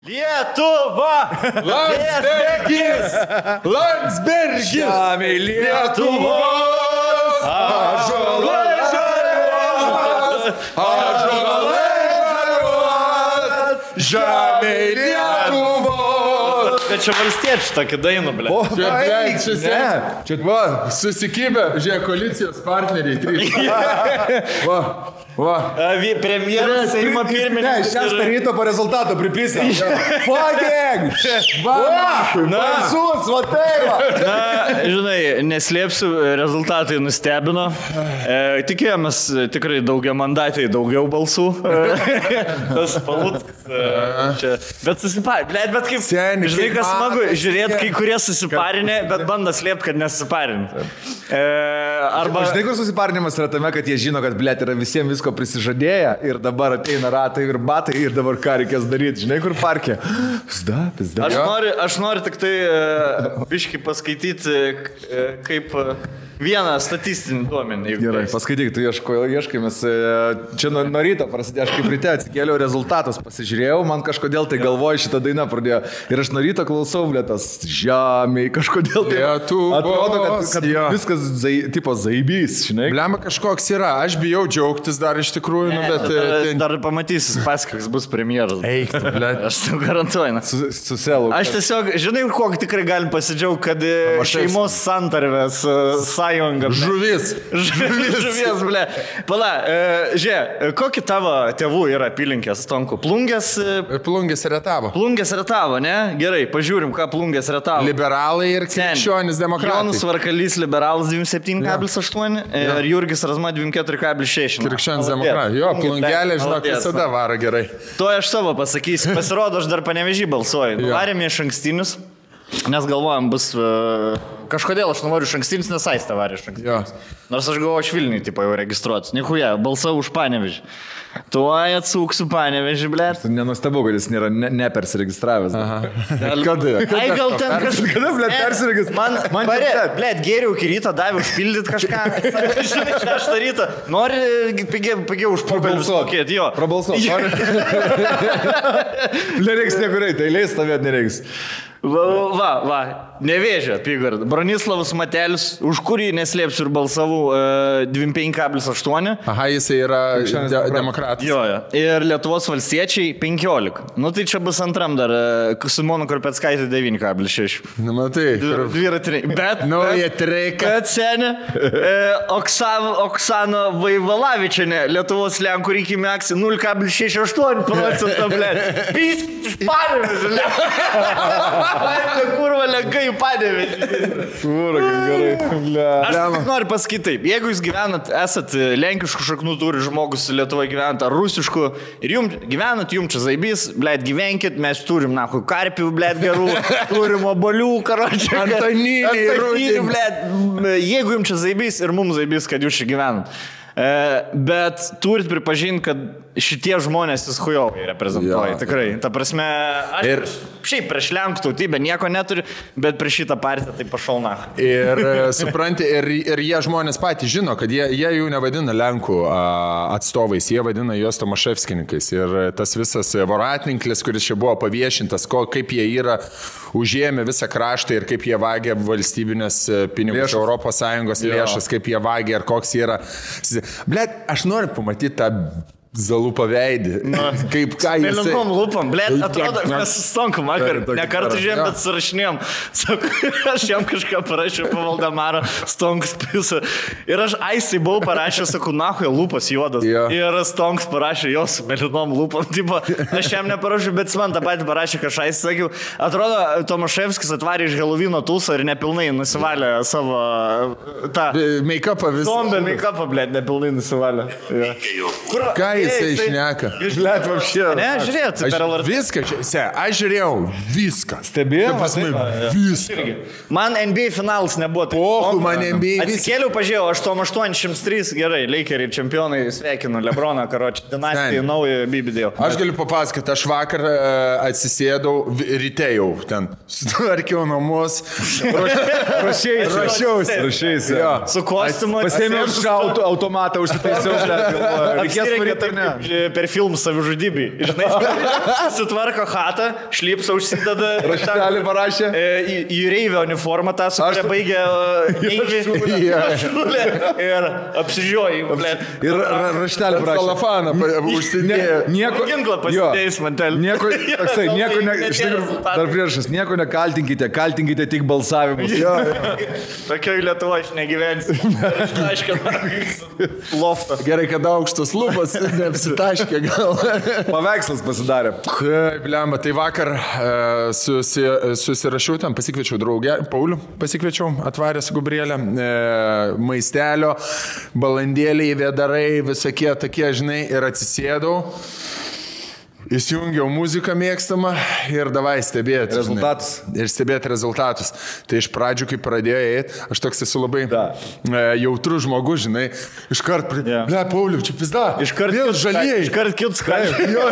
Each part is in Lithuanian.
Lietuva! Landsbergis! Žemė Lietuvos! Ąžuolai žaliuos! Žemė Lietuvos! Bet čia valstiečių tokį dainą, ble. Čia va, susikibę, žiūrėk, koalicijos partneriai, 3. Va. Premjeras, Seimo pirmininkas. Šeštą ryto po rezultato pripisa. Fucking! Balsus, va tai va. Na, žinai, neslėpsiu, rezultatai nustebino. Tikėjomės tikrai daugiamandatai, daugiau balsų. Tas Paluckas. Bet susiparinė, bet kaip, žinai, kas smagu, žiūrėt, kai kurie susiparinė, bet bando slėpti, kad nesusiparinė. Arba... Žinai, kur susiparinimas yra tame, kad jie žino, kad, blėt, yra visiems visko prisižadėję ir dabar ateina ratai ir batai ir dabar ką reikės daryti. Žinai, kur parkė? Pizda. Aš noriu tik tai biškį paskaityti kaip vieną statistinį duomenį. Gerai, paskaityk, tu ieškai, mes čia nuo ryto prasidėjo, aš kaip ryte atsikėliau rezultatus, pasižiūrėjau, man kažkodėl tai galvoju šitą dainą pradėjo ir aš nuo ryto klausau, blėtas, žemė, kažkodėl tai atrodo, kad viskas tipo zaibys, žinai. Blema kažkoks yra, aš bijau džiaugtis dar iš tikrųjų, bet... Dar pamatysis paskais, bus premjeras. Eik, blėt. Aš tau garantuoju. Su selu. Aš tiesiog, žinai, kokį tikrai galim pasidžiaugti, kad šeimos santarvės sąjunga. Žuvies, ble. Pala, žiūrėk, kokį tavo tėvų yra apylinkės, Stonku? Plungės Rietavo. Plungės Rietavo, ne? Gerai, pažiūrim, ką Plungės Rietavo. Liberalai ir krikščionis demokratai. Jonas Varkalys, liberalas 27,8 ir Jurgis Razma 24,6. Krikščionis demokratai. Jo, Plungelė, žinok, visada varo gerai. To aš savo pasakysiu. Pasirodo, aš dar Panevėžį balsuoju. Varėme iš ankstinius, nes galvojam, bus... Kažkodėl aš noriu iš ankstinius, nes Aistė varė iš ankstinius. Nors aš galvoju, aš Vilniui tipo jau registruotis. Nichuja, balsavau už Panevėžį. Tuoj atsūksiu Panevėžį, blėt. Nenustabu, kad jis nėra nepersiregistravęs. Kada? Ai, gal ten kažkas... Kada, blėt, persiregistravęs? Man blėt, geriau iki ryto davė užpildyti kažką. Žinai, 6 ryto. Nori pigiau už pokalbį mokėti, jo. Prabalsuok. Nereiks niekur eiti, eilės stovėt nereiks. Va, Nevėžio apygarda. Bronislavas Matelis, už kurį neslėpsiu ir balsavau 25,8. Aha, jisai yra demokratas. Jo. Ir Lietuvos valstiečiai 15. Nu tai čia bus antram dar. Simona Korpeckaitė 9,6. Nu, matai. Dviratiniai. Bet... Nauja treika. Bet senė. Oksana Vaivalavičienė, Lietuvos Lenkų rinkimų akcija 0,68%, blėt. Pyskit iš Panevėžio, kurva lenkai į Panevėžį. Kurva, gerai. Aš tik noriu pasakyti taip. Jeigu jūs gyvenat, esat lenkiškų šaknų turi žmogus Lietuvoje gyvenat, ar rusiškų, ir jums gyvenat, jums čia zaibys, blėt, gyvenkit, mes turim, nahui, karpių, blėt, gerų, turim obolių, karočią. Antoniniai, blėt. Jeigu jums čia zaibys ir mums zaibys, kad jūs čia gyvenat. Bet turit pripažinti, kad šitie žmonės jūs hujovai reprezentuoja, tikrai. Ta prasme, aš šiaip prieš Lenkų tautybę nieko neturiu, bet prieš šitą partiją tai pašauna. Ir supranti, ir jie žmonės patys žino, kad jie jų nevadina Lenkų atstovais, jie vadina juos Tomaševskininkais. Ir tas visas voratninklis, kuris čia buvo paviešintas, kaip jie yra užėmę visą kraštą ir kaip jie vagia valstybinės pinigus, Europos Sąjungos lėšas, kaip jie vagia ir koks yra. Blet, aš noriu pamatyti tą Zalupą veidį. Kaip ką jis... Mėlynom lūpom, blėt, atrodo, mes su Stonku vakar nekartą žiūrėjom, bet surašinėjom. Aš jam kažką parašiau po Valdemarą, Stonkus pisa. Ir aš Aisai buvau parašęs, sakau, nahuja lūpas juodas. Ir Stonkus parašė jos mėlynom lūpom. Tipo, aš jam neparašiau, bet man tą patį parašė, kad aš Aisai sakiau. Atrodo, Tomaševskis atvarė iš Helovino tūsą ir nepilnai nusivalė savo tą... Make-upą visą. Zombie make-upą, blėt, nepilnai nusivalė. Ką jisai šneka? Blėt, vapšė. Ne, žiūrėt, per LRT. Viską, aš žiūrėjau viską. Stebėjau? Viską. Man NBA finalas nebuvo. Pohu, man NBA viską. Atsikėliau, pažiūrėjau, 883, gerai, Lakeriai čempionai, sveikinu, Lebroną, karočią, dinastijai, naują bibidėjau. Aš galiu papasakoti, aš vakar atsisėdau, ryte jau ten, sutvarkiau namus, rašiausi. Su kostiumu. Pasėmiau šautų automatą, užsitaisiau, reikės norėti per filmų savižudybį. Žinai, sutvarko chatą, šlipsą užsideda. Raštelį parašė. Į reivio uniformą tą, su kuria baigė neivį. Ir apsižiūrėjai, blėt. Ir raštelį parašė. Salafaną užsidėjo. Nieko. Ginklą pasidėjus mantelį. Dar priešas, nieko nekaltinkite, kaltinkite tik balsavimus. Tokioj Lietuvoje aš negyvensiu. Loftą. Gerai, kad aukštas lūpas neapsitaškė gal. Paveikslas pasidarė. Kaip lemba, tai vakar susirašiau ten, pasikviečiau draugę, Paulių pasikviečiau, atvarė su Gabrielė, maistelio, balandėliai, vėdarai, visokie tokie, žinai, ir atsisėdau. Įsijungiau muziką mėgstamą ir davai stebėti. Rezultatus. Ir stebėti rezultatus. Tai iš pradžių, kai pradėjo eiti, aš toks esu labai jautrus žmogus, žinai. Iškart, Pauliu, čia pizda. Iškart vėl žalieji. Iškart kits skaičiai. Jo.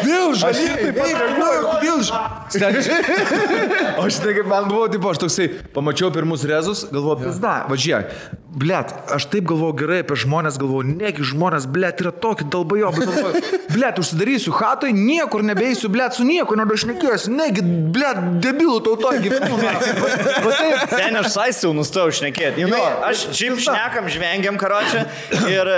Vėl žalieji. Vėl žalieji. O šitai kaip man buvo, tipo, aš toksai, pamačiau pirmus rezus, galvoju, pizda, važiuok. Blet, aš taip galvoju gerai apie žmonės, galvoju, negi žmonės, blet, yra tokie dalbajobai, galvoju, blet, užsidarysiu hatoj, niekur nebeisiu, blet, su nieko nebešnekėsiu, negi, blet, debilų tautoj gyvenu. Ten aš saisiu nustojau šnekėti. Aš šiaip šnekam, žvengiam karočią ir,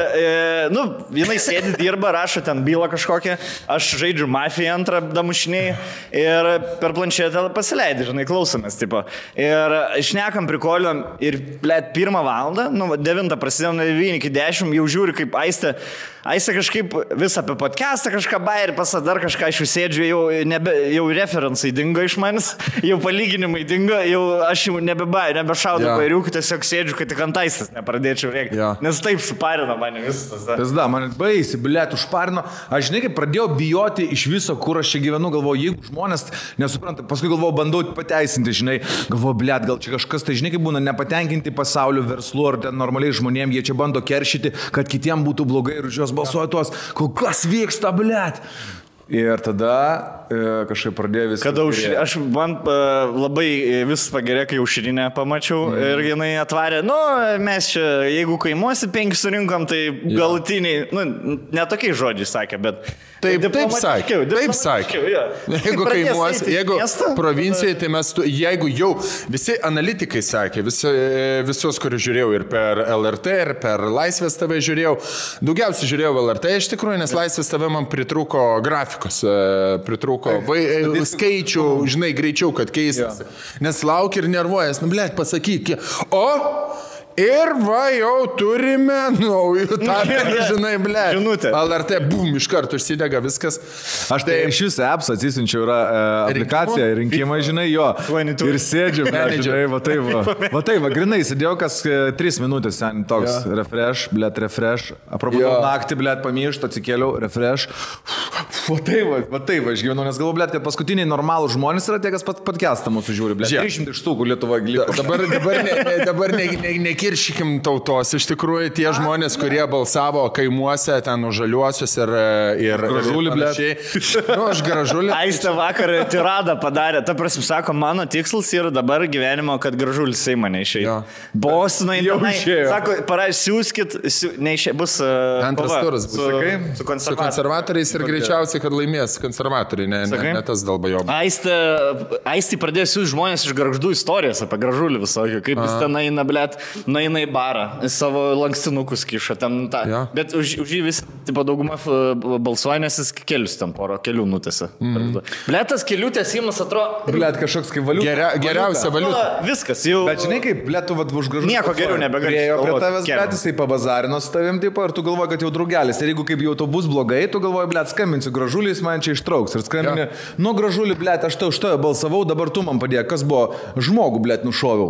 jinai sėdi, dirba, rašo ten bylą kažkokią, aš žaidžiu mafiją antrą damušiniai ir per planšetę pasileidžiu, žinai, klausomės, tipo. Ir šnekam, prikoliom ir, blet, 1 valandą, 9 prasidėjo nuo 9 iki 10, jau žiūri, kaip Aistė kažkaip vis apie podcastą kažką bairį pasadar, kažką aš sėdžiu, jau referencai dingo iš manęs, jau palyginimai dingo, aš jau nebešaudau bairiukų, tiesiog sėdžiu, kad tik ant Aistės nepradėčiau rėkti. Nes taip suparino mane visas. Pizda, man baisi, blet, užparino. Aš žinai, kaip pradėjau bijoti iš viso, kur aš čia gyvenu, galvoju, jeigu žmonės nesupranta, paskui galvoju, bandau pateisinti, žinai, galvoju, blet, gal čia kažkas, tai žinai, kaip būna nepatenkinti pasaulio verslu ar ten normaliai žmonėm, jie čia bando keršyti, kad kitiem būtų blogai ir už juos balsuoja tuos, kas vyksta, blet. Ir tada kažkaip pradėjo viską. Kada man labai vis pagerė, kai aušrinę pamačiau ir jinai atvarė, mes čia, jeigu kaimuosi 5 surinkom, tai galutiniai, netokiai žodžiai sakė, bet... Taip sakė. Jeigu kaimuosi, jeigu provincijai, tai mes, jeigu jau visi analitikai sakė, visus, kuriuos žiūrėjau ir per LRT, ir per Laisvės TV žiūrėjau, daugiausiai žiūrėjau LRT iš tikrųjų, nes Laisvės TV man pritrūko grafikos, pritrūko skaičių, žinai, greičiau, kad keistas. Nes laukia ir nervuojas, blet, pasakyk, ir va, jau turime naujų tarpą, žinai, ble. Žinutė. LRT, bum, iš karto užsidega viskas. Aš tai iš jūsų apps atsisinčiau, yra aplikacija, rinkimai, žinai, jo. Ir sėdžiu, žinai, va taip, grinai, sėdėjau kas 3 minutės, ten toks refresh, aprobudau naktį, blet, pamiršt, atsikėliau, refresh. Va taip, aš gyvenu, nes galvoju, blet, kad paskutiniai normalų žmonės yra tie, kas podcastą mūsų žiūri, blet. 300 štukų Lietuvoje liko. Dabar nekiršykim tautos. Iš tikrųjų, tie žmonės, kurie balsavo kaimuose, ten už žaliuosius ir Gražulį, blet. Aš Gražulį. Aistė vakar tiradą padarė. Ta prasme, sako, mano tikslas yra dabar gyvenimo, kad Gražulis Seimą neišėjo. Bostonai jau išėjo. Sako, siūskit, neišėjo, bus antras turas bus. Su konservatoriais ir greičiausiai, kad laimės konservatoriai, ne tas dalbajob. Aistė pradėjo siūsti žmonės iš Gargždų istorijas apie Gražulį visokį, kaip jis ten eina, blet, nueina į barą, savo lankstinukus kiša ten tą. Ja. Bet už jį vis, tipo, dauguma balsuoja, nes jis kelius ten kelių nutėsi. Blet, tas kelių tęsimas atrodo... Blet, kažkoks kaip valiuta. Geriausia valiuta. Viskas jau... Bet žinai, kaip, blet, tu už Gražulį... Nieko geriau nebegalėjo. Prie tavęs, blet, jisai pabazarino su tavim, tipo, ir tu galvoji, kad jau draugelis. Ir jeigu kaip jau to bus blogai, tu galvoji, blet, skambinsiu Gražulį, jis man čia ištrauks. Ir skambinė, Gražulį, blet, aš tau už tave balsavau, dabar tu man padėjai. Kas buvo? Žmogų, blet, nušoviau.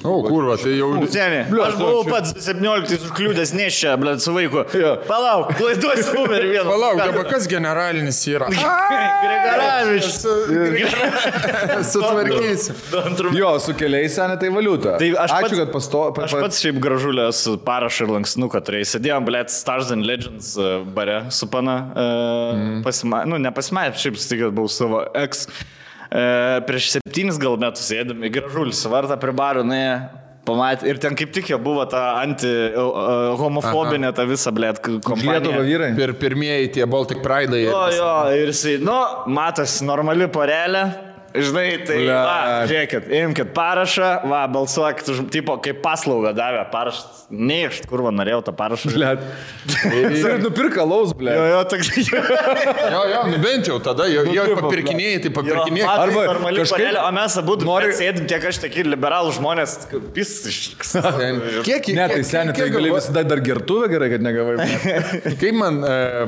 Kurva, tai jau... Aš buvau pats 17 užkliūdęs neščia, blet, su vaiku. Palauk, klaiduosi numerį vieną. Palauk, dabar kas generalinis yra? Grigaravičius. Sutvarkysi. Jo, su keliais senė tai valiuta. Tai ačiū, kad aš pats šiaip Gražulės parašą ir lankstinuką turėjau. Sėdėjom, blet, Stars and Legends bare su pana. Nepasimatė, šiaip stikęs buvau savo ex. Prieš 7 gal metus sėdėm į Gražulį, su vartą prie barų, pamatė. Ir ten kaip tik jau buvo ta anti-homofobinė ta visa, blėt, kompanija. Lietuva vyrai. Pirmieji tie Baltic Pride'ai. Jo, ir jisai, matas, normali porelė. Žinai, tai, žiūrėkit, imkit parašą, balsuokit, tipo, kaip paslaugą davė parašą. Neišt, kur norėjau tą parašą. Blet. Ir nupirka laus, blet. Jo, toks. Jo, bent jau tada, jo papirkinėjai, tai papirkinėjai. Arba normali porelė, o mes abu sėdim tiek aš tiek liberalų žmonės, pistiškas. Kiek? Ne, tai seniai, tai gali visada dar gertuvę gerai, kad negavai. Kaip man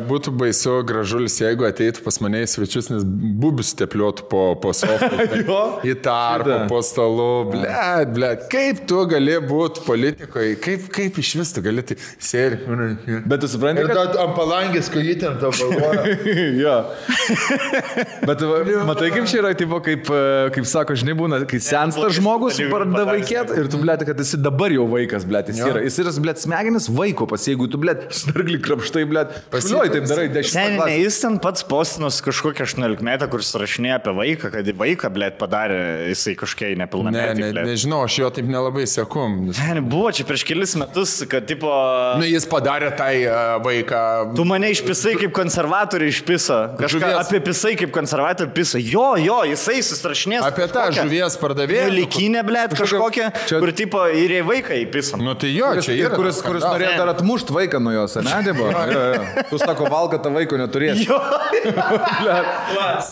būtų baisu Gražulis, jeigu ateitų pas mane į svečius, nes bubius tepliuotų po sofą. Į tarpą, po stalu, blet, kaip tu gali būti politikoje, kaip iš vis tu gali tai sėri. Bet tu supranti, kad ant palangės kojytėm tą balvoja. Jo. Bet matai, kaip čia yra, tipo, kaip sako, žinai, būna, kai sensta žmogus, pradeda vaikėt ir tu, blet, kad esi dabar jau vaikas, blet, jis yra. Jis yra, blet, smegenis vaiko pas, jeigu tu, blet, snarglį krapštai, blet, šliuoji, taip darai 10 metų. Ne, jis ten pats postinos kažkokią 18 metą, kuris rašinėja apie vaiką, kad vaiką, blėt, padarė, jisai kažkiek nepilnametį. Nežinau, aš jo taip nelabai seku. Ne, buvo čia prieš kelis metus, kad, tipo... Jis padarė tai vaiką... Tu mane išpisai kaip konservatorių išpiso. Kažką apie pisai kaip konservatorių piso. Jo, jisai susirašinės. Apie tą žuvies pardavėją. Likinę, blėt, kažkokią, kur, tipo, ir į vaiką įpiso. Nu tai jo, čia yra. Kuris norėjo dar atmušt vaiką nuo jos, ne, tipo? Tu sako, valga tą vaiko neturės. Jo.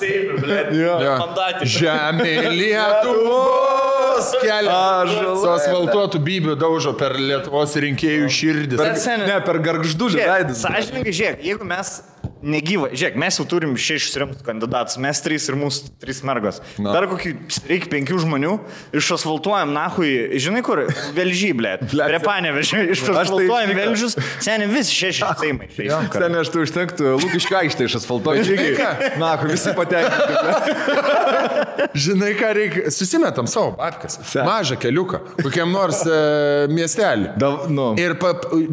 Seimė, blėt. Mandatį. Žemė Lietuvos kelia. Su asfaltuotų bybių daužo per Lietuvos rinkėjų širdis. Ne, per gargždulį veidus. Sąžininkai, žiūrėk, jeigu mes negyva, žiūrėk, mes jau turim 6 rimtus kandidatus, mes 3 ir mūsų 3 mergos. Dar kokį reikia 5 žmonių, išasfaltuojam, nahui, žinai kur, Velžį, blėt. Prie Panevėžio, išasfaltuojam Velžius, seniai visi 6 seimai. Seniai aš tu užtektų, Lukiškių aikštę išasfaltuoju. Nahui, visi patenkinti. Žinai, ką reikia, susimetam savo babkas. Mažą keliuką, kokiam nors miestelį. Ir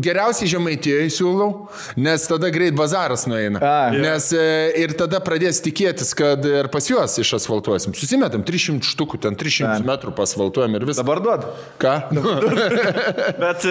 geriausiai Žemaitijoje siūlau, nes tada greit bazaras nueina. Nes ir tada pradės tikėtis, kad ir pas juos išasfaltuosim. Susimetam 300 štukų, ten 300 metrų pasfaltuojam ir visą. Dabar duod. Ką? Bet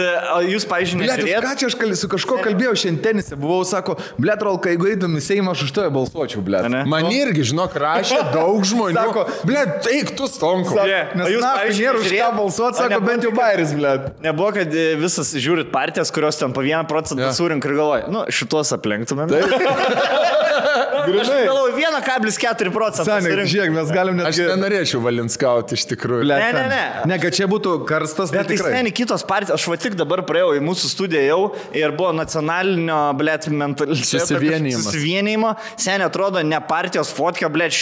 jūs, pavyzdžiui, nežiūrėt? Ką čia aš su kažko kalbėjau šiandien tenise, buvau, sako, blet, Rolka, jeigu eidam į Seimą, aš už to balsuočiau, blet. Man irgi, žinok, rašė daug žmonių. Sako, blet, eik tu stonku. Nes jūs, pavyzdžiui, nėra už ką balsuoti, sako, bent jau bairis, blet. Nebuvo, kad visas žiūrit partijas, kurios ten po 1% surink ir galvoja, šitos aplenktumėm. Aš galvoju, 1,4%. Seniai, žiūrėk, mes galim net... Aš nenorėčiau Valinskauti iš tikrųjų. Ne. Ne, kad čia būtų karstas, bet tai seniai kitos partijos. Aš va tik dabar praėjau į mūsų studiją jau ir buvo nacionalinio, blėt, susivienijimo. Seniai atrodo, ne partijos fotka, blėt,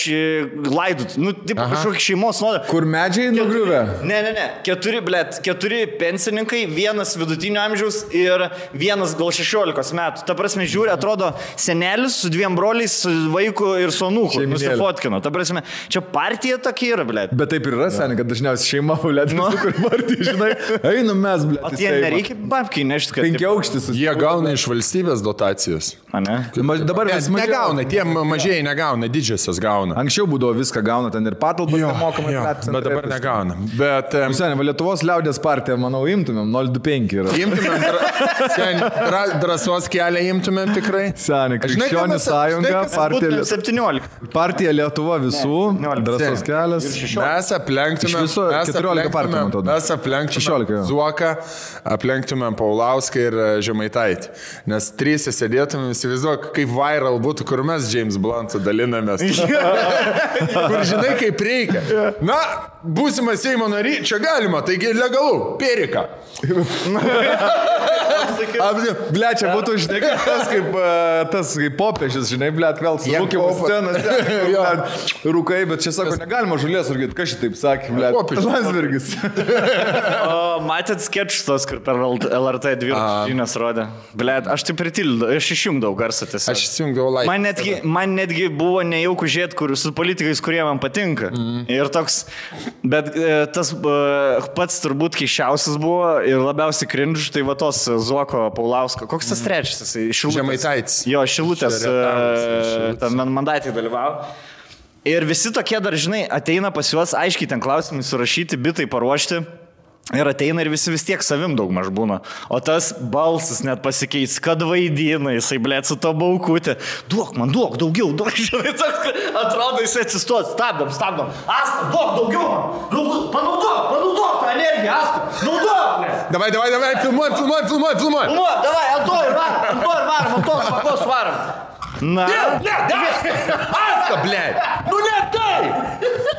laidut. Taip, kažkokį šeimos nuodą. Kur medžiai nugriuvę? Ne. 4 pensininkai, 1 vidutinio amžiaus ir 1 gal 16 metų. Ta prasme, žiūri, atrodo, senelis su 2 broliais, su vaiku ir su anūku nusifotkino. Ta prasme, čia partija tokia yra, blėt. Bet taip ir yra, seniai, kad dažniausiai šeima, blėt, kur partija, žinai, einam mes, blėt. O tie nereikia babkiai nešti, kad... 5 aukštis. Jie gauna iš valstybės dotacijas. Dabar vis mažiau. Negauna, tie mažieji negauna, didžiosios gauna. Anksčiau būdavo viską gauna, ten ir patalpas nemokamai. Bet dabar negauna. Bet... Seniai, Lietuvos liaudės partija, manau, imtumėm, 025 yra. Imtumėm, drąsos kelią imtumėm tikrai. Seniai, Krikščionių sąjunga, partija Lietuva visų, drąsos kelias. Mes aplenktumėm 14 partijų, mes aplenktumėm Zuoką, aplenktumėm Paulauską ir Žemaitaitį. Nes 3 sėdėtumėm, įsivaizduok, kaip viral būtų, kur mes James Blunt'u dalinamės. Kur žinai, kaip reikia. Na, būsimas Seimo nary, čia galima, taigi legalu, Perika. Blet, čia būtų, žinai, tas kaip popiežius, žinai, blet, vėl su rūkimu scenas. Rūkai, bet čia sako, negalima žulės rūkėti, kas šitaip sakė, blet. Landsbergis. Matėt sketšus, kur per LRT 2 žinias rodė. Blet, aš taip pritildau, aš išjungdavau garsą tiesiog. Aš išjungdavau laiką. Man netgi buvo nejauku žiūrėti su politikais, kurie man patinka. Ir toks, bet tas pats turbūt keiščiausias buvo ir labiausiai cringe, tai va tos Zuoko, Paulausko. Koks tas trečias? Žemaitaitis. Jo, Šilutės mandatį dalyvavo. Ir visi tokie dar, žinai, ateina pas juos, aiškiai ten klausimai surašyti, bitai paruošti. Ir ateina ir visi vis tiek savim daug maž būna. O tas balsas net pasikeis, kad vaidina, jisai, blėt, su to baukutė. Duok man, duok, daugiau, duok. Atrodo, jisai atsistos, stabdom. Asta, duok, daugiau man. Panaudok tą energiją, Asta. Naudok, blėt. Davai, filmuoj. Davai, ant to ir varom. Na. Aska, blėt. Nu ne tai.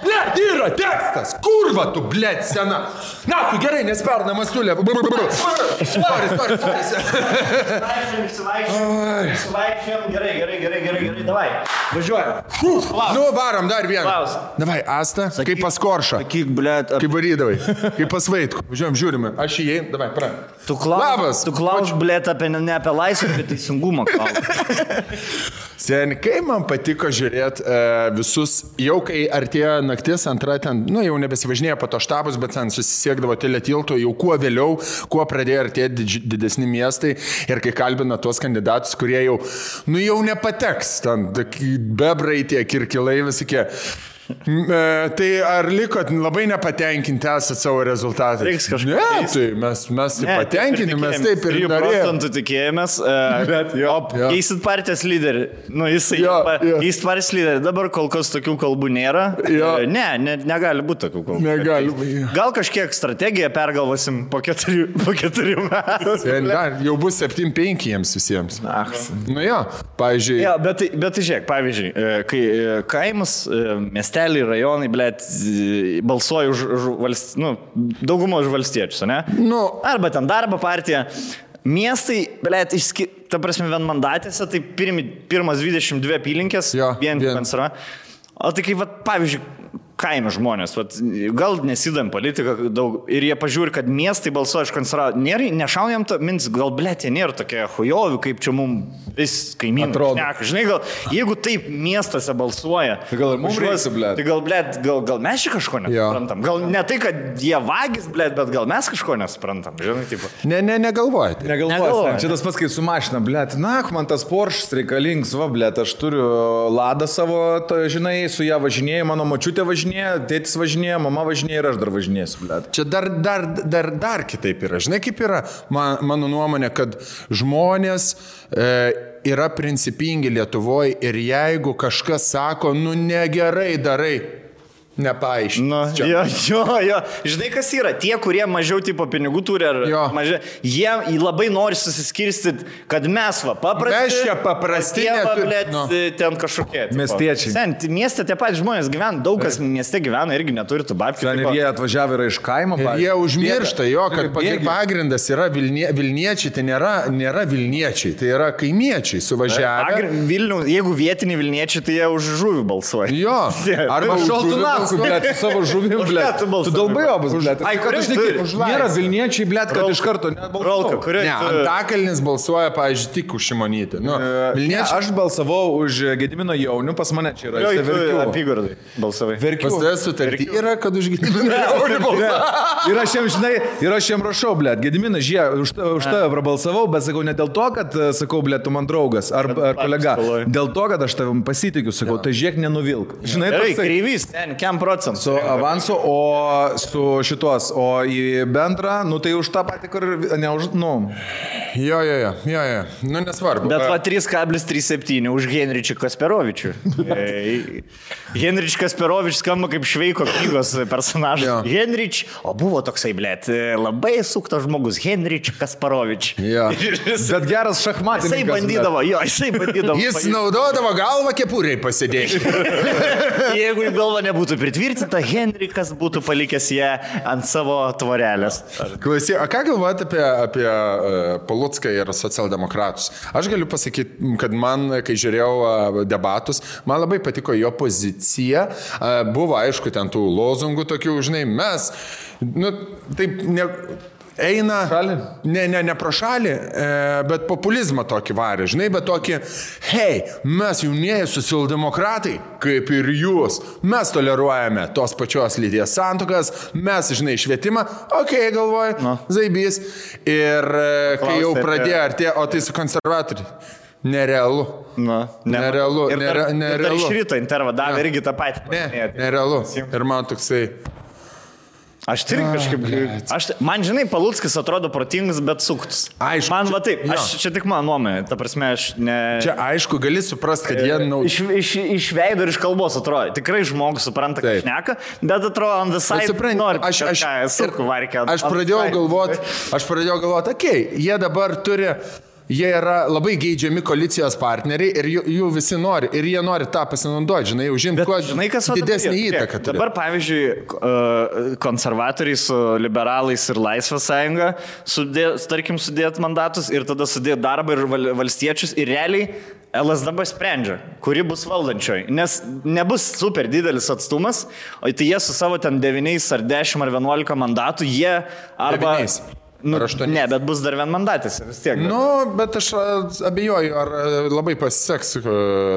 Blėt, yra tekstas. Kurva tu, blėt, sena. Na, tu gerai, nesperna mastulė. Sorry. Išsivaikščiam, gerai, davai. Važiuojam. Nu, varom dar vieną. Klaus. Davai, Asta, kaip pas Koršą. Sakyk, blėt. Kaip varydavai, kaip pas Vaitkų. Važiuojam, žiūrime. Aš įėjau, davai, pra. Tu klaus, blėt, ne apie laisvę, apie teisingumą klaus. Sen, kai man patiko žiūrėti visus, jau kai artėjo naktis, antra ten, nu jau nebesivažinėjo po to štabus, bet ten susisiekdavo teletilto, jau kuo vėliau, kuo pradėjo artėti didesni miestai ir kai kalbina tuos kandidatus, kurie jau, nu jau nepateks, ten bebrai tie kirkilai visokie. Tai ar likot labai nepatenkinti esat savo rezultatais? Reiks kažkaip. Ne, tai mes patenkinti, mes taip ir norėjome. 3% tikėjomės, keisit partijos lyderį. Nu, jisai keisit partijos lyderį. Dabar kol kas tokių kalbų nėra. Ne, negali būti tokių kalbų. Negali. Gal kažkiek strategiją pergalvosim po 4 metų. Jau bus 7-5 jiems visiems. Nu jo, pavyzdžiui. Ja, bet žiūrėk, pavyzdžiui, kai kaimas, miestelį, rajonai, blėt, balsuoja už daugumą už valstiečius, ne? Nu. Arba ten darbo partija. Miestai, blėt, ta prasme, vienmandatėse, tai pirmas 22 apylinkės, vien konserva. O tai kaip, pavyzdžiui, kaimo žmonės, gal nesidam politiką daug ir jie pažiūri, kad miestai balsuoja iš konservatorių. Nešaujam to mins, gal blėt, jie nėra tokie hujovi, kaip čia mums vis kaimynai šneka. Žinai, gal jeigu taip miestuose balsuoja, tai gal ir mums reikia, blėt. Tai gal mes čia kažko nesuprantam. Gal ne tai, kad jie vagis, blėt, bet gal mes kažko nesuprantam. Žinai, tipo. Negalvojate. Negalvojate. Čia tas pats, kai su mašina, blėt. Na, man tas Porsche reikalingas, va, blėt, aš turiu Ladą savo, žinai, su ją važinėjau, mano močiutė važinėjo, tėtis važinėjo, mama važinėjo ir aš dar važinėsiu, blėt. Čia dar kitaip yra. Žinai, kaip yra mano nuomonė, kad žmonės yra principingi Lietuvoje ir jeigu kažkas sako, nu negerai darai, nepaaiškina. Jo. Žinai, kas yra? Tie, kurie mažiau tipo pinigų turi, jie labai nori susiskirstyti, kad mes paprasti, ten kažkokie. Miestiečiai. Mieste tie patys žmonės gyvena, daug kas mieste gyvena irgi neturi tų babkių. Ir jie atvažiavę yra iš kaimo. Ir jie užmiršta, kad pagrindas yra Vilniečiai, tai nėra Vilniečiai, tai yra kaimiečiai suvažiavę. Jeigu vietiniai Vilniečiai, tai jie už žuvį balsuoja. Jo. Arba šaltunas. Blėt, su savo žuvim, blėt. Tu dalbajobas, blėt. Nėra Vilniečiai, blėt, kad iš karto nebalsuoja. Ne, Antakalnis balsuoja, pavyzdžiui, tik už Šimonytę. Aš balsavau už Gedimino Jaunių, pas mane čia yra. Apygardai balsavai. Pas tavęs sutartį yra, kad už Gedimino Jaunių balsuoja. Ir aš jam rašau, blėt, Gedimino, už tave prabalsavau, bet sakau ne dėl to, kad sakau, blėt, tu man draugas ar kolega. Dėl to, kad aš tavim pasitikiu, sakau, tai žiūrėk, nenuvilk. Žinai, kreivys, procentų. Su avansu, o su šitos, o į bendrą, nu tai už tą patį, kur ne už, nu. Jo, nu nesvarbu. Bet va 3,37 už Henričių Kasperovičių. Henrič Kasperovič skamba kaip Šveiko knygos personažas. Henrič, o buvo toksai, blėt, labai suktas žmogus, Henrič Kasperovič. Bet geras šachmatininkas. Jisai bandydavo. Jis naudodavo galvą kepuriai pasidėti. Jeigu galva nebūtų pritvirtinta, Henrikas būtų palikęs ją ant savo tvorelės. Klausyk, o ką galvojate apie Palucką ir socialdemokratus? Aš galiu pasakyti, kad man, kai žiūrėjau debatus, man labai patiko jo pozicija. Buvo, aišku, ten tų lozungų tokių, žinai, mes, nu, taip, eina, ne pro šalį, bet populizmą tokį varė, žinai, bet tokį, hei, mes jaunieji socialdemokratai, kaip ir jūs, mes toleruojame tos pačios lyties santuokas, mes, žinai, švietimą, galvoju, zaibys, ir kai jau pradėjo artėjo, o tai su konservatoriai. Nerealu. Nerealu. Ir dar iš ryto intervą davė irgi tą patį. Nerealu. Ir man toksai... Aš tai kažkaip... Man, žinai, Paluckis atrodo protingas, bet suktus. Aišku. Man va taip, čia tik mano nuomonė. Ta prasme, aš ne... Čia aišku, gali suprasti, kad jie... Iš veido ir iš kalbos atrodo. Tikrai žmogus supranta, ką šneka, bet atrodo, on the side nori suku varkę. Aš pradėjau galvoti, okei, jie dabar turi... Jie yra labai geidžiami koalicijos partneriai ir jų visi nori. Ir jie nori tą pasinaudoti, žinai, užimti kuo didesnį įtaką. Dabar, pavyzdžiui, konservatoriai su liberalais ir Laisvės sąjunga tarkim, sudėt mandatus ir tada sudėt darbą ir valstiečius ir realiai LSDB sprendžia, kuri bus valdančioji. Nes nebus super didelis atstumas, o tai jie su savo ten 9 ar 10 ar 11 mandatų, jie arba... 9. Ne, bet bus dar vienmandatis vis tiek. Bet aš abejoju, ar labai pasiseks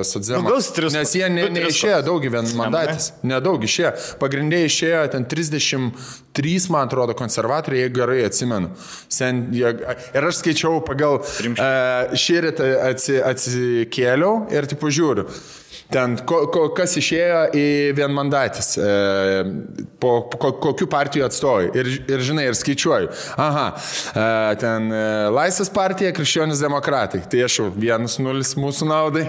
socdemams. Nes jie neišėjo daug vienmandatis. Nedaug išėjo. Pagrindė išėjo ten 33, man atrodo, konservatoriai, jeigu gerai atsimenu. Ir aš skaičiau pagal šįrytą atsikėliau ir tipo žiūriu. Ten, kas išėjo į vienmandatis, kokių partijų atstovai. Ir žinai, ir skaičiuoju. Ten Laisvės partija, Krikščionys demokratai. Tai aš jau 1-0 mūsų naudai.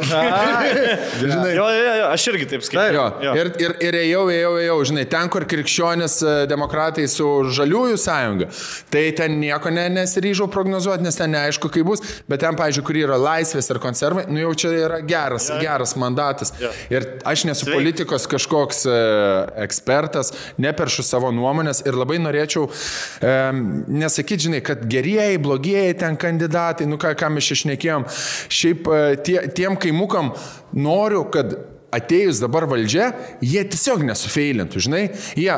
Žinai. Jo, aš irgi taip skaičiuoju. Ir ėjau, žinai, ten, kur Krikščionys demokratai su Žaliųjų sąjunga, tai ten nieko nesiryžau prognozuoti, nes ten neaišku, kaip bus. Bet ten, pavyzdžiui, kur yra Laisvės ir konservai, jau čia yra geras mandatas. Ir aš nesu politikos kažkoks ekspertas, neperšu savo nuomonės ir labai norėčiau nesakyti, žinai, kad gerieji, blogieji ten kandidatai, ką mes išnekėjom, šiaip tiem kaimukam noriu, kad atėjus dabar valdžia, jie tiesiog nesufeilintų, žinai. Jie,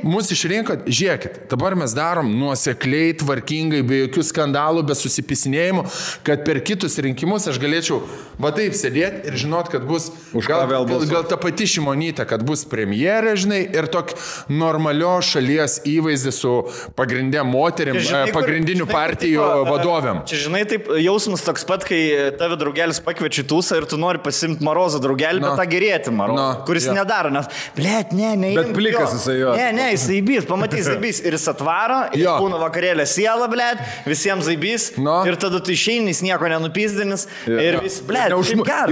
mus išrinkot, žiūrėkit, dabar mes darom nuosekliai, tvarkingai, be jokių skandalų, be susipisinėjimų, kad per kitus rinkimus aš galėčiau va taip sėdėti ir žinot, kad bus gal ta pati Šimonytė, kad bus premjerė, žinai, ir tok normalios šalies įvaizdis su pagrindė moterim, pagrindinių partijų vadovėm. Čia, žinai, taip jausmas toks pat, kai tave draugelis pakviečia tūsą ir tu nori pasimti Marozą draugelį, bet gerėti Marozą, kuris nedaro, nes, blėt, ne. Bet plikas jisai jo. Ne, jis zaibys, pamatys zaibys ir jis atvaro, ir būna vakarėlė siela, blėt, visiems zaibys, ir tada tu išeini, jis nieko nenupizdinis, ir vis, blėt,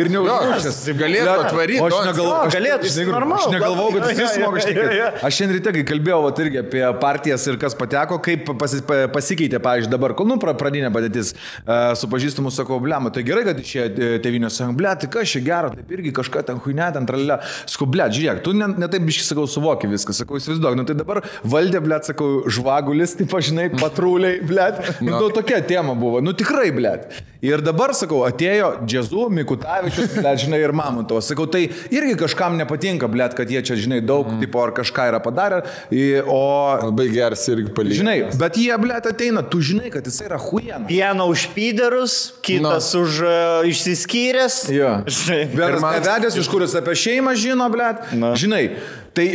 ir neužmušęs. Galėtų atvaryti. Aš negalvau, kad jis smoga šnekėti. Aš šiandien ryte, kai kalbėjau irgi apie partijas ir kas pateko, kaip pasikeitė, pavyzdžiui, dabar, pradinė padėtis su pažįstamu, sakau, blėma, tai gerai, kad išėjo Tėvynės sąjunga, blėt, tai kas čia gero, taip irgi kažką ten huinė, ten tralelė. Sakau, blėt, žiūrėk, tu ne taip biškai, sakau, suvoki viską, sakau, įsivaizduok, tai dabar valdė, blėt, sakau, žvagulis, taip, žinai, patruliai, blėt, tokia tema buvo, tikrai, blėt. Ir dabar, sakau, atėjo Džezu, Mikutavičius, blėt, žinai, ir Mamontovas, sakau, tai irgi kažkam nepatinka, blėt, kad jie čia, žinai, daug, tipo, ar kažką yra padarę, o... Labai geras irgi palyginti. Žinai, bet jie, blėt, ateina, tu žinai, kad jis yra huijana. Vieną už pyderus, kitas už išsiskyręs. Jo. Vienas nevedęs, iš kuris apie šeimą žino, blėt. Žinai, tai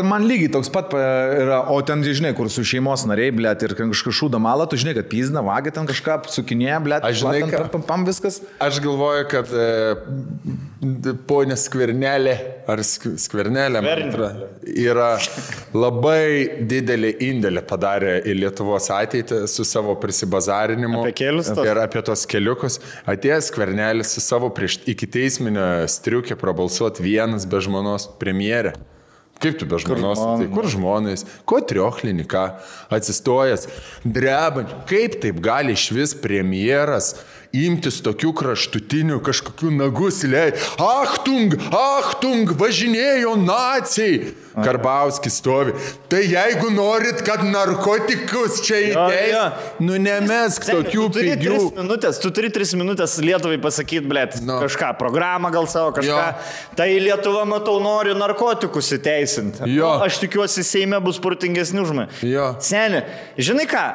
man lygiai toks pat yra, o ten, žinai, kur su šeimos nariai, blėt, ir kažką šūda malą, tu žinai, kad pizna, vagia ten kažką, sukinėja, blėt, aš žinai, pam viskas. Aš galvoju, kad ponė Skvernelė, ar Skvernelė, yra labai didelį indėlį padarė į Lietuvos ateitį su savo prisibazarinimu ir apie tos keliukus. Atėjęs Skvernelis su savo prieš iki teisminio striukė prabalsuoti vienas be žmonos premjerė. Kaip tu be žmonos? Tai kur žmonais? Ko trioklinį, ką? Atsistojęs, drebant. Kaip taip gali išvis premjeras imtis tokių kraštutinių kažkokių nagus įleid? Achtung, važinėjo naciai. Karbauskis stovi. Tai jeigu norit, kad narkotikus čia įteis, nemesk tokių pigių. Tu turi 3 minutės Lietuvai pasakyti, blėt, kažką, programą gal savo, kažką. Tai Lietuva, matau, nori narkotikus įteisinti. Aš tikiuosi, Seime bus protingesni už mane. Seni, žinai ką?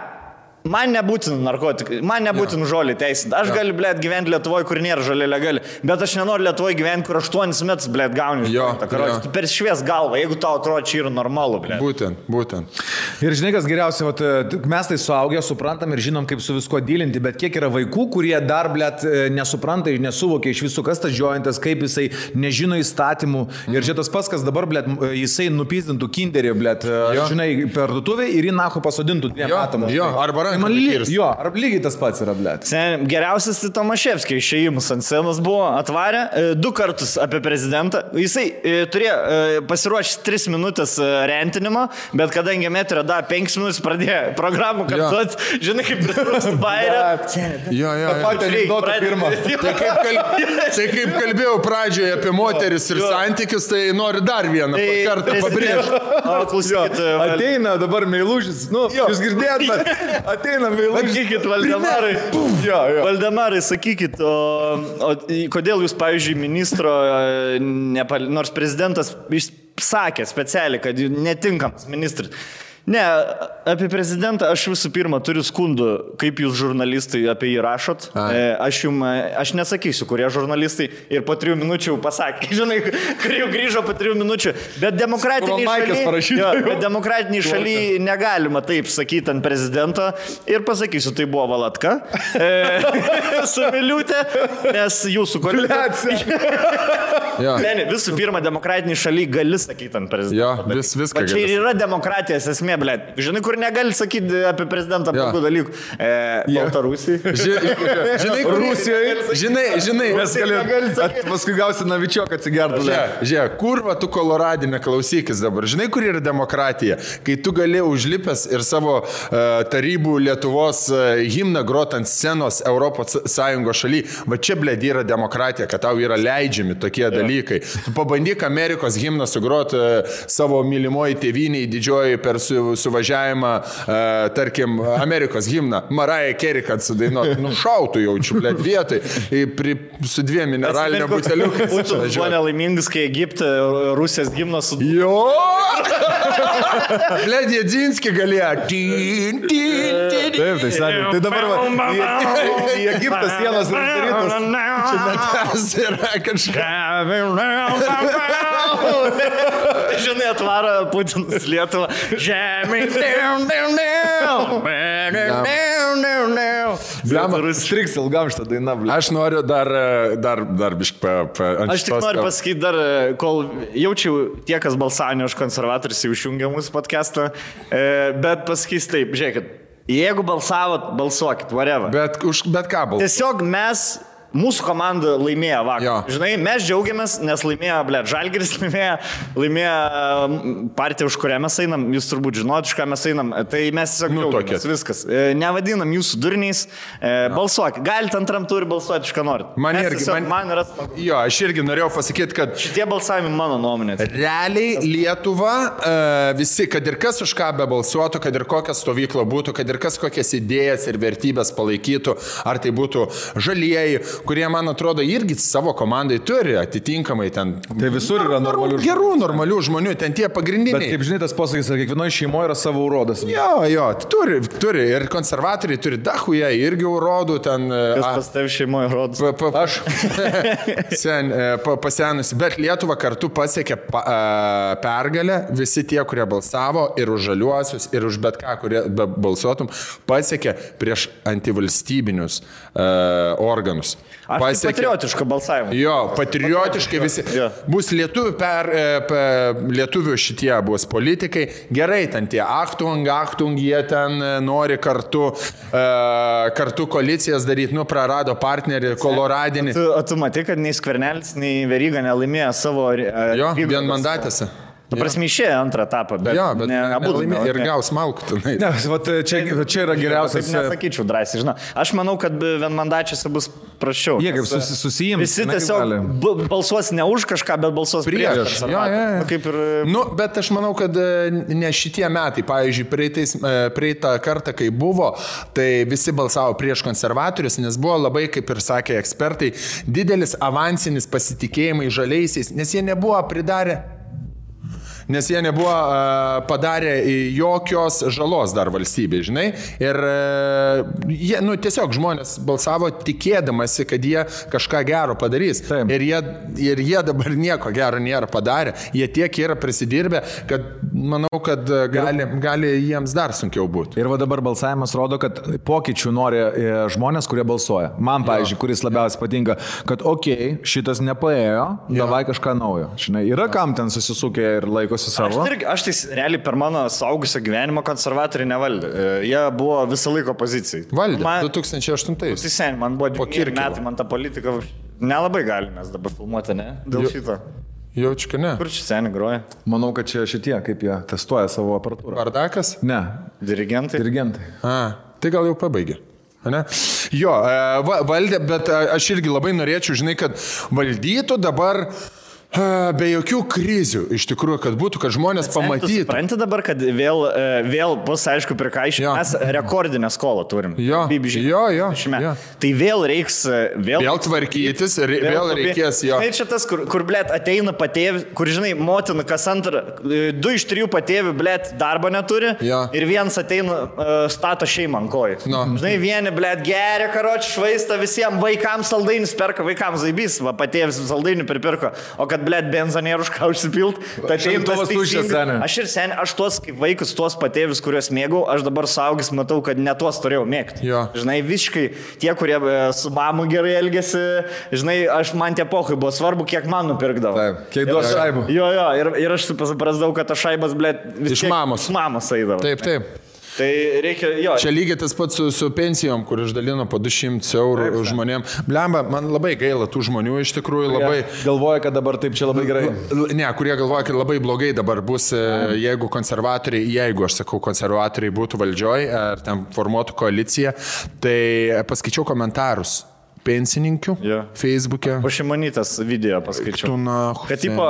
Man nebūtina narkotikai, man nebūtina žolį teisinti. Aš galiu, blėt, gyventi Lietuvoje, kur nėra žolė legali, bet aš nenoriu Lietuvoje gyventi, kur 8 metus, blėt, gauni. Tu per švies galvą, jeigu tau atrodo, čia yra normalu, blėt. Būtent. Ir žinai, kas geriausia, mes tai suaugę suprantam ir žinom, kaip su visko dylinti, bet kiek yra vaikų, kurie dar, blėt, nesupranta ir nesuvokia iš visų, kas tas jointas, kaip jisai nežino įstatymų. Ir čia tas pats, kas dabar, blėt, jisai nupizdintų kinderį, blėt, žinai, per duotuvę ir į nacho pasodintų 2 metam. Ar lygiai tas pats yra, blėt. Geriausias tai Tomaševskio išėjimas ant scenos buvo, atvarė 2 kartus apie prezidentą. Jisai turėjo pasiruošti 3 minutės rentinimo, bet kadangi metrio da 5 minutės pradėjo programų kartuoti, žinai, kaip pritrūksta bairę. Tai kaip kalbėjau pradžioje apie moteris ir santykius, tai noriu dar vieną kartą pabrėžti. Klausykit, ateina dabar meilužis, jūs girdėjot, ateina meilužis. Sakykit, Valdemarai. Valdemarai, sakykit, o kodėl jūs, pavyzdžiui, ministro, nors prezidentas sakė specialiai, kad netinkamas ministras. Ne, apie prezidentą aš visų pirma turiu skundų, kaip jūs žurnalistai apie jį rašot. Aš nesakysiu, kurie žurnalistai ir po 3 minučių pasakė, žinai, kur jau grįžo po 3 minučių. Bet demokratiniai šaly negalima taip sakyti ant prezidento ir pasakysiu, tai buvo Valatka su Miliūtė, nes jūsų koalicija. Visų pirma, demokratiniai šaly gali sakyti ant prezidento. Viską gali. Čia ir yra demokratijos esmė. Blėt. Žinai, kur negali sakyti apie prezidentą tokių dalykų. Baltarusijai. Žinai, Rusijoje. Žinai. Mes paskui gausi Navičiok atsigertų. Žiūrėk, kurva tu Koloradinė, klausykis dabar. Žinai, kur yra demokratija? Kai tu gali užlipęs ir savo tarybų Lietuvos himną grot ant scenos Europos Sąjungos šaly, va čia, blėt, yra demokratija, kad tau yra leidžiami tokie dalykai. Tu pabandyk Amerikos himną sugrot savo mylimoji tėvynei didžioji per suvažiavimą, tarkim, Amerikos himną, Mariah Carey, kad sudainuot, šautų jaučiu, blėt, vietoj, su 2 mineralinio buteliukais. Būtų buvo nelaimingas, kai Egipte Rusijos himnas su... Jo! Blėt, Jedzinski galėjo. Taip, tai sakė. Tai dabar į Egiptą sienos uždarytos. Čia netas yra kažką. Žinai, atvaro Putinas Lietuvą. Žemė. Striks ilgam šitą dainą, blėt. Aš noriu dar biškai Aš tik noriu pasakyti dar, kol jaučiau tie, kas balsavo už konservatorius, jau išjungia mūsų podcastą, bet pasakys taip, žiūrėkit, jeigu balsavot, balsuokit, whatever. Bet ką balsuokit? Tiesiog mūsų komanda laimėjo vakar. Žinai, mes džiaugiamės, nes laimėjo, Žalgiris laimėjo partiją, už kurią mes einam, jūs turbūt žinot, už ką mes einam, tai mes tiesiog džiaugiamės, viskas. Nevadinam jūsų durniais, balsuok, galite antram turį balsuoti, iš ką norit. Man yra smagu. Jo, aš irgi norėjau pasakyti, kad šitie balsavimai mano nuomonė. Realiai Lietuva, visi, kad ir kas už ką be balsuotų, kad ir kokia stovykla būtų, kad ir kas kokias idėjas ir vertybės palaikytų, ar tai būtų žalieji, kurie, man atrodo, irgi savo komandai turi atitinkamai ten. Tai visur yra normalių žmonių, ten tie pagrindiniai. Bet kaip žinai, tas posakis, kad kiekvienoje šeimoje yra savo urodas. Jo, turi. Ir konservatoriai turi dachuje, irgi urodų ten. Kas pas tev šeimoje urodas? Aš. Pasenusi. Bet Lietuva kartu pasiekė pergalę. Visi tie, kurie balsavo ir už žaliuosius, ir už bet ką, kurie balsuotum, pasiekė prieš antivalstybinius organus. Aš patriotišką balsavimą. Jo, patriotiškai visi. Bus lietuvių šitie bus politikai. Gerai, ten tie Achtung, jie ten nori kartu koalicijas daryti, prarado partnerį, Koloradinį. O tu matai, kad nei Skvernelis, nei Veryga nelaimėjo savo... Jo, vienmandatėse. Prasme, išėjo antrą etapą, bet abu laimėjo ir gaus malkų. Čia yra geriausias. Taip nesakyčiau drąsiai, žinau. Aš manau, kad vienmandačiuose bus praščiau. Jie kaip susijims. Visi tiesiog balsuos ne už kažką, bet balsuos prieš. Bet aš manau, kad ne šitie metai, pavyzdžiui, praeitą kartą, kai buvo, tai visi balsavo prieš konservatorius, nes buvo labai, kaip ir sakė ekspertai, didelis avansinis pasitikėjimai žaliaisiais, nes jie nebuvo pridarę nes jie nebuvo padarę jokios žalos dar valstybei, žinai. Ir jie, tiesiog žmonės balsavo tikėdamasi, kad jie kažką gero padarys. Taip. Ir jie dabar nieko gero nėra padarę. Jie tiek yra prisidirbę, kad manau, kad gali jiems dar sunkiau būti. Ir va dabar balsavimas rodo, kad pokyčių nori žmonės, kurie balsuoja. Man, pavyzdžiui, kuris labiausiai patinka, kad šitas nepaėjo, davai kažką naujo. Žinai, yra kam ten susisukė ir laikosi savo. Aš tai realiai per mano saugusio gyvenimo konservatoriai nevaldė. Jie buvo visą laiką opozicijai. Valdė, 2008. Tai sen, man buvo 2 metai, man ta politika nelabai galimės dabar filmuoti, ne? Dėl šito. Jaučiu, kad ne. Kur čia seniai groja? Manau, kad čia šitie, kaip jie testuoja savo aparatūrą. Bardakas? Ne. Dirigentai? Tai gal jau pabaigė. Ne? Jo, valdė, bet aš irgi labai norėčiau, žinai, kad valdytų dabar be jokių krizių, iš tikrųjų, kad būtų, kad žmonės pamatytų. Supranti dabar, kad vėl bus, aišku, prikaišyti. Mes rekordinę skolą turim. Jo. Tai vėl reiks... Vėl tvarkytis, vėl reikės jo. Žinai, čia tas, kur blėt, ateina patėvi, kur, žinai, motina kas antrą, 2 iš 3 patėvi, blėt, darbo neturi. Jo. Ir vienas ateina, stato šeimą ant kojų. No. Žinai, vieni, blėt, geria, karoči, švaista visiems, vaikams saldainis perka, vaikams zaibys, va, patėvis saldainį pripirko. O kad, blėt, benzonėrų už ką užsipilt, tai aš ir seniai, aš tuos kaip vaikus, tuos patėvius, kuriuos mėgau, aš dabar saugis matau, kad ne tuos turėjau mėgti. Jo. Žinai, visiškai tie, kurie su mamu gerai elgėsi, žinai, man tie pokai buvo svarbu, kiek man nupirkdavo. Taip, kiek duos šaibų. Jo, ir aš suprasdavau, kad tas šaibas, blėt, iš mamos. Iš mamos eidavo. Taip. Tai reikia, jo. Čia lygiai tas pats su pensijom, kur išdalino po 200 eurų žmonėm. Blemba, man labai gaila tų žmonių, iš tikrųjų labai... Galvoja, kad dabar taip čia labai gerai. Ne, kurie galvoja, kad labai blogai dabar bus, jeigu konservatoriai būtų valdžioj, ar ten formuotų koaliciją, tai paskaičiau komentarus. Pensininkių, Facebook'e. Po Šimonytės video paskaičiau. Kad tipo,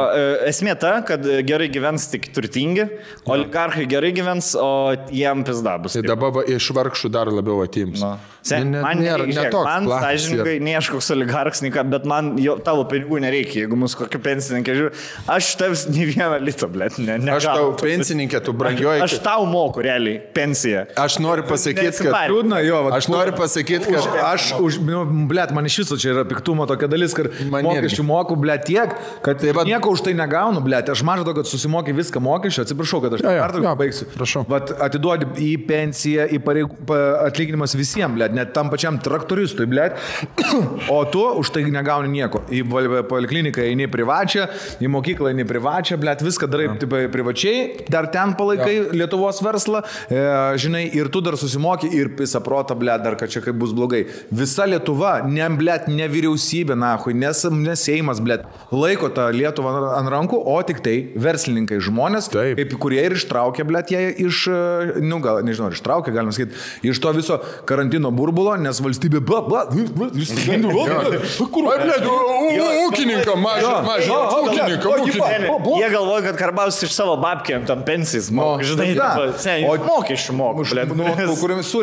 esmė ta, kad gerai gyvens tik turtingi, oligarchai gerai gyvens, o jiem pizda bus. Tai dabar iš vargšų dar labiau atims. Man sąžininkai, ne aš koks oligarchas, bet man tavo pinigų nereikia, jeigu mūsų kokį pensininkę žiūri. Aš tavs ne vieną litą, blėt, ne. Aš tau pensininkė, tu brangioji. Aš tau moku realiai pensiją. Aš noriu pasakyti, kad... Aš noriu pasakyti, kad... Aš už... Blėt, man iš viso čia yra piktumo tokia dalis, kad mokesčių moku, blėt, tiek, kad nieko už tai negaunu, blėt. Aš mažu to, kad susimokai viską mokesčių, atsiprašau, kad aš pertrauką baigsiu. Prašau. Vat atiduodi į pensiją, į atlyginimas visiems, blėt, net tam pačiam traktoristui, blėt, o tu už tai negauni nieko. Į polikliniką eini privačią, į mokyklą eini privačią, blėt, viską darai privačiai, dar ten palaikai Lietuvos verslą, žinai, ir tu dar susimoki ir pisa protą, blėt, dar kad čia kaip bus blogai. Visa Lietuva, ne vyriausybė, nahui, nes Seimas, blėt, laiko tą Lietuvą ant rankų, o tik tai verslininkai žmonės, kaip kurie ir ištraukė, blėt, jie iš, gal, nežinau, ištraukė, galima sakyti, iš to viso karantino burbulo, nes valstybė, ūkininką, mažą ūkininką. Jie galvoja, kad Karbauskis iš savo babkėm tam pensijas moka, žinai, mokesčių moka,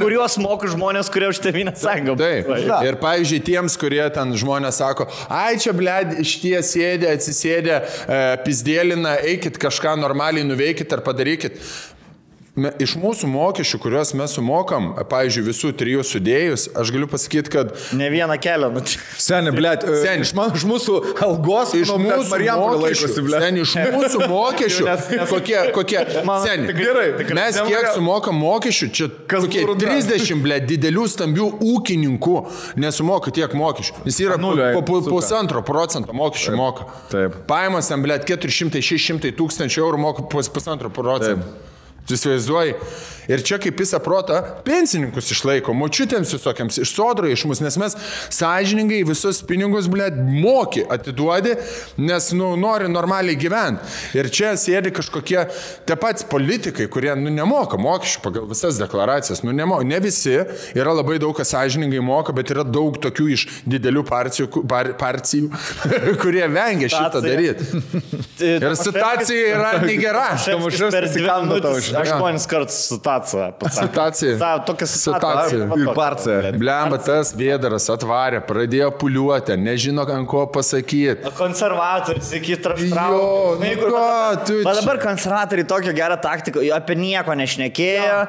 kuriuos moka žmonės, kurie už Tėvynės sąjungą. Ir pavyzdžiui, tiems, kurie ten žmonės sako, ai čia, blėd, šitie sėdė, atsisėdė, pizdėlina, eikit kažką normaliai nuveikit ar padarykit. Iš mūsų mokesčių, kuriuos mes sumokam, pavyzdžiui, visų 3 sudėjus, aš galiu pasakyti, kad... Ne vieną kelią. Seni, blėt, iš mūsų algos, iš mūsų mokesčių, kokie... Seni, mes kiek sumokam mokesčių, čia kokie 30, blėt, didelių stambių ūkininkų nesumoka tiek mokesčių. Jis yra 1,5% mokesčių moka. Paimas ten, blėt, 400-600 tūkstančių eurų moka 1,5%. Tu įsivaizduoji. Ir čia kaip visą protą pensininkus išlaiko, močiutėms visokiams, iš sodro iš mus, nes mes sąžiningai visus pinigus, blėt, moki atiduodi, nes, nori normaliai gyventi. Ir čia sėdi kažkokie tie patys politikai, kurie, nemoka mokesčių pagal visas deklaracijas. Ne visi, yra labai daug, kas sąžiningai moka, bet yra daug tokių iš didelių partijų, kurie vengia šitą daryti. Ir situacija yra negera. 8 kartus situaciją. Situacija. Tokia Situacija. Ir parcija. Blemba, tas vėdaras atvarė, pradėjo puliuoti, nežino, ant ko pasakyti. Konservatorius iki Jo, nu ką, tu Bet dabar konservatoriai tokią gerą taktiką, apie nieko nešnekėjo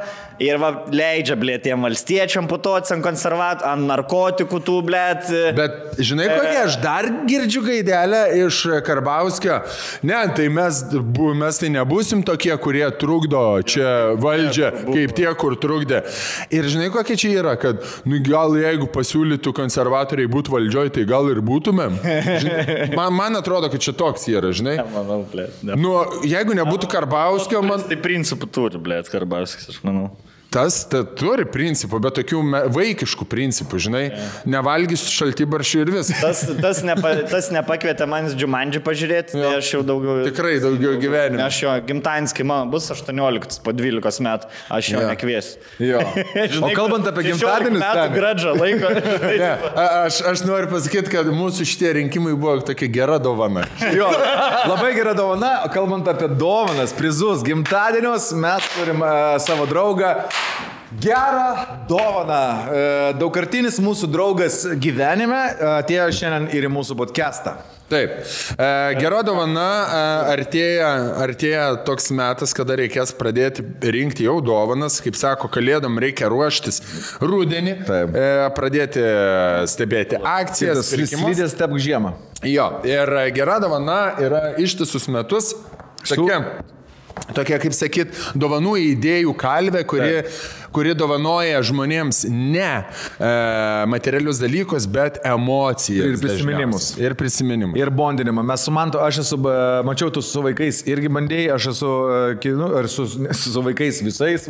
ir va, leidžia, blėt, tiem valstiečiam putuoti ant konservatorių, ant narkotikų tų, blėt. Bet žinai kokia, aš dar girdžiu gaidelę iš Karbauskio. Ne, tai mes tai nebūsim tokie, kurie trukdo čia valdžią, kaip tie, kur trukdė. Ir žinai kokia čia yra, kad nu, gal jeigu pasiūlytų konservatoriai būtų valdžioj, tai gal ir būtumėm. Man atrodo, kad čia toks yra, žinai. Manau, blėt. Nu, jeigu nebūtų Karbauskio, man... Tai principų turi, blėt, Karbauskis, aš manau. Tas turi principų, bet tokių vaikiškų principų, žinai, nevalgysiu šaltibaršių ir viskas. Tas nepakvietė manęs Džumandžį pažiūrėti, tai aš jau daugiau... Tikrai daugiau gyvenime. Aš jo, gimtadienis, kai man bus 18 po 12 metų, aš jo nekviesiu. Jo. O kalbant apie gimtadienius... metų gradžą laiko. Aš noriu pasakyti, kad mūsų šitie rinkimai buvo tokia gera dovana. Jo, labai gera dovana. Kalbant apie dovanas, prizus, gimtadienius, mes turim savo draugą. Gerą dovaną. Daugkartinis mūsų draugas gyvenime atėjo šiandien ir į mūsų podcastą. Taip. Gera dovana, artėja toks metas, kada reikės pradėti rinkti jau dovanas. Kaip sako, kalėdom reikia ruoštis rudenį, pradėti stebėti akcijas. Slidės stebk žiemą. Jo, ir gera dovana yra ištisus metus. Tokia, kaip sakyt, dovanų idėjų kalvė, kuri dovanoja žmonėms ne materialius dalykus, bet emocijas. Ir prisiminimus. Ir bondinimą. Mes su Mantu, aš esu, mačiau, tu su vaikais irgi bandėjai, aš esu, ar su vaikais visais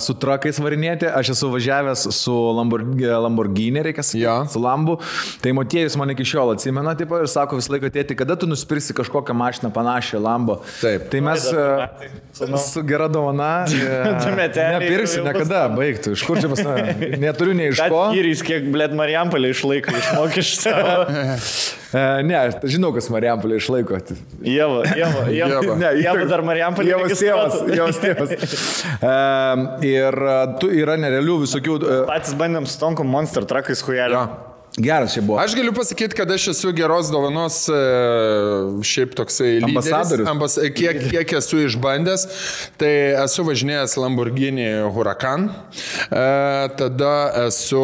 su trakais varinėti, aš esu važiavęs su Lamborghini, reikia sakyti, su Lambu. Tai Motiejus man iki šiol atsimena, taip, ir sako visą laiką, tėti, kada tu nusipirksi kažkokią mašiną panašią Lambo. Taip. Tai mes su gera dovana nepirksiu niekada, baigtų. Iš kur čia pas mane? Neturiu nei iš ko. Įrys, kiek, blėt, Marijampolė išlaiko iš mokesčių. Ne, aš žinau, kas Marijampolė išlaiko. Jeva dar Marijampolė. Jevas tėvas. Ir tu yra nerealių visokių... Patys bandėm su tonkom Monster Truckais hujelio. Geras čia buvo. Aš galiu pasakyti, kad aš esu geros dovanos šiaip toksai ambasadorius. Kiek esu išbandęs, tai esu važinėjęs Lamborghini Huracan, tada esu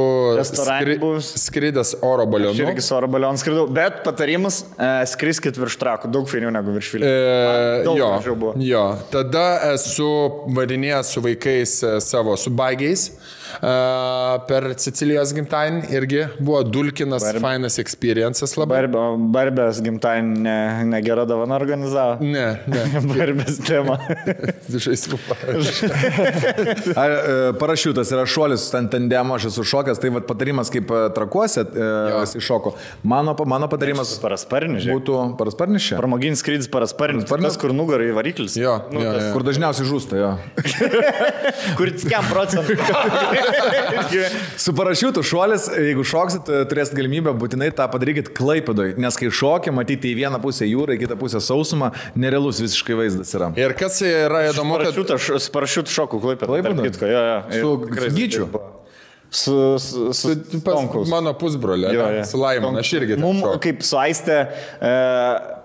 skridęs oro balionu. Aš irgi su oro balionu skridau, bet patarimas skriskit virš trakų, daug fainiau negu virš filmų. Jo, tada esu varinėjęs su vaikais savo, su bagiais. Per Sicilijos gimtadienį irgi buvo dulkinas, fainas experiences labai. Barbės gimtadienį negera dovana organizavo? Ne. Barbės tema. Žaislų parašiutas yra šuolis, ten tandemo, aš esu šokęs, tai vat patarimas kaip trakuose iššoko. Mano patarimas būtų parasparnis čia. Pramoginis skrydis parasparnis, tas kur nugarai variklis. Kur dažniausiai žūsta, jo. Kur 5%. Su parašiutų šuolis, jeigu šoksit, turėsit galimybę, būtinai tą padarykit Klaipėdoj, nes kai šokė, matyti į vieną pusę jūrą, į kitą pusę sausumą, nerealus visiškai vaizdas yra. Ir kas yra įdomu, kad... Su parašiutų šoku Klaipėdoj. Su Gyčiu. Su mano pusbrolė, su Laimon, aš irgi. Mums kaip su Aiste,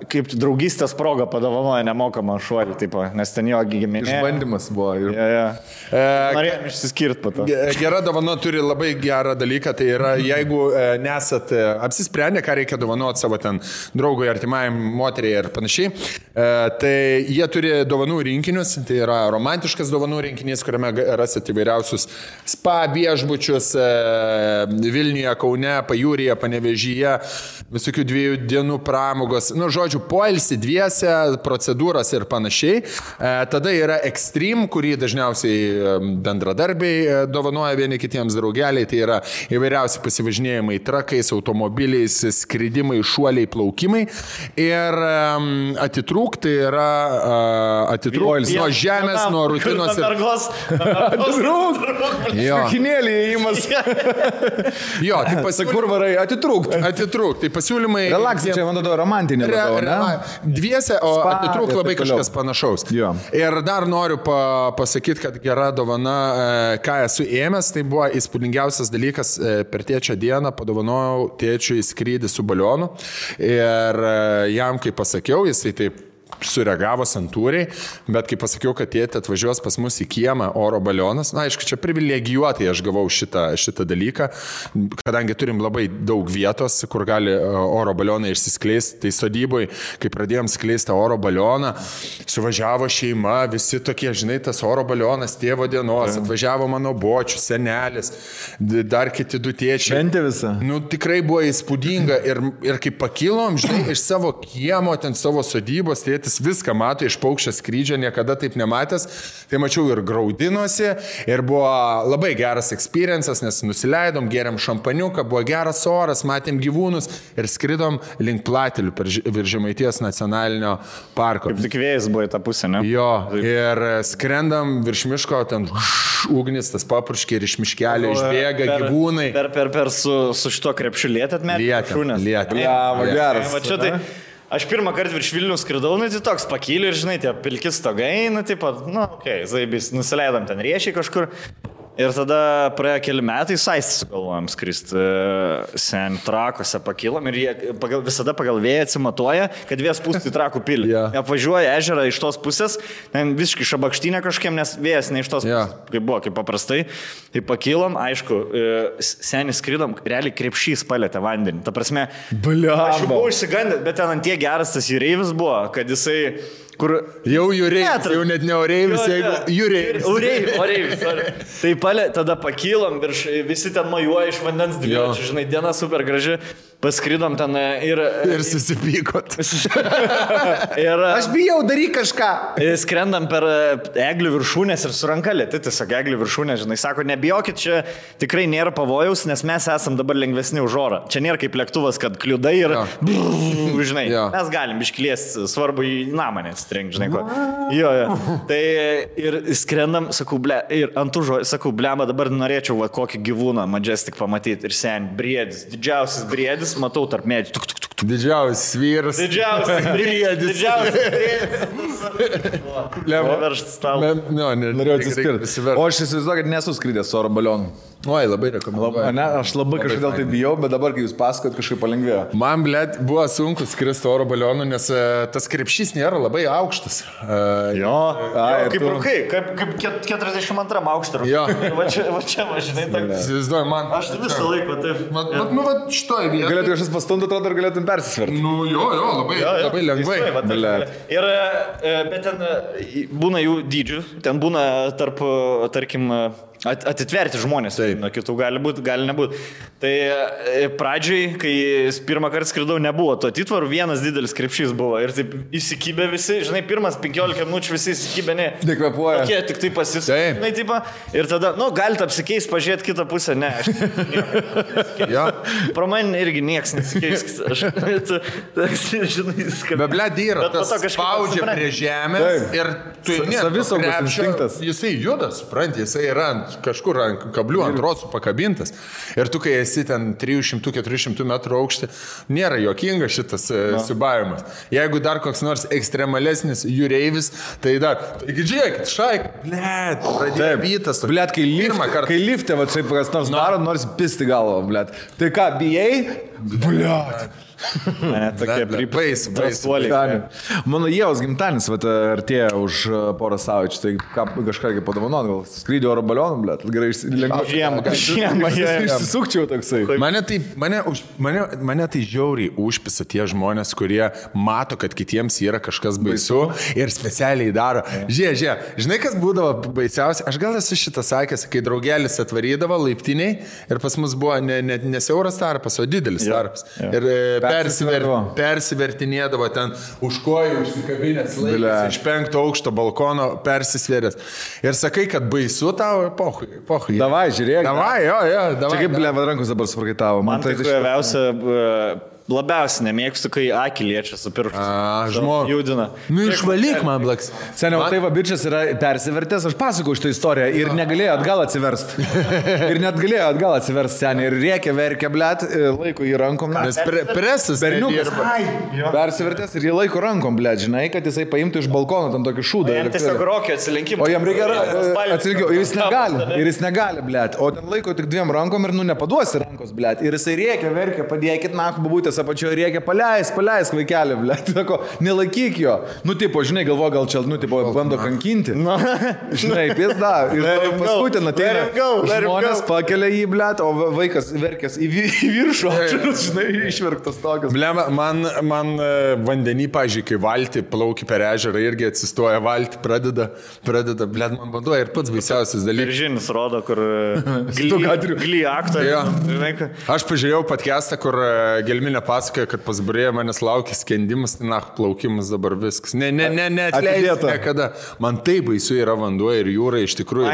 kaip draugystės proga padovanoja nemokamą šuolį, tipo, nes ten jo giminė. Išbandymas buvo. Norėjom išsiskirt po to. Gera dovana turi labai gerą dalyką, tai yra, jeigu nesat apsisprendę, ką reikia dovanoti savo ten draugui, artimajam, moteriai ir panašiai, tai jie turi dovanų rinkinius, tai yra romantiškas dovanų rinkinys, kuriame rasit įvairiausius spa viešbučius, Vilniuje, Kaune, Pajūryje, Panevėžyje, visokių 2 dienų pramogos, žodžiu, poilsį dviese, procedūras ir panašiai. Tada yra Extreme, kurį dažniausiai bendradarbiai dovanoja vieni kitiems draugeliai, tai yra įvairiausi pasivažinėjimai trakais, automobiliais, skridimai, šuoliai, plaukimai. Ir atitrūk, tai yra atitrūk nuo žemės, nuo rutinos. Atitrūk! Kinėlį įima pasiūlymas. Jo, tai Pasak, kur varai, atitrūkt. Atitrūkt, tai pasiūlymai... Relaksai, čia man atrodo romantinė. Dviese, o atitrūkt labai kažkas panašaus. Jo. Ir dar noriu pasakyti, kad gera dovana, ką esu ėmęs, tai buvo įspūdingiausias dalykas per tėčio dieną, padovanojau tėčiui skrydį su balionu ir jam, kai pasakiau, jisai taip sureagavo santūriai, bet kai pasakiau, kad tėtė atvažiuos pas mus į kiemą oro balionas, na, aišku, čia privilegijuotai aš gavau šitą dalyką, kadangi turim labai daug vietos, kur gali oro balionai išsiskleisti, tai sodyboje, kai pradėjom skleisti oro balioną, suvažiavo šeima, visi tokie, žinai, tas oro balionas tėvo dienos, atvažiavo mano bočius, senelis, dar kiti du tėčiai. Šventė visą. Nu, tikrai buvo įspūdinga ir kai pakilom, žinai, iš savo kiemo, ten savo sodybos, tėtis viską mato iš paukščio skrydžio, niekada taip nematęs, tai mačiau ir graudinosi, ir buvo labai geras experiences, nes nusileidom, geriam šampaniuką, buvo geras oras, matėm gyvūnus ir skridom link Platelių virš Žemaitijos nacionalinio parko. Kaip tik vėjas buvo į tą pusę, ne? Jo, ir skrendam virš miško, ten ugnis, tas papurškė ir iš miškelio išbėga gyvūnai. Per su šito krepšiu lietėt met? Lietėt. Geras. Va čia tai... Aš pirmą kartą virš Vilnių skridau, nu, tai toks pakyliu ir, žinai, tie pilki stogai, nu, taip pat, nu, okei, zaibis, nusileidom ten riešiai kažkur. Ir tada praėjo keli metai, Saistį sugalvojom skristi, sen Trakuose pakilom ir jie visada pagal vėją atsimatuoja, kad vėjas pūsti Trakų pilį. Apvažiuoja ežerą iš tos pusės, ten visiškai šabakštynė kažkiem, nes vėjas ne iš tos pusės, kaip buvo, kaip paprastai. Tai pakilom, aišku, senį skridom, realiai krepšys palėtė vandenį. Ta prasme, aš jau buvau išsigandęs, bet ten ant tie geras tas jūreivis buvo, kad jisai... Kur... Jau jūreivis, jau net ne oreivis, jeigu jūreivis. Oreivis. Tai tada pakilom, visi ten majuoja iš vandens dviračių, žinai, diena super graži. Paskridom ten ir susipykot. Aš bijau, daryk kažką. Skrendam per eglių viršūnės ir su ranka lėti, tiesiog eglių viršūnės, žinai, sako, nebijokit, čia tikrai nėra pavojaus, nes mes esam dabar lengvesni už orą. Čia nėra kaip lėktuvas, kad kliudai ir, žinai, mes galim iškliesti, svarbu į namą nesitrenk, žinai ko. Jo. Tai ir skrendam, sakau, ir ant užo, sakau, blema, dabar norėčiau va, kokį gyvūną Majestic pamatyti ir sen, briedis, didžiausias briedis. Matau tarp medžių. Didžiausias vyras. Didžiausias briedis. Veršt stalą. Norėjau atsispirti. O aš įsivaizduoju, kad nesu skridęs oro balionu. Oi, labai rekomenduoju. Aš labai kažkodėl tai bijau, bet dabar, kai jūs pasakot, kažkaip palengvėjo. Man, blėt, buvo sunku skristi oro balionu, nes tas krepšys nėra labai aukštas. Kaip rūkai, kaip 42 aukštą rūkai. Jo. Va čia, žinai, įsivaizduoju, man. Aš visą laiką taip. Nu, va, šitoj vietoj. Galėtum kažkas pastumti, atrodo, ir galėtum persisverti. Nu, labai lengvai. Ir, bet ten būna jų dydžių, ten būna tarp, tarkim, atitverti žmonės, nuo kitų gali būti, gali nebūti. Tai pradžiai, kai pirmą kartą skridau, nebuvo to atitvarų, vienas didelis krepšys buvo ir taip įsikibė visi, žinai, pirmas 15 minučių visi įsikibė, ne. Nekvepuoja. Tokie tik tai pasisakė, tipo, ir tada, nu, galite apsikeis, pažiūrėti kitą pusę, ne. Pro man irgi nieks nesikeis. Žinai, be blėt yra, tas spaudžia prie žemės ir tu savisaugos instinktas. Jisai juda, supranti, jisai yra kažkur ant kablių, ant rosų pakabintas. Ir tu, kai esi ten 300-400 metrų aukštį, nėra jokinga šitas siubavimas. Jeigu dar koks nors ekstremalesnis jūreivis, tai dar, taigi žiūrėkit, šaik, blėt, pradėjo vytas. Blėt, kai lifte, va, čia kas nors daro, nors pisti galvo, blėt. Tai ką, bijai? Blėt. Ne, tokie pripaisuoliai. Mano Ievos gimtadienis artėja už porą savaičių, tai kažką padovanot, gal skrydį oro balioną, blėt, gerai žiemą, išsisukčiau toksai. Mane tai žiauriai užpisa tie žmonės, kurie mato, kad kitiems yra kažkas baisu ir specialiai daro. Žiūrėk, žinai, kas būdavo baisiausia? Aš gal esu šitą sakęs, kai draugelis atvarydavo laiptiniai ir pas mus buvo ne siauras tarpas, o didelis tarpas. Ir persivertinėdavo ten už kojų, užsikabinės laikas, iš 5 aukšto balkono persisvėrės. Ir sakai, kad baisu tau, pohui. Davai, žiūrėk. Davai. Čia kaip blėva rankos dabar suprakaitavo. Man tai kojaviausia labiausiai nemėgstu, kai akį liečia su pirštu. Žmogų. Judina. Nu, išvalyk man, blaks. Seniau, tai va, bičias yra persivertęs, aš pasakau šitą istoriją ir negalėjo atgal atsiversti. Ir net galėjo atgal atsiversti seniai ir rėkė, verkė, blėt, laiko į rankom. Nes presas berniukas persivertęs ir jį laiko rankom, blėt, žinai, kad jisai paimtų iš balkono ten tokį šūdą. Jam tiesiog rokio atsilinkimą. O jam reikia atsilinkimą, ir jis negali, blėt. O ten laiko tik dviem rankom ir nepaduosi rankos, blėt. Ir jisai rėkė, verkė, padėkit, babutės apačioje rėkė, paleisk vaikelį, blėt. Sako, nelaikyk jo. Nu, tipo, žinai, galvo, gal čia, nu, tipo, bando kankinti. Žinai, pizda. Ir paskui ten ateina žmonės, pakelia jį, blėt, o vaikas verkės į viršų, žinai, išverktas tokias. Blema, man vandenį, pažiūrėjau, kai valti plauki per ežerą, irgi atsistoja valti, pradeda, blėt, man banduoja ir pats baisiausias dalykas. Viržinis rodo, kur gly aktoriai. Aš pažiūrėjau podcastą, kur Gelminė pasakoja, kad pas Burėją manęs laukia skendimas, tai plaukimas dabar viskas. Ne, atleidėta. Niekada. Man tai baisu yra vanduo ir jūra iš tikrųjų.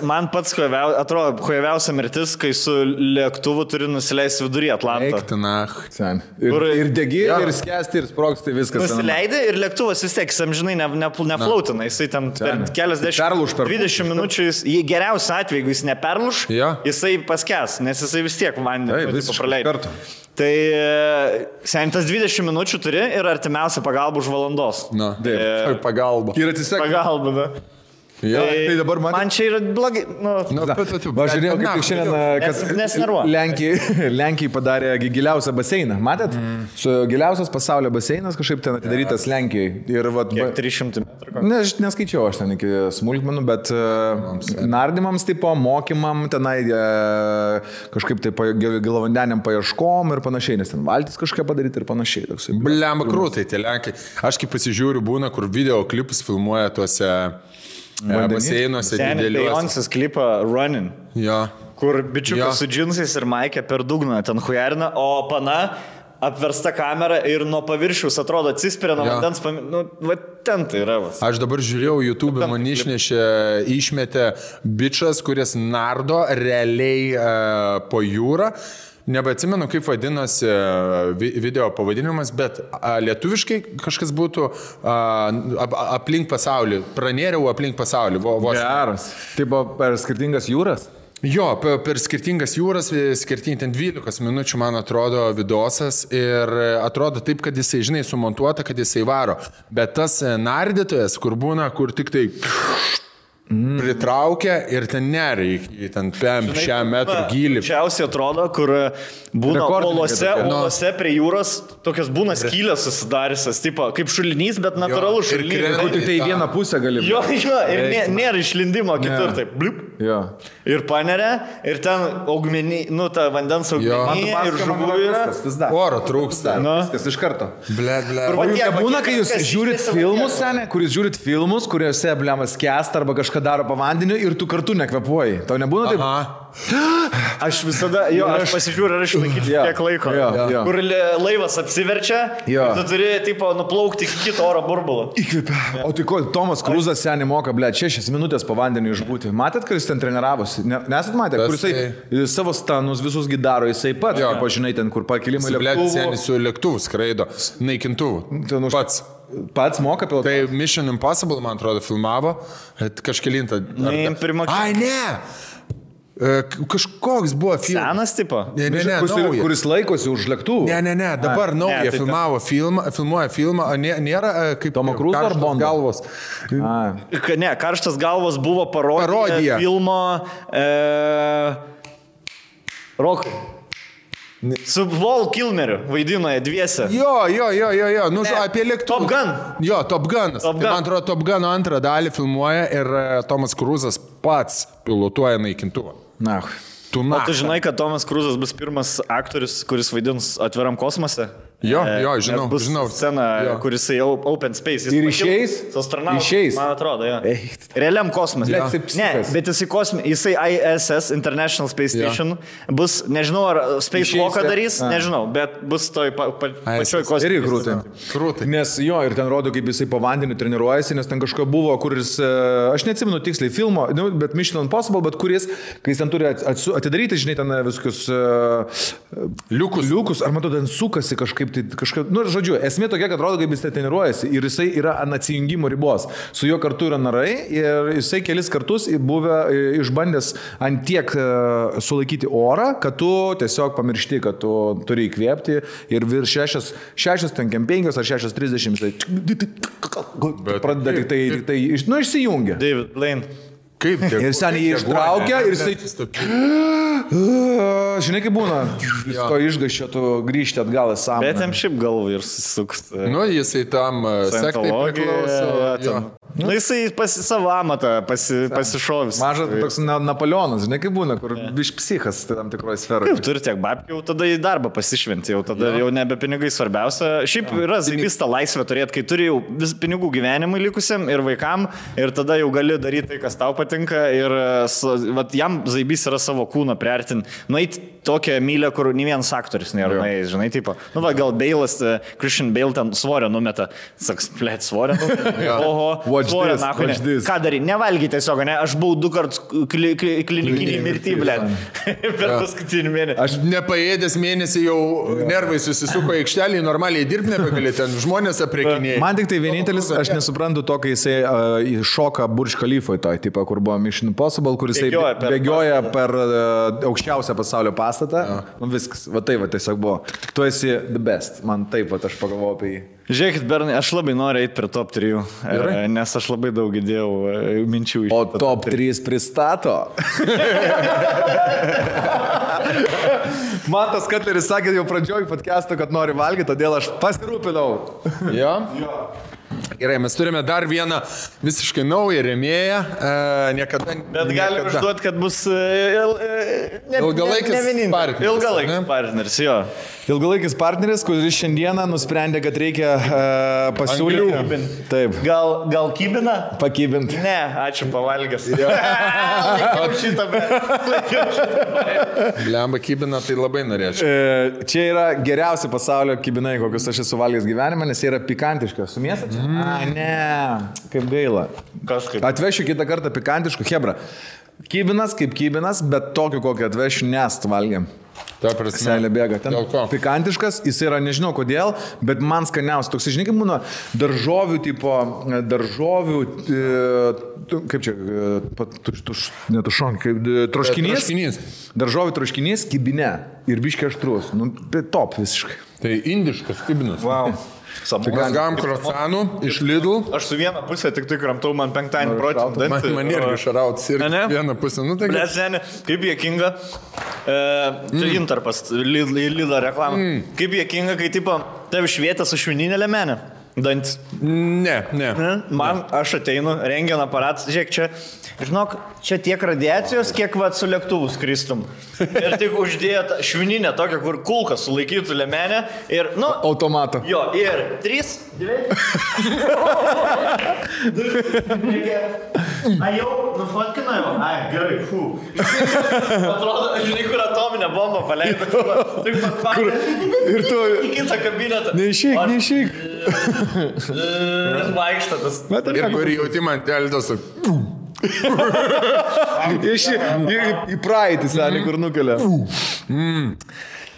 Man pats atrodo huiviausia mirtis, kai su lėktuvu turi nusileisti vidury Atlantą. Ir degi, ir skęsti, ir sprogsti viskas. Nusileidai ir lėktuvas vis tiek, amžinai, neflautina. Jisai ten per keliasdešimt 20 minučių, jį geriausiu atveju, jeigu jis neperluš, jisai paskęs, nes jisai vis tiek vandenį praleidžia. Tai sentas 20 minučių turi ir artimiausia pagalba už valandos. Na, pagalba. Ir atsisek. Pagalba, da. Tai dabar man čia yra blogai. Žiūrėjau, kaip šiandien Lenkijai padarė giliausią baseiną. Matėt? Su giliausias pasaulio baseinas kažkaip ten atidarytas Lenkijai. Kiek 300 metrų? Neskaičiau aš ten iki smulkmenų, bet nardymams tipo, mokymam tenai kažkaip tai gilavandeniam paieškom ir panašiai, nes ten valtis kažką padaryti ir panašiai. Blemba krūtai tie Lenkai. Aš kaip pasižiūriu būna, kur video klipus filmuoja tuose baseinuose dideliuose. Beyoncé's klipą Running. Ja. Kur bičiukas su džinsais ir maikė per dugną ten hujarina, o pana apversta kamera ir nuo paviršiaus atrodo atsispiria nuo vandens, va ten tai yra. Aš dabar žiūrėjau, YouTube man išmetė bičas, kuris nardo realiai po jūrą. Nebeatsimenu, kaip vadinosi video pavadinimas, bet lietuviškai kažkas būtų aplink pasaulį. Pranėriau aplink pasaulį. Geras. Tai buvo per skirtingas jūras? Jo, per skirtingas jūras, skirtingai ten 12 minučių, man atrodo, vidosas ir atrodo taip, kad jisai, žinai, sumontuota, kad jisai varo. Bet tas nardytojas, kur būna, kur tik tai pritraukia ir ten nereikia, ten 5 metrų gylį. Čiausiai atrodo, kur būna olose prie jūros, tokias būna skylės susidariusios, tipo, kaip šulinys, bet natūralus šulinys. Kur tik tai vieną pusę gali. Jo, ir nėra išlindimo kitur, taip, blip. Ir paneria, ir ten augmenį, ta vandens augmenį ir žuvų yra. Oro trūksta. Viskas iš karto. Blet. Būna, kai jūs žiūrit filmus, seniai, kuris žiūrit filmus, kuriuose blemas skęsta arba kažką daro po vandeniu ir tu kartu nekvepuoji. Tau nebūna taip? Aš visada, aš pasižiūriu, ar išlaikyti tiek laiko. Kur laivas apsiverčia, tu turi, tipo, nuplaukti iki kito oro burbulo. Įkvėpia. O tai ko, Tomas Kruzas seniai moka, 6 minutės po vandeniu išbūti. Matėt, kad jis ten treniravosi? Nesat matę, kur jisai savo stanus visus gidaro, jisai pats, pažinai, ten, kur pakilimai lėktuvų. Seniai su lėktuvu skraido, naikintuvų. Pats moka pilotuoti. Tai Mission Impossible, man atrodo, filmavo. Kažkelintą. Ai, ne! Kažkoks buvo filmas. Senas tipo? Ne, kuris laikosi už lėktuvų. Ne, dabar naują filmuoja filmą, nėra kaip Tomo Cruise ar Bondo galvos. Ne, Karštas galvos buvo parodija filmo Rokai. Su Val Kilmeriu vaidino dviese. Jo, apie lėktuvą. Top Gun. Jo, Top Gunas. Man atrodo, Top Guno antrą dalį filmuoja ir Tomas Kruzas pats pilotuoja naikintuvą. O tu žinai, kad Tomas Kruzas bus pirmas aktorius, kuris vaidins Atviram kosmose? Jo, žinau. Bus scena, kuris open space. Ir išeis? Išeis. Man atrodo, jo. Realiam kosmose. Ne, bet jisai ISS, International Space Station, bus, nežinau, ar Space Walką darys, nežinau, bet bus toj pačioj kosmose. Ir krūtai. Nes jo, ir ten rodo, kaip jisai po vandeniu treniruojasi, nes ten kažko buvo, kuris, aš neatsimenu tiksliai filmo, bet Mission Impossible, bet kuris, kai jis ten turi atidaryti, žinai, ten visokius liukus, ar matau, ten sukasi kažkaip, žodžiu, esmė tokia, kad rodo, kaip jis treniruojasi ir jisai yra ant atsijungimo ribos. Su juo kartu yra narai ir jisai kelis kartus buvę išbandęs ant tiek sulaikyti orą, kad tu tiesiog pamiršti, kad tu turi įkvėpti ir virš 6, ten 5 ar 6:30 pradeda tik tai išsijungia. David Blaine. Kaip? Ir seniai jį ištraukia ir jisai... Žinai, kaip būna, to išgaščio tu grįžti atgal į sąmonę. Bet jam šiaip galvą ir susisuks. Jisai tam sektai priklauso. Jisai savo amatą pasišovis. Mažas toks Napoleonas, žinai, kaip būna, kur biš psichas tam tikroje sferoje. Kaip turi tiek babkių, jau tada į darbą pasišventi, jau tada jau nebe pinigai svarbiausia. Šiaip yra zaibys tą laisvę turėti, kai turi jau vis pinigų gyvenimui likusiam ir vaikam, ir tada jau gali daryti tai, kas tau patinka ir jam zaibys yra savo kūną priartin. Nueit tokią mylę, kur nei vienas aktorius nėra nuėjęs, žinai, tipo. Gal Bailas, Christian Bale ten svorio numeta. Saks, plėt, svorio numeta. Oho, svorio, nahu, ką darai? Nevalgy tiesiog, ne? Aš buvau 2 kartus klinikinį mirtį, blėt. Per paskutinį mėnesį. Aš nepaėdęs mėnesį jau nervai susisuko į aikštelį, normaliai dirbti nebegali, ten žmonės aprekinėjai. Man tik tai vienintelis, aš nesuprantu to, kai jisai šoka Burj Khalifoje toj, tipo, kur buvo Mission Impossible, kur jisai bėgioja per aukščiausią pasaulio pastatą. Viskas, va tai va tiesiog buvo. Tu esi the best. Man taip, va aš pagalvojau apie jį. Žiūrėkit, Bernai, aš labai noriu eiti prie top 3, nes aš labai daug įdėjau minčių iš. O top 3 pristato. Man tas Katleris sakė jau pradžioj podcast'o, kad nori valgyti, todėl aš pasirūpinau. Jo? Gerai, mes turime dar vieną visiškai naują rėmėją. Bet galim išduoti, kad bus ilgalaikis partneris. Ilgalaikis partneris, jo. Ilgalaikis partneris, kuris šiandieną nusprendė, kad reikia pasiūlyti. Taip. Gal kybina? Pakybinti. Ne, ačiū, pavalgęs. Laikiau šitą, bet... Blemba kybina, tai labai norėčiau. Čia yra geriausi pasaulio kybinai, kokius aš esu valgęs gyvenime, nes jie yra pikantiški. Su mėsa čia? Ne, kaip gaila. Kažkaip. Atvešiu kitą kartą pikantiškų, hebra. Kybinas kaip kybinas, bet tokį kokį atvešiu, nes valgiam. Ta prasme. Selė bėga. Ten pikantiškas, jis yra nežinau kodėl, bet man skaniausias. Toks, žinai, kaip būna daržovių tipo, kaip čia, netušon, kaip troškinys. Daržovių troškinys, kibine ir biškai aštrus. Nu, top visiškai. Tai indiškas kibinas. Wow. Mes gavom krocanų iš Lidl. Aš su vieną pusę tik tai kramtau, man 5 procentų. Man irgi šarauts ir vieną pusę. Nu, tai... Kaip jėkinga. Čia intarpas, Lidl reklama. Kaip jėkinga, kai tipo, tavi švietė su švininė lemenė. Dantis. Ne. Man, aš ateinu, rengian aparatas, žiūrėk, čia, žinok, čia tiek radiacijos, kiek va su lėktuvu skristum. Ir tik uždėt švininę tokią, kur kulką sulaikytų lemenę ir, nu... Automato. Jo, ir 3, 2... A jau, nufotkina jau? Ai, gerai, fū. Atrodo, žinai, kur atominę bombą paleido. Ir tu... Į kitą kabinetą. Neišeik. Vaikštatas. Ir kur jauti man teldos. Į praeitį, seniai, kur nukelia.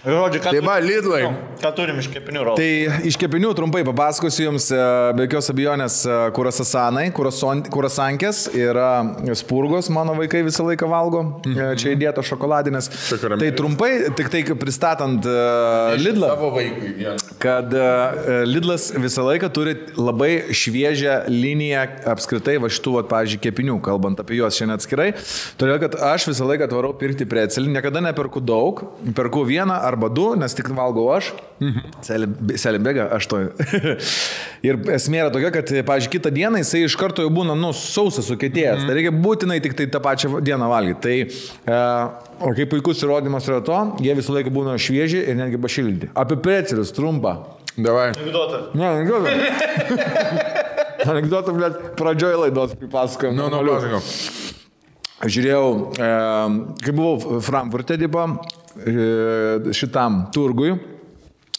Žodžiu, tai va, Lidlai. Ką turim iš kepinių rolų? Tai iš kepinių trumpai papasakosiu jums, be jokios abejonės, kurasasanai, kurasankės yra spurgos, mano vaikai visą laiką valgo, čia įdėto šokoladinės. Tai trumpai, tik tai pristatant Lidlą, kad Lidlas visą laiką turi labai šviežią liniją apskritai va šitų, pavyzdžiui, kepinių, kalbant apie juos šiandien atskirai, todėl kad aš visą laiką atvarau pirkti precelį, niekada neperku daug, perku vieną arba 2, nes tik valgau aš. Selė bėga, 8. Ir esmė yra tokia, kad, pavyzdžiui, kitą dieną jisai iš karto jau būna, sausas sukietėjęs. Tai reikia būtinai tik tai tą pačią dieną valgyti. Tai, o kaip puikus įrodymas yra to, jie visą laiką būna švieži ir netgi pašildyti. Apie precelius, trumpa. Davai. Anekdotą. Ne, anekdotą. Anekdotą, blėt, pradžioj laidos pripasakojom. Pasakojom. Žiūrėjau, kai buvau Frankfurte, šitam turgui,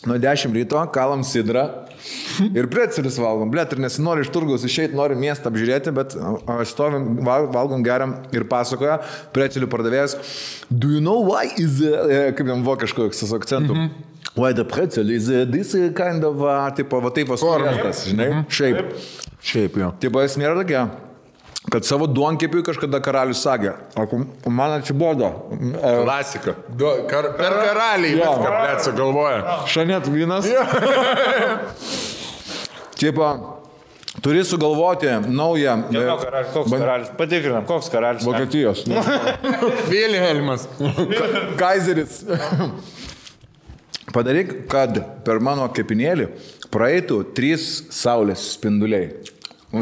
nuo 10 ryto kalam sidrą ir precelius valgom. Blėt, ir nesinori iš turgaus išeiti, nori miestą apžiūrėti, bet stovim, valgom, geriam ir pasakoja precelių pardavėjas. Do you know why is, kaip jam vokiško akcentų? Why the pretzel is this kind of, tipo, va taip vasuriestas, žinai? Šiaip, jo. Tipo, esmė yra tokia, kad savo duonkepiui kažkada karalius sakė, o man atsibodo. Klasika. Per karaliai viską, blėt, sugalvoja. Šanet vynas. Tipo, turi sugalvoti naują... Koks karalius? Patikrinam, koks karalius? Vokietijos. Vilhelmas. Kaizeris. Padaryk, kad per mano kepinėlį praeitų 3 saulės spinduliai.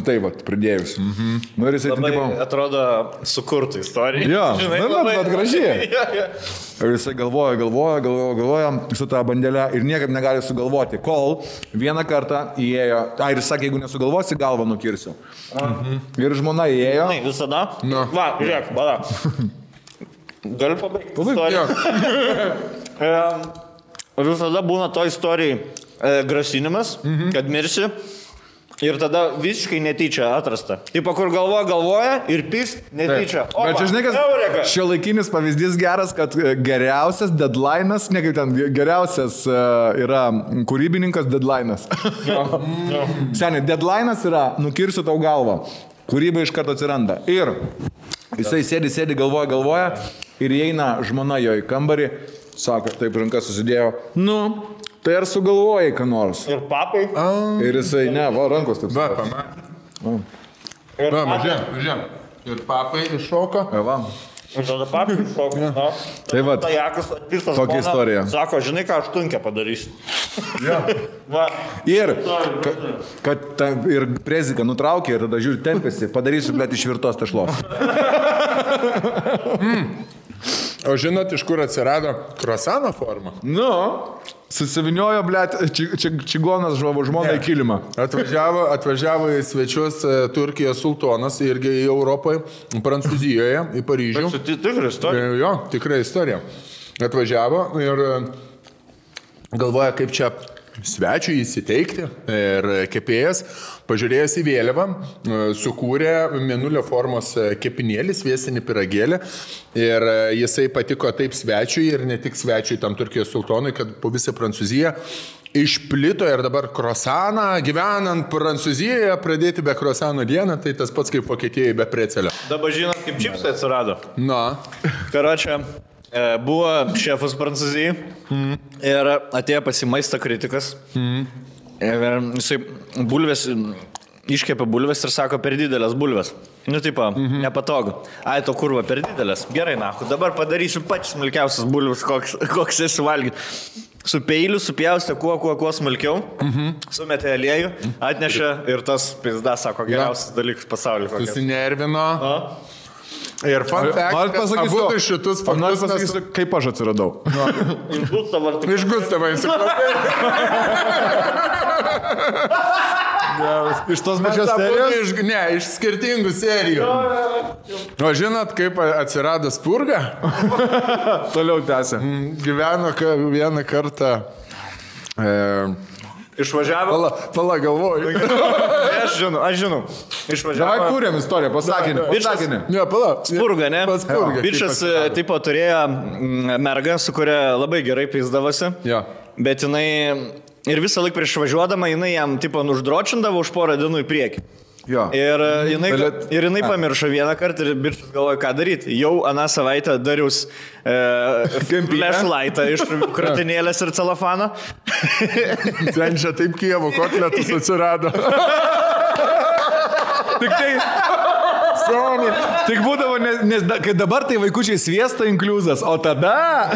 Tai va, pridėjus. Nu, ir jisai labai, tipo... atrodo, sukurtų istoriją. Jo, žinai, bet gražiai. Ir jisai galvoja su tą bandelę ir niekaip negali sugalvoti, kol vieną kartą įėjo, ir jis sakė, jeigu nesugalvosi, galvą nukirsiu. Ir žmona įėjo. Visada? No. Va, žiūrėk, bada. Galiu pabaigti istoriją. Visada būna to istorijai grasinimas, kad mirsi. Ir tada visiškai netyčia atrasta. Taip, kur galvoja ir pist netyčia. Bet čia žinai, kas šiuolaikinis pavyzdys geras, kad geriausias deadline'as, ne kaip ten, geriausias yra kūrybininkas deadline'as. Seniai, deadline'as yra nukirsiu tau galvą. Kūryba iš karto atsiranda. Ir jisai sėdi, galvoja ir įeina žmona jo į kambarį, sako, taip rankas susidėjo, tai ar sugalvojai, ką nors? Ir papai. Ir jisai, ne, va, rankos taip. Va, mažiam. Ir papai iššoka. Va. Ir tada papai iššoka. Tai va, tokia istorija. Sako, žinai, ką aš tunkę padarysiu. Ir, kad ir preziką nutraukė ir tada žiūri tempėsi, padarysiu, blėt, iš virtos tešlos. O žinot, iš kur atsirado krosano forma? Susiviniojo, blėt, čigonas žmona į kilimą. Atvažiavo į svečius Turkijos sultonas irgi į Europoje, Prancūzijoje, į Paryžių. Tai tikra istorija? Jo, tikra istorija. Atvažiavo ir galvoja, kaip čia svečiui įsiteikti. Ir kepėjas, pažiūrėjęs į vėliavą, sukūrė mėnulio formos kepinėlį, sviesinį pyragėlį. Ir jisai patiko taip svečiui ir ne tik svečiui tam Turkijos sultonui, kad po visą Prancūziją išplito ir dabar krosaną, gyvenant Prancūzijoje, pradėti be krosano dieną, tai tas pats kaip Vokietijoje be precelio. Dabar žinot, kaip čipsai atsirado. Karočią. Buvo šefas Prancūzijai ir atėjo pas jį maisto kritikas. Ir jisai bulvės, iškepė bulvės ir sako, per didelės bulvės. Nepatogu. Ai, to kurva, per didelės. Gerai, dabar padarysiu pačias smulkiausias bulvės, koks esi valgyti. Su peiliu supjaustė kuo smulkiau, sumetė aliejų, atnešė ir tas pizda, sako, geriausias dalykas pasaulyje. Susinervino. Ir fun fact, abu šitus faktus pasakysiu, kaip aš atsiradau. Iš Gustavo enciklopedijos. Iš tos pačios serijos? Ne, iš skirtingų serijų. O žinot, kaip atsirado spurga? Toliau tęsia. Gyveno vieną kartą... Išvažiavo. Pala galvoju. Aš žinau. Išvažiavo. Davai kūrėm istoriją, pasakinį. Ne, pala. Spurga, ne? Spurga. Bičas, tipo, turėjo mergą, su kuria labai gerai pizdavosi. Jo. Bet jinai ir visą laiką prieš važiuodama, jinai jam, tipo, uždročindavo už porą dienų į priekį. Jo. Ir jinai pamiršo vieną kartą ir bičas galvoja, ką daryti. Jau aną savaitę darius flashlightą iš kratinėlės ir celofano. Ten čia taip Kijevo kotletus atsirado. Tik būdavo, nes kai dabar tai vaikučiai sviesta inkliuzas, o tada...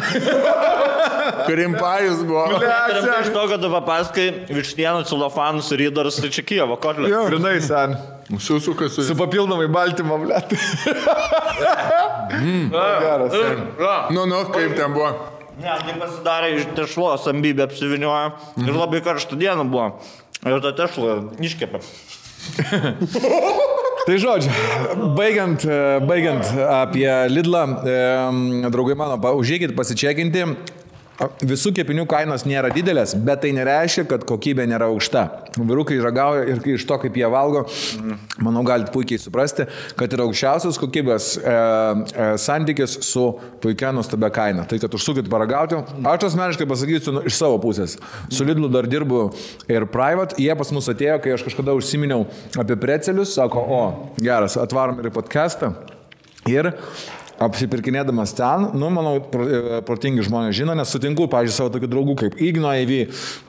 Krimpajus buvo. Iš to, kad tu papaskai vištienų, celofanus ir įdarus, tai čia Kijevo kotlė. Grinai, sen. Susukas Su papildomai baltymo, blėt. Geras. Nu, kaip ten buvo? Ne, tai pasidarė iš tešlos ambybė apsivinioja ir labai karštų dienų buvo. Ir tą tešlą iškepė. Tai žodžiu, baigiant apie Lidlą, draugai mano, užėkit pasičekinti. Visų kepinių kainos nėra didelės, bet tai nereiškia, kad kokybė nėra aukšta. Vyrukai ragauja ir iš to, kaip jie valgo, manau, galite puikiai suprasti, kad yra aukščiausios kokybės santykis su puikia nuostabia kaina. Tai, kad užsukit paragauti, aš asmeniškai pasakysiu iš savo pusės. Su Lidlu dar dirbu ir private, jie pas mus atėjo, kai aš kažkada užsiminiau apie precelius, sako, geras, atvarom ir į podcastą. Ir apsipirkinėdamas ten, manau, protingi žmonės žino, nes sutinku, pavyzdžiui, savo tokių draugų kaip Igno AV,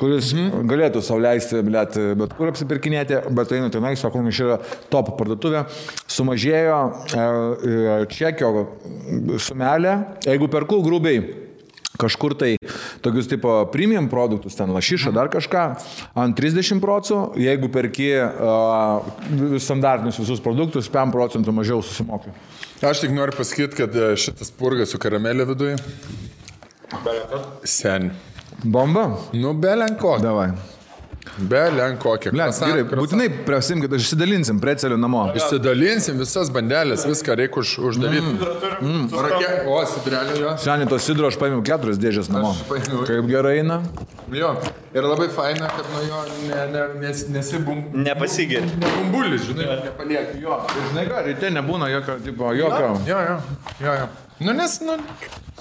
kuris galėtų sau leisti, bet kur apsipirkinėti, bet einu tenai, sako, iš yra top parduotuvė, sumažėjo čekio sumelė, jeigu perku grubiai kažkur tai tokius tipo premium produktus, ten lašišą, dar kažką, ant 30%, jeigu perki standartinius visus produktus, 5% mažiau susimoki. Aš tik noriu pasakyti, kad šitas purgas su karamelė viduje. Sen. Bomba? Nu, belenko. Davai. Belenko. Gerai, būtinai prasimkit, išsidalinsim precelių namo. Išsidalinsim visas bandelės, viską reikia uždaryti. O, sidrelio jo. Seniai to sidro aš paėmiau 4 dėžės namo. Kaip gerai eina. Jo, ir labai faina, kad nuo jo Nepasigeri. Nebumbulis, žinai, nepaliek jo. Ir žinai ką, ryte nebūna jokio, tipo, jokio. Jo. Nu, nes,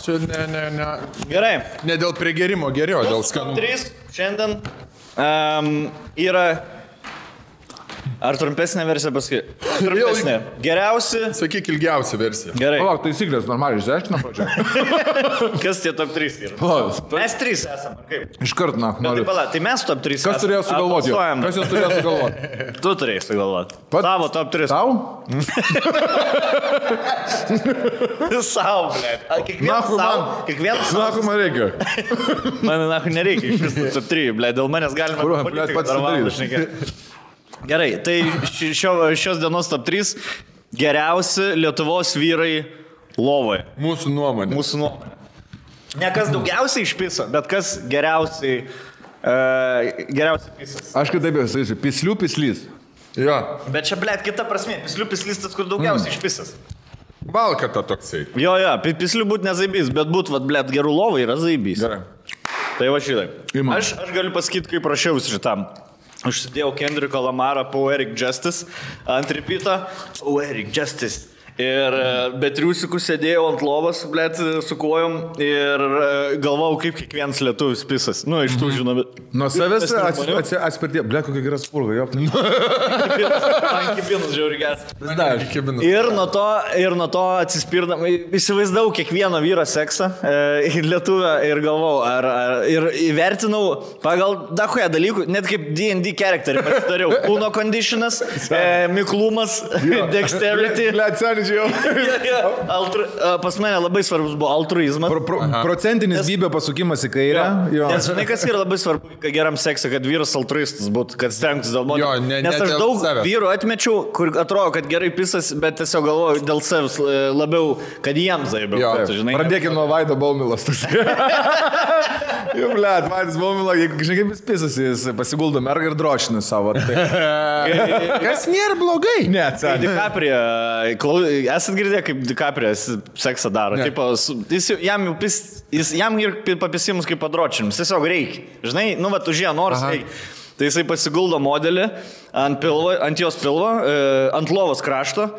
čia ne. Gerai. Ne dėl prigerimo geriau, dėl skanų. 3 šiandien yra... Ar trumpesnė versija paskui? Trumpesnė. Geriausi. Sakyk, ilgiausia versija. Gerai. Palauk, taisyklės normaliai išsiaiškina pradžioje. Kas tie top 3 yra? Mes 3 esame, ar kaip? Iškart, Tai pala, tai mes top 3 esame. Kas turėjo sugalvoti? Kas jos turėjo sugalvoti? Tu turėjai sugalvoti. Tavo top 3. Tau? Sau, blėt. Kiekvienas sau. Nahu man reikia. Man nahu nereikia iš visų top 3, blėt. Dėl manęs galima Pats sudaryti. Gerai, tai šios dienos top 3 geriausi Lietuvos vyrai lovoje. Mūsų nuomonė. Ne kas daugiausiai išpisa, bet kas geriausiai pisas. Aš kitaip jau sakysiu, pislių pislys. Jo. Bet čia, blėt, kita prasme. Pislių pislis tas, kur daugiausiai išpisas. Valkata toksai. Jo, pislių būt nezaibys, bet būt, blėt, gerų lovai yra zaibys. Gerai. Tai va šitai. Aš galiu pasakyti, kaip prašiausi šitam. Užsidėjau Kendriko Lamarą Poetic Justice ant repeatą. Poetic Justice. Ir be triusikų sėdėjau ant lovos, blėt, su kojom ir galvojau, kaip kiekvienas lietuvis pisas. Nu, iš tų žinome. Nuo savęs atspirtie. Blėt, kokia gera spurga, jo. Man kibinas žiauri geras. Ir nuo to atsispirdam. Įsivaizdavau kiekvieno vyro seksą lietuvę ir galvojau, ir įvertinau pagal dahuja dalykų, net kaip D&D charakterį pasidariau. Kūno conditionas, miklumas, dexterity. Pas mane labai svarbus buvo altruizmas. Procentinis bybė pasukimas į kairę. Nes žinai, kas yra labai svarbu, kad geram seksui, kad vyras altruistas būtų, kad stengtis dėl moterų. Nes aš daug vyrų atmečiau, kur atrodo, kad gerai pisas, bet tiesiog galvoju dėl savęs labiau, kad jiems zaibiau. Pradėkime nuo Vaido Baumilas. Jau, blėt, Vaidas Baumila, žinai, kaip jis pisas, jis pasiguldo mergą ir drošina savo. Kas nėra blogai? Ne, DiCaprio, esat girdėję, kaip DiCaprio seksą daro. Tipo, jam ir papisimus kaip padročinimus. Tiesiog reikia. Žinai, užėjo noras reikia. Tai jisai pasiguldo modelį ant jos pilvo, ant lovos krašto.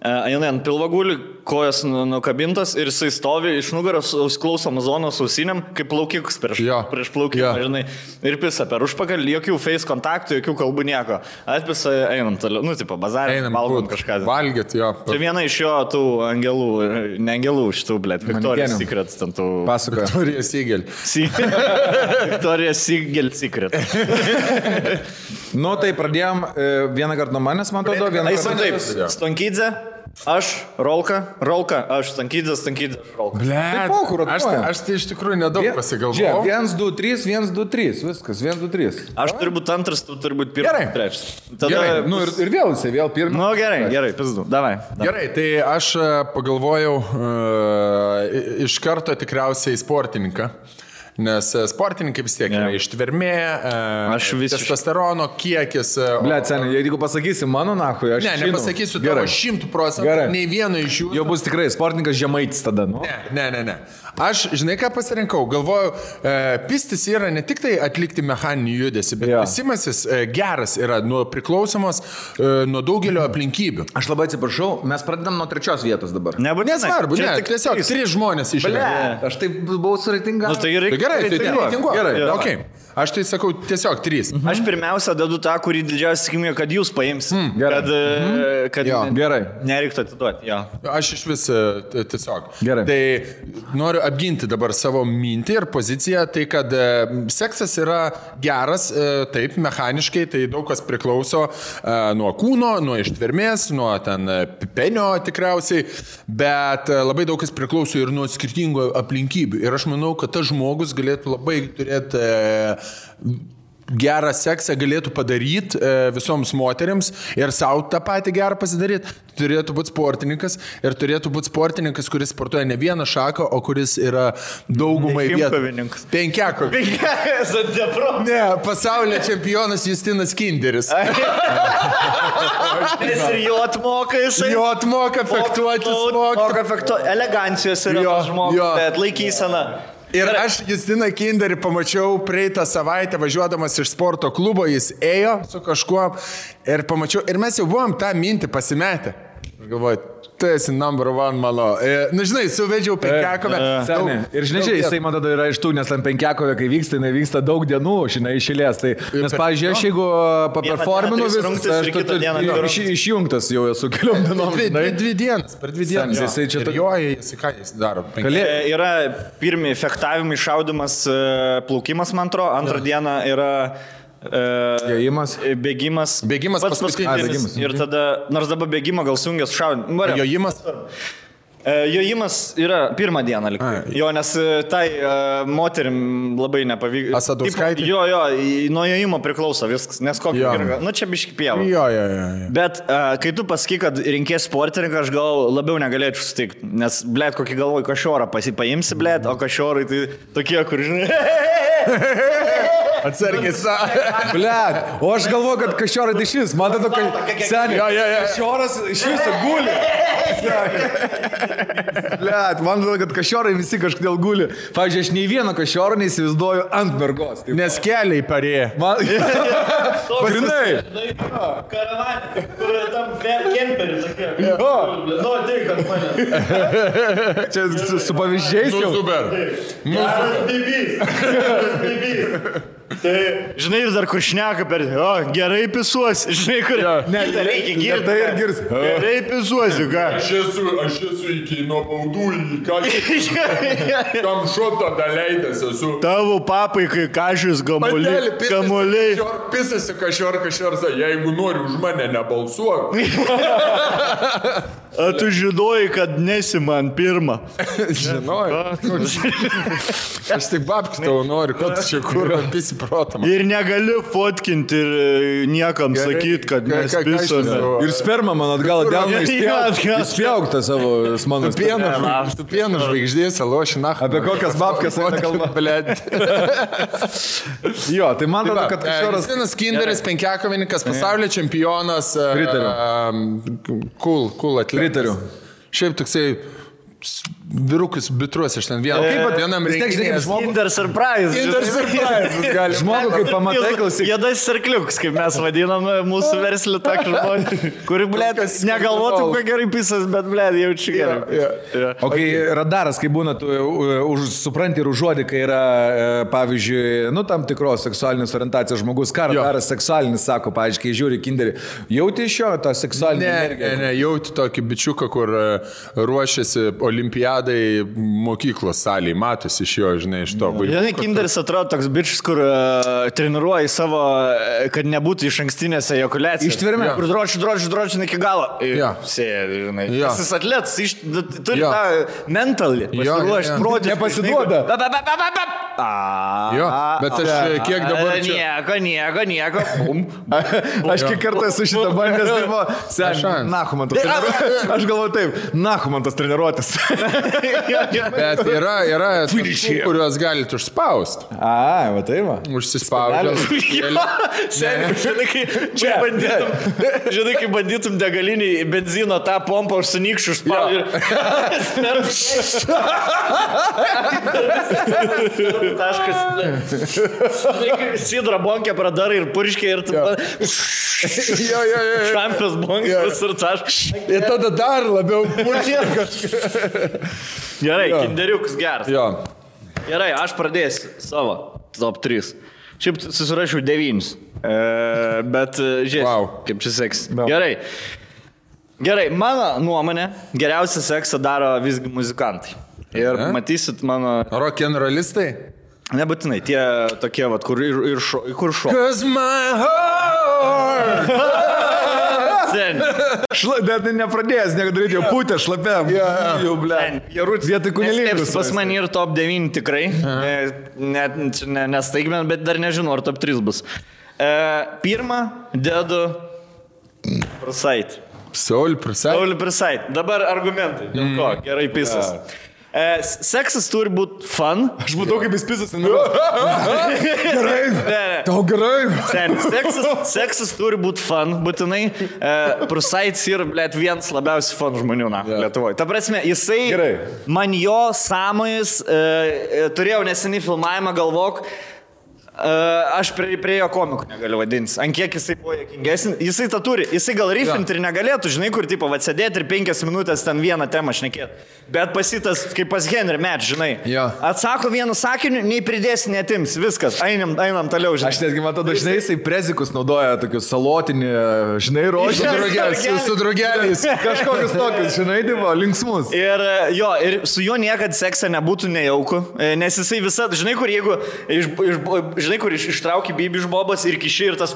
Jinai ant pilvo guli, kojas nukabintas ir jisai stovi iš nugaros, klauso Amazonos ausiniam, kaip plaukikus prieš plaukimą, žinai, ir pisa per užpakalį, jokių face kontaktų, jokių kalbų nieko. Atpisa, einam toliau, tipo, bazarį, valgom kažką. Valgyt, jo. Tai viena iš jo tų angelų, ne angelų šitų, blėt, Victoria's Secret, ten tų... Pasakoja. Victoria's Secret. Victoria's Secret. Nu, tai pradėjom vieną kartą nuo manęs, man atrodo, vieną kartą. Taip, Stonkydze. Aš, Rolka, aš Stankydės, Rolka. Aš tai iš tikrųjų nedaug pasigalvojau. 1, 2, 3, 1, 2, 3, viskas, 1, 2, 3. Aš turiu būti antras, tu turi būti pirmas, trečias. Gerai, nu ir vėl jisai, vėl pirmas. Nu gerai, pizdu, davai. Gerai, tai aš pagalvojau iš karto tikriausiai sportininką. Nes sportininkai vis tiek yra ištvermė, testosterono kiekis. Blet, seniai, jeigu pasakysi mano nahui, aš nepasakysiu tavo 100%, nei vieno iš jų. Jau bus tikrai sportininkas Žemaitis tada, nu? Ne. Aš, žinai, ką pasirinkau, galvoju, pistis yra ne tik tai atlikti mechaninį judesį, bet pisimasis geras yra priklausomas nuo daugelio aplinkybių. Aš labai atsiprašau, mes pradedam nuo 3 vietos dabar. Nesvarbu, tiesiog 3 žmonės išėjo. Aš taip buvau suritingas. Gerai, tai reitinguoju. Gerai, okay. Aš tai sakau tiesiog 3. Aš pirmiausia dedu tą, kurį didžiausia tikimybė, kad jūs paimsit. Kad nereiktų atiduoti. Aš iš vis tiesiog. Gerai. Tai noriu apginti dabar savo mintį ir poziciją, tai kad seksas yra geras, taip, mechaniškai, tai daug kas priklauso nuo kūno, nuo ištvermės, nuo ten penio tikriausiai, bet labai daug kas priklauso ir nuo skirtingų aplinkybių. Ir aš manau, kad tas žmogus galėtų labai turėti gerą seksą galėtų padaryti visoms moteriams ir savo tą patį gerą pasidaryti. Turėtų būti sportininkas ir turėtų būti sportininkas, kuris sportuoja ne vieną šaką, o kuris yra daugumai vietų. Penkiakovininkas. Ne, pasaulio čempionas Justinas Kinderis. Ir jo atmoka jisai. Jo atmoka fektuotis. Elegancijos yra tas žmogus, bet laikysena. Ir aš Justiną Kinderį pamačiau praeitą savaitę važiuodamas iš sporto klubo, jis ėjo su kažkuo ir pamačiau, ir mes jau buvom tą mintį pasimetę. Ir galvoju, tu esi number 1 mano. Na žinai, suvedžiau penkiakovę. Ir žinai, jisai man tada yra iš tų, nes tam penkiakovė, kai vyksta, jinai vyksta daug dienų, žinai, išėlės. Tai, nes, pavyzdžiui, aš jeigu paperforminu visą, aš išjungtas jau esu keliom dienom. Per 2 dienas. Jisai čia jisai ką jis daro? Yra pirmi fechtavimai, šaudimas, plaukimas, man atrodo, antrą dieną yra bėgimas pats paskutinis. Ir tada, nors dabar bėgimą gal sujungęs šaudimas. Jojimas? Jojimas yra pirmą dieną liktai. Jo, nes tai moterim labai nepavyko. Asadauskaitė? Jo, nuo jojimo priklauso viskas, nes kokį yra. Nu, čia biški pieva. Jo. Bet kai tu pasakai, kad rinkės sportininką, aš gal labiau negalėčiau sutikti. Nes, blėt, kokį galvoju, kašiorą paimsi, blėt, o kašiorai tai tokie, kur, žinai. Atsargiai savo. Blet, o aš galvoju, kad kašiorai tai šis, man tada, seniai, kašioras iš viso guli. Blet, man tada, kad kašiorai visi kažkodėl guli. Pavyzdžiui, aš nei vieno kašioro neįsivaizduoju ant mergos. Nes keliai parėję. Grinai. Karavanė, kur tam kemperiu tokie. Nu, tik ant mane. Čia su pavyzdžiais jau. Super. Bibys. Tai, žinai, ir dar kur šneka per, gerai pisuosi, žinai, kur, reikia girti. Tai ir girs. Gerai pisuosi, ką? Aš esu iki nuo baudų į kam šotą daleidęs esu. Tavo papai, kai kažys kamuoliai. Pisasi kašior, jeigu nori už mane nebalsuok. A tu žinojai, kad nesi man pirmą. Žinojai. Aš tik babkis tavo noriu, kad čia kur pisi protą. Ir negali fotkinti ir niekam sakyti, kad mes pisome. Ir sperma man atgal delną įspjaugtą savo mano spermą. Tu pieno žvaigždės, aloši, na. Apie kokias babkas eina kalba, blėd. Jo, tai man tada, kad kažkoras... Justinas Kinderis, penkiakovininkas, pasaulio čempionas. Pritariu. Cool atletas. Pritariu. Šiaip toksai vyrukus bitruos iš ten vienam reikia. Kinder surprise. Žmogų, kaip pamatai, klausyk. Jėdas sarkliuks, kaip mes vadinam mūsų verslį tokį žmonį, kuri, blėt, negalvotų, kuo gerai pisas, bet, blėt, jaučiu gerai. O kai radaras, kai būna, tu supranti ir užuodi, kai yra, pavyzdžiui, tam tikros seksualinės orientacijos žmogus, ką radaras seksualinis sako, pavyzdžiui, kai žiūri Kinderį, jauti iš jo tą seksualinį energiją? Ne, jauti tokį bičiuką, kur ruošiasi olimpiadai olimpiadai mokyklos salėje, matosi iš jo, žinai, iš to vaikų. Žinai, Kinderis atrodo toks bičias, kur treniruoja savo, kad nebūtų iš ankstinės ejakuliacijos. Ištvermė. Kur dročiu iki galo. Sėdi, žinai. Jis atletas, turi tą mentalį. Pasiruošęs, protį. Nepasiduoda. Jo, bet aš kiek dabar čia... Nieko. Aš kiek kartą esu šitą bandęs, tai buvo, seniai, nahu man tas treniruotis. Aš galvoju taip, nahu man tas treniruotis. Bet yra tų, kuriuos galite užspausti. Va tai va. Užsispaudžiam. Žinai, kai bandytum degalinį benzino tą pompą užsinykščių taškas. Sidra bonkė pradarai ir purškė ir tu... Šampios bonkės ir taškas. Ir tada dar labiau purškė kažką. Gerai, kinderiukas geras. Gerai, aš pradėsiu savo top 3. Šiaip susirašiau 9. Bet žiūrėsiu, kaip čia seks. Gerai, mano nuomonė, geriausią seksą daro visgi muzikantai. Ir matysit mano... Rock'n'rollistai? Nebūtinai, tie tokie, vat, kur šok. 'Cause my heart... Net nepradėjęs, nedaryti, jau putę šlapiam. Jau, ble. Vietoj kunilingus. Pas mane ir top 9 tikrai. Nestaigmen, bet dar nežinau, ar top 3 bus. Pirmą dedu Prasait. Saul Prasait. Dabar argumentai. Dėl ko? Gerai pisas. Seksas turi būti fun. Aš matau, kaip jis pisas. Gerai. Tau gerai. Seksas turi būti fun, būtinai. Prusaits yra, blėt, vienas labiausiai fun žmonių, Lietuvoje. Ta prasme, jisai, man jo sąmojus, turėjau neseniai filmavimą, galvok, aš prie jo komikų negaliu vadintis. Ant kiek jisai buvo juokingesnis. Jisai tą turi. Jisai gal rifinti ir negalėtų, žinai, kur tipo atsėdėti ir 5 minutės ten vieną temą šnekėti. Bet pasitas, kaip pas Henry Match, žinai. Atsako vienu sakiniu, nei pridėsi, netims. Viskas. Einam toliau, žinai. Aš netgi matau, dažnai jisai prezikus naudoja tokius salotinį, žinai, rožį. Su drugeliais. Kažkokius tokius, žinai, divo, linksmus. Ir su juo niekad seksą nebūtų nejauku. Nes jisai visada, žinai, kur jeigu žinai, kur ištrauki bybį iš bobos ir kiši ir tas...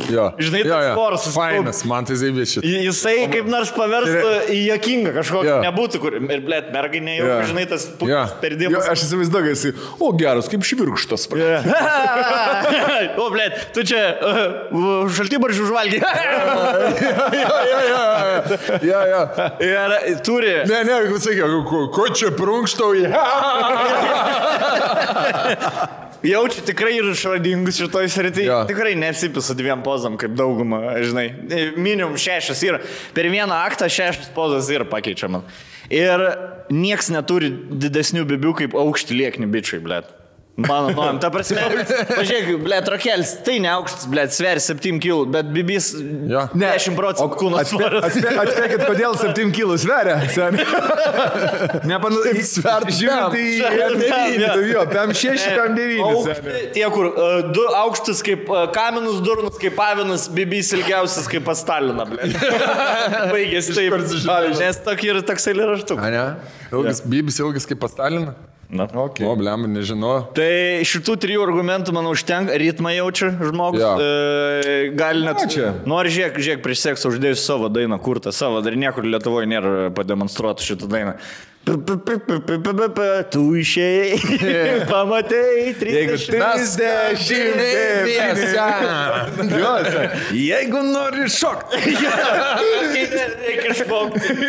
Žinai, tas sporas. Fainas, man tai zaibėšit. Jisai kaip nors paverstų į juokingą kažkokį. Nebūtų, kur... Ir, blėt, mergai nejauku, žinai, tas perdimas. Aš įsivaizduoju, jisai, o geras, kaip švirkštas. O, blėt, tu čia šaltibaržių žvalgi. Ir turi... Ne, sakiau, ko čia prunkštau? Jaučiu tikrai ir išradingus šitoj srityje. Tikrai nesipisa 2 pozam, kaip dauguma, žinai. Minimum 6 yra. Per vieną aktą 6 pozas yra pakeičiama. Ir nieks neturi didesnių bibių kaip aukšti liekni bičiai, blėt. Mano nuojam, ta prasme, pažiūrėk, blėt, rokelis, tai ne aukštas, blėt, sveri 7 kg, bet bibis 10% kūno svorio. Atspėkit, kodėl 7 kg sveria, seniai. Žiūrint į PM 6, PM 9. Tie, kur 2 aukštas kaip kaminus, durnas kaip avinas, bibis ilgiausias kaip pas Staliną, blėt. Baigėsi taip, nes tokį yra toks eilėraštuk. Bibis ilgas kaip pas Staliną? O, blem, nežinau. Tai šitų 3 argumentų, manau, užtenka. Ritmą jaučia žmogus. Gali net... Nori žiūrėk prieš seksą uždėjusi savo dainą, kurtą savo. Dar niekur Lietuvoje nėra pademonstruoti šitą dainą. Tu išėjai, pamatei 30 Jeigu nori šokti. Reikia šokti.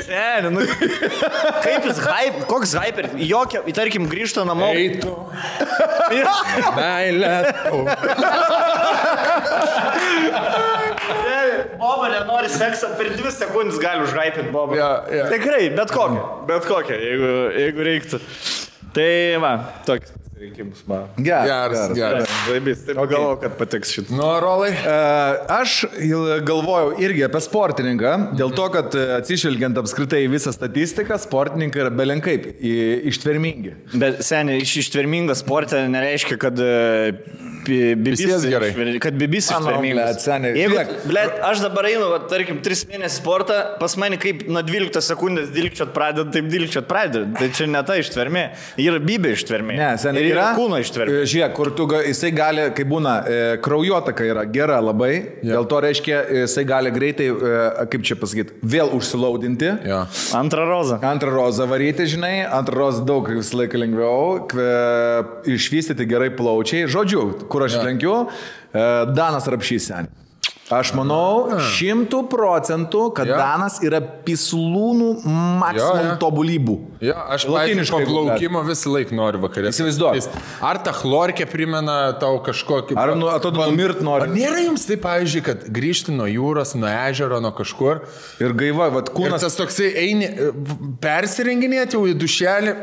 Kaip jis hype, koks hyper, jokia, tarkim, grįžta namo. Eitų. Meilė. Boba nenori seksą, per 2 sekundės gali užhypinti Bobą. Tikrai, bet kokią, jeigu reiktų. Tai va, toks rinkimus man. Geras. Laibys, taip galvoju, kad patiks šitą. Nu, Rolai? Aš galvojau irgi apie sportininką, dėl to, kad atsižvelgiant apskritai visą statistiką, sportininkai yra belenkaip ištvermingi. Bet seniai, ištvermingas sportė nereiškia, kad Visiems gerai. Kad bibis ištvermingas. Jeigu, aš dabar einu, tarkim, 3 mėnesių sportą, pas mane kaip nuo 12 sekundės dilkčiot pradeda, taip dilkčiot pradeda. Tai čia ne ta ištvermė, yra bibė ištvermė. Ne, seniai ir yra kūno ištvermė. Žiūrėk, kur jisai gali, kai būna, kraujotaka yra gera labai, dėl to reiškia, jisai gali greitai, kaip čia pasakyti, vėl užsilaudinti. Ja. Antrą rozą varyti, žinai, antrą rozą daug visą laiką lengviau, išvystyti gerai plaučiai. Žodžiu, kur aš lenkiu, Danas Rapšys seniai. Aš manau 100%, kad Danas yra pislūnų maksimum tobulybų. Ja, aš po plaukimo visą laiką noriu vakarė. Įsivaizduoju. Ar ta chlorkė primena tau kažkokį... Ar atrodo numirt nori? Ar nėra jums taip, pavyzdžiui, kad grįžti nuo jūros, nuo ežero, nuo kažkur ir gaiva, vat kūnas... Ir tas toksai eini, persirenginėti jau į dušelį,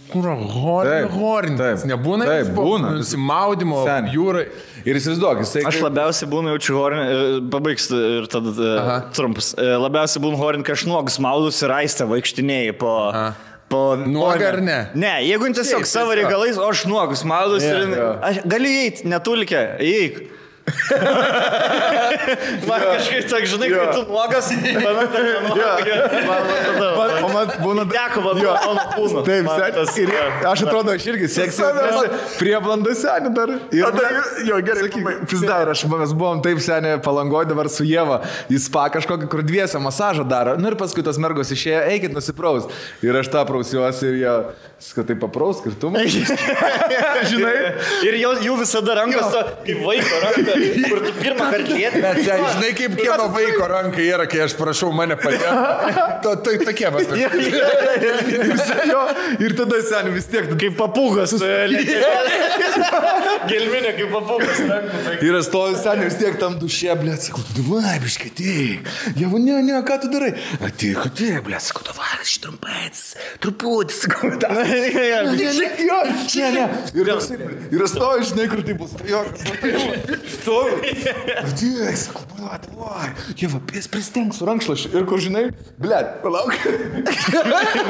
kur horintis. Nebūna? Taip, būna. Nusimaudimo jūrai. Ir įsivaizduok, jisai... Aš labiausiai būnu jaučiu horinį, pabaigs ir tada trumpas. Labiausiai būnu horinį, kai aš nuogus maudus ir aistę vaikštinėjai po... Nuoga ar ne? Ne, jeigu tiesiog savo reikalais, o aš nuogus maudus ir... Aš galiu įeiti, netulkę, įeik. Man kažkaip tak, žinai, kai tu nuogas, man būna deko vanduo kūno. Taip, ir aš atrodo, aš irgi seksiu prie blandų senį dar. Jo, gerai, pizda, ir mes buvom taip senį Palangoje dabar su Ieva į spa kažkokį, kur dviesę masažą daro. Nu ir paskui tos mergos išėjo, eikit nusipraus. Ir aš tą prausiuosi ir jie, kad tai papraus, ir tu man. Žinai? Ir jų visada rankos, kaip vaiko ranka. Kur tu pirmą kartą lieti. Bet žinai, kaip kieno vaiko ranka yra, kai aš prašau mane padėti. Tokie va. Ir tada seniai vis tiek. Kaip papūgas. Gelminė kaip papūgas. Ir aš stoviu seniai vis tiek tam dušė, blėt, sakau, davai, biškai, ateik. Jeigu ne, ką tu darai? Ateik, blėt, sakau, davai, aš trumpais, truputį, sakau, ne. Ir aš stoviu, žinai, kur tai bus. Stoviu. Dėk, sakau, davai. Jeva, pristenk su rankšlašiu. Ir kur, žinai, blėt, palauk.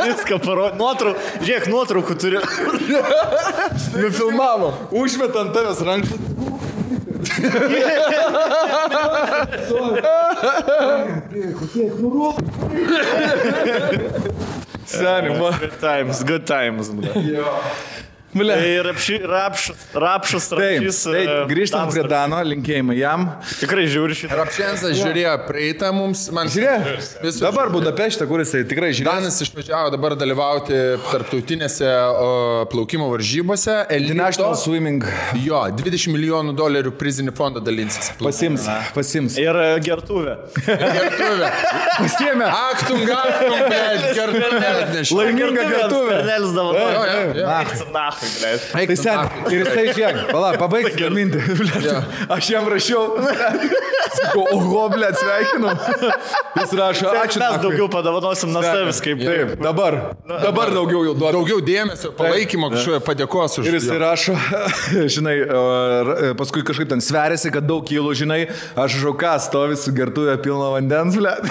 Viską parodė. Žiūrėk, nuotraukų turi. Nufilmavo. Užmet ant tavęs rankšlašiu. Seniai, man. Good times. Ir rapšus. Taip, grįžtam prie Dano, linkėjimai jam. Tikrai žiūri šitą. Rapšensas žiūrėjo praeitą mums. Žiūrėjo? Dabar Budapešte, kur jisai tikrai žiūrėjo. Danas išvažiavo dabar dalyvauti tarptautinėse plaukimo varžybose. International Swimming. Jo, $20 milijonų prizinį fondą dalinsis. Pasims. Ir gertuvė. Pasiėmė. Aktum, blėt, gertuvė. Laiminga gertuvė. Tai sen, ir jisai žiūrėk, pabaigti gaminti. Aš jam rašiau. Oho, blėt, sveikinu. Jis rašo, ačiū. Mes daugiau padavanosim nuo savęs kaip. Taip, dabar daugiau jau duodu. Daugiau dėmesio, palaikymo kažkoje padėkos už. Ir jis rašo, žinai, paskui kažkaip ten sveriasi, kad daug kilų, žinai, aš žauką stovi su gertuvė pilno vandens, blėt.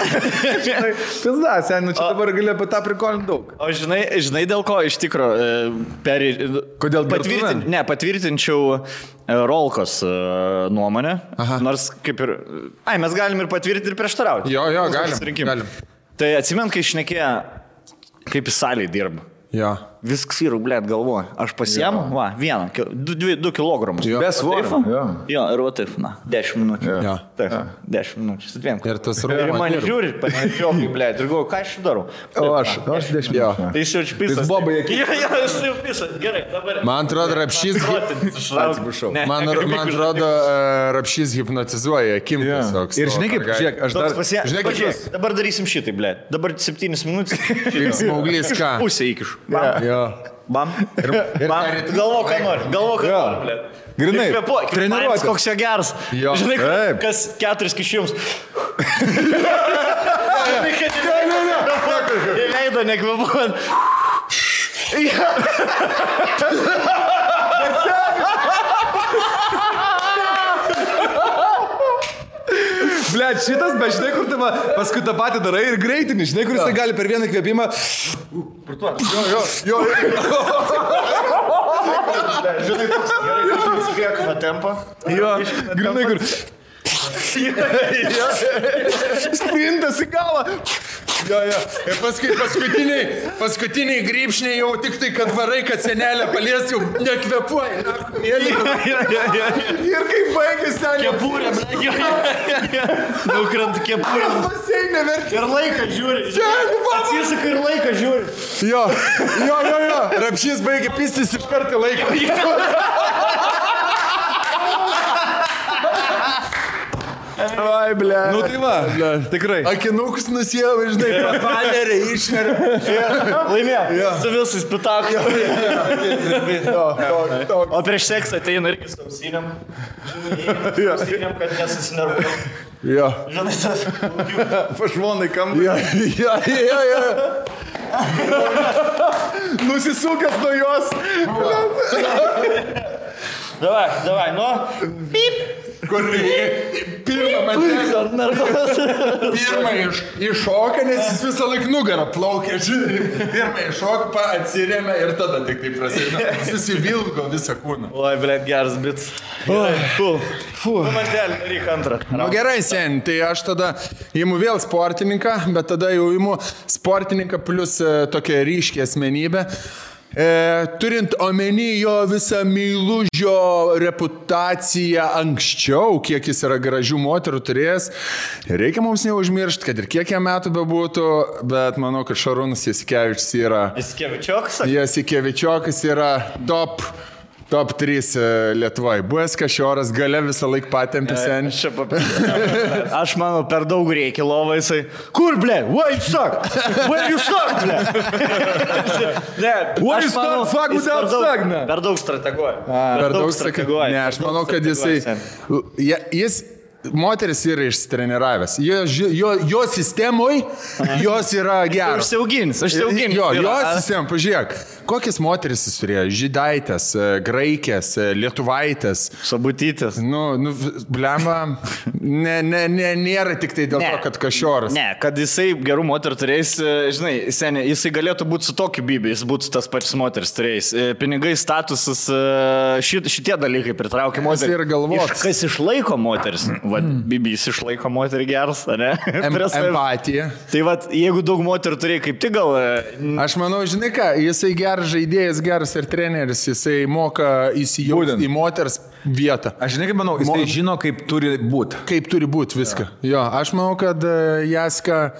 Žinai, pizda, sen, čia dabar gali apie tą prikolinti daug. O žinai dėl ko iš tikro Kodėl patvirtinčiau Rolkos nuomonę, nors kaip ir... mes galim ir patvirtinti ir prieštarauti. Jo, galim. Tai atsimint, kai šnekėjo, kaip į salį dirba. Jo. Viskas yra, blėt, galvoju. Aš pasiemu, 2 kilogramus. Be svorio. Jo, ir va taip, 10 minučių. Jo. Taip, 10 minučių. Su 2. Ir tas Ir man žiūri, panešiokai, blėt, ir galvoju, ką aš darau. O aš 10 minučių. Tai jis jau čia pisas. Jis bobai akį. Jo, jis jau pisas. Gerai, dabar. Man atrodo, Rapšys... Atsiprašau. Man atrodo, Rapšys hipnotizuoja akim tiesiog. Ir žinai kaip, žiūrėk, aš dar... Žinai kaip, dabar darysim šitai, blėt. Dabar 7 minutės. Smauglys ką? Pusę įkišu. Bam. Galvo, ką nori, blėt. Grinai, treniruotis. Koks jo geras. Žinai, kas 4 kišimus. Leido nekvepuojant. Blet, šitas, bet žinai, kur tu paskui tą patį darai ir greitinį, žinai, kur jisai gali per vieną kvėpimą. Jo. Žinai, toks gerai, įsikvėkime tempą. Jo, grinai, kur... Sprintas į galą. Jo. Ir paskutiniai grybšniai jau tik tai, kad varai, kad senelė palies, jau nekvepuoja. Ir kai baigės senelė. Kepurė, nukrant kepurė. Ir laiką žiūri. Atsisuka ir laiką žiūri. Jo. Rapšys baigė pistis iš karto laiką. Ai, ble. Nu tai va, tikrai. Akinukus nusijau, žinai, panerė, išnerė. Laimėjo. Su visais pitaku. O prieš seksą ateina irgi su ausinėm. Ausinėm, kad nesusinervuoja. Jo. Žinai, tas... Pašvonai kambarį. Jo. Nusisukęs nuo jos. Davai, nu. Pip. Kur pirmą iššoka, nes jis visą laiką nugarą plaukia, žinai. Pirmą iššoka, atsirėmė ir tada tik tai prasideda. Susivilgo visą kūną. Oi, blėt, geras bits. Maždelį, daryk antrą. Nu gerai, sen, tai aš tada imu vėl sportininką, bet tada jau imu sportininką plus tokią ryškę asmenybę. Turint omeny jo visą meilužio reputaciją anksčiau, kiek jis yra gražių moterų turėjęs, reikia mums neužmiršti, kad ir kiek jam metų bebūtų, bet manau, kad Šarūnas Jasikevičius yra... Jasikevičiokas? Jasikevičiokas yra top 3 Lietuvoje. Buvęs Kašioras, gale visą laiką patempė senį. Aš manau, per daug reikia lovą jisai. Kur, ble? Where you suck? Where you suck, ble? Where you suck? Fuck without suck, ne? Per daug strateguoja. Per daug strateguoja. Ne, aš manau, kad jis moteris yra išsitreniravęs. Jo sistemoje jos yra geros. Užsiaugins. Jo sistema, pažiūrėk. Kokias moteris jis turėjo? Žydaitės, graikės, lietuvaitės. Sabutytės. Blemba, nėra tik tai dėl to, kad Kašioras. Ne, kad jisai gerų moterų turėjęs, žinai, seniai, jisai galėtų būti su tokiu bibi, jis būtų tas pačias moteris turėjęs. Pinigai, statusas, šitie dalykai pritraukia moterį. Ir galvot. Kas išlaiko moteris? Bibis išlaiko moterį geras, ne? Empatija. Tai jeigu daug moterų turėjai, kaip tik gal... Aš manau, žinai ką, jisai geras žaidėjas, geras ir treneris, jisai moka įsijausti į moters vietą. Aš žinai, kaip manau, jisai žino, kaip turi būti. Kaip turi būti viską. Jo, aš manau, kad Jaska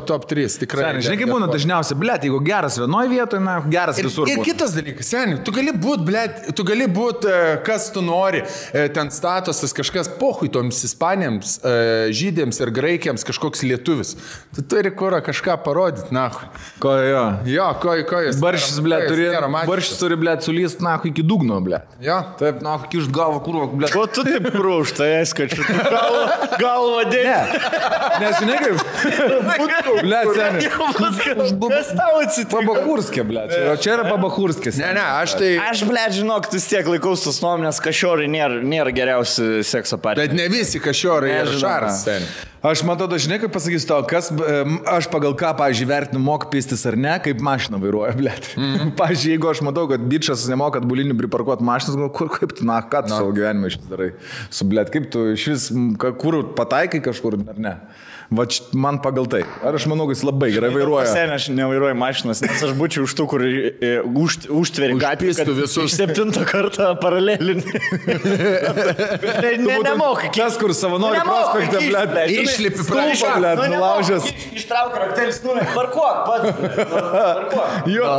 top 3, tikrai. Žinai, kaip būna dažniausiai, blėt, jeigu geras vienoje vietoje, geras visur. Ir kitas dalykas, seniai, tu gali būti, kas tu nori, ten statusas kažkas pohui toms ispanėms, žydėms ir graikiams kažkoks lietuvis. Tu turi kurą kažką parodyti, nahui. Ko jo? Jo, ko jis. Baršis, blėt, turi, blėt, sulyst, nahui, iki dugno, blėt. Jo. Taip, nahui, kišt galvą, kurva, blėt. Ko tu taip krūštai, eskačiu? Galvą dėlį. Nes žinai kaip? Blėt, seniai. Kas tau atsitiko? Pabachurskė, blėt. Čia yra pabachurskės. Ne, aš tai... Aš, blėt, žinok, vis tiek laikaus tos nuomonės, Kašiorai nėra geriausi sekso partneriai. Bet ne visi Kašiorai ir Šaras. Aš matau, žinai, kaip pasakysiu tau, kas aš pagal ką, pavyzdžiui, vertinu, moka pistis ar ne, kaip mašiną vairuoja, blėt. Pavyzdžiui, jeigu aš matau, kad bičas nemoka bulinių priparkuoti mašinas, kaip tu, ką tu savo gyvenimą šis darai su, blėt, kaip tu iš vis, kur pataikai kažkur, ar ne? Va, man pagal tai. Ar aš manau, kad jis labai gerai vairuoja? Seniai, aš nevairuoju mašinas, nes aš būčiau už tų, kur užtveri gatvį, kad visus 7 kartą paralelinį. Nemokai. Kas, kur savanori prospektą, blėt, išlipi prašą, blėt, nulaužęs. Ištrauk raktelis, parkuok, pats. Jo,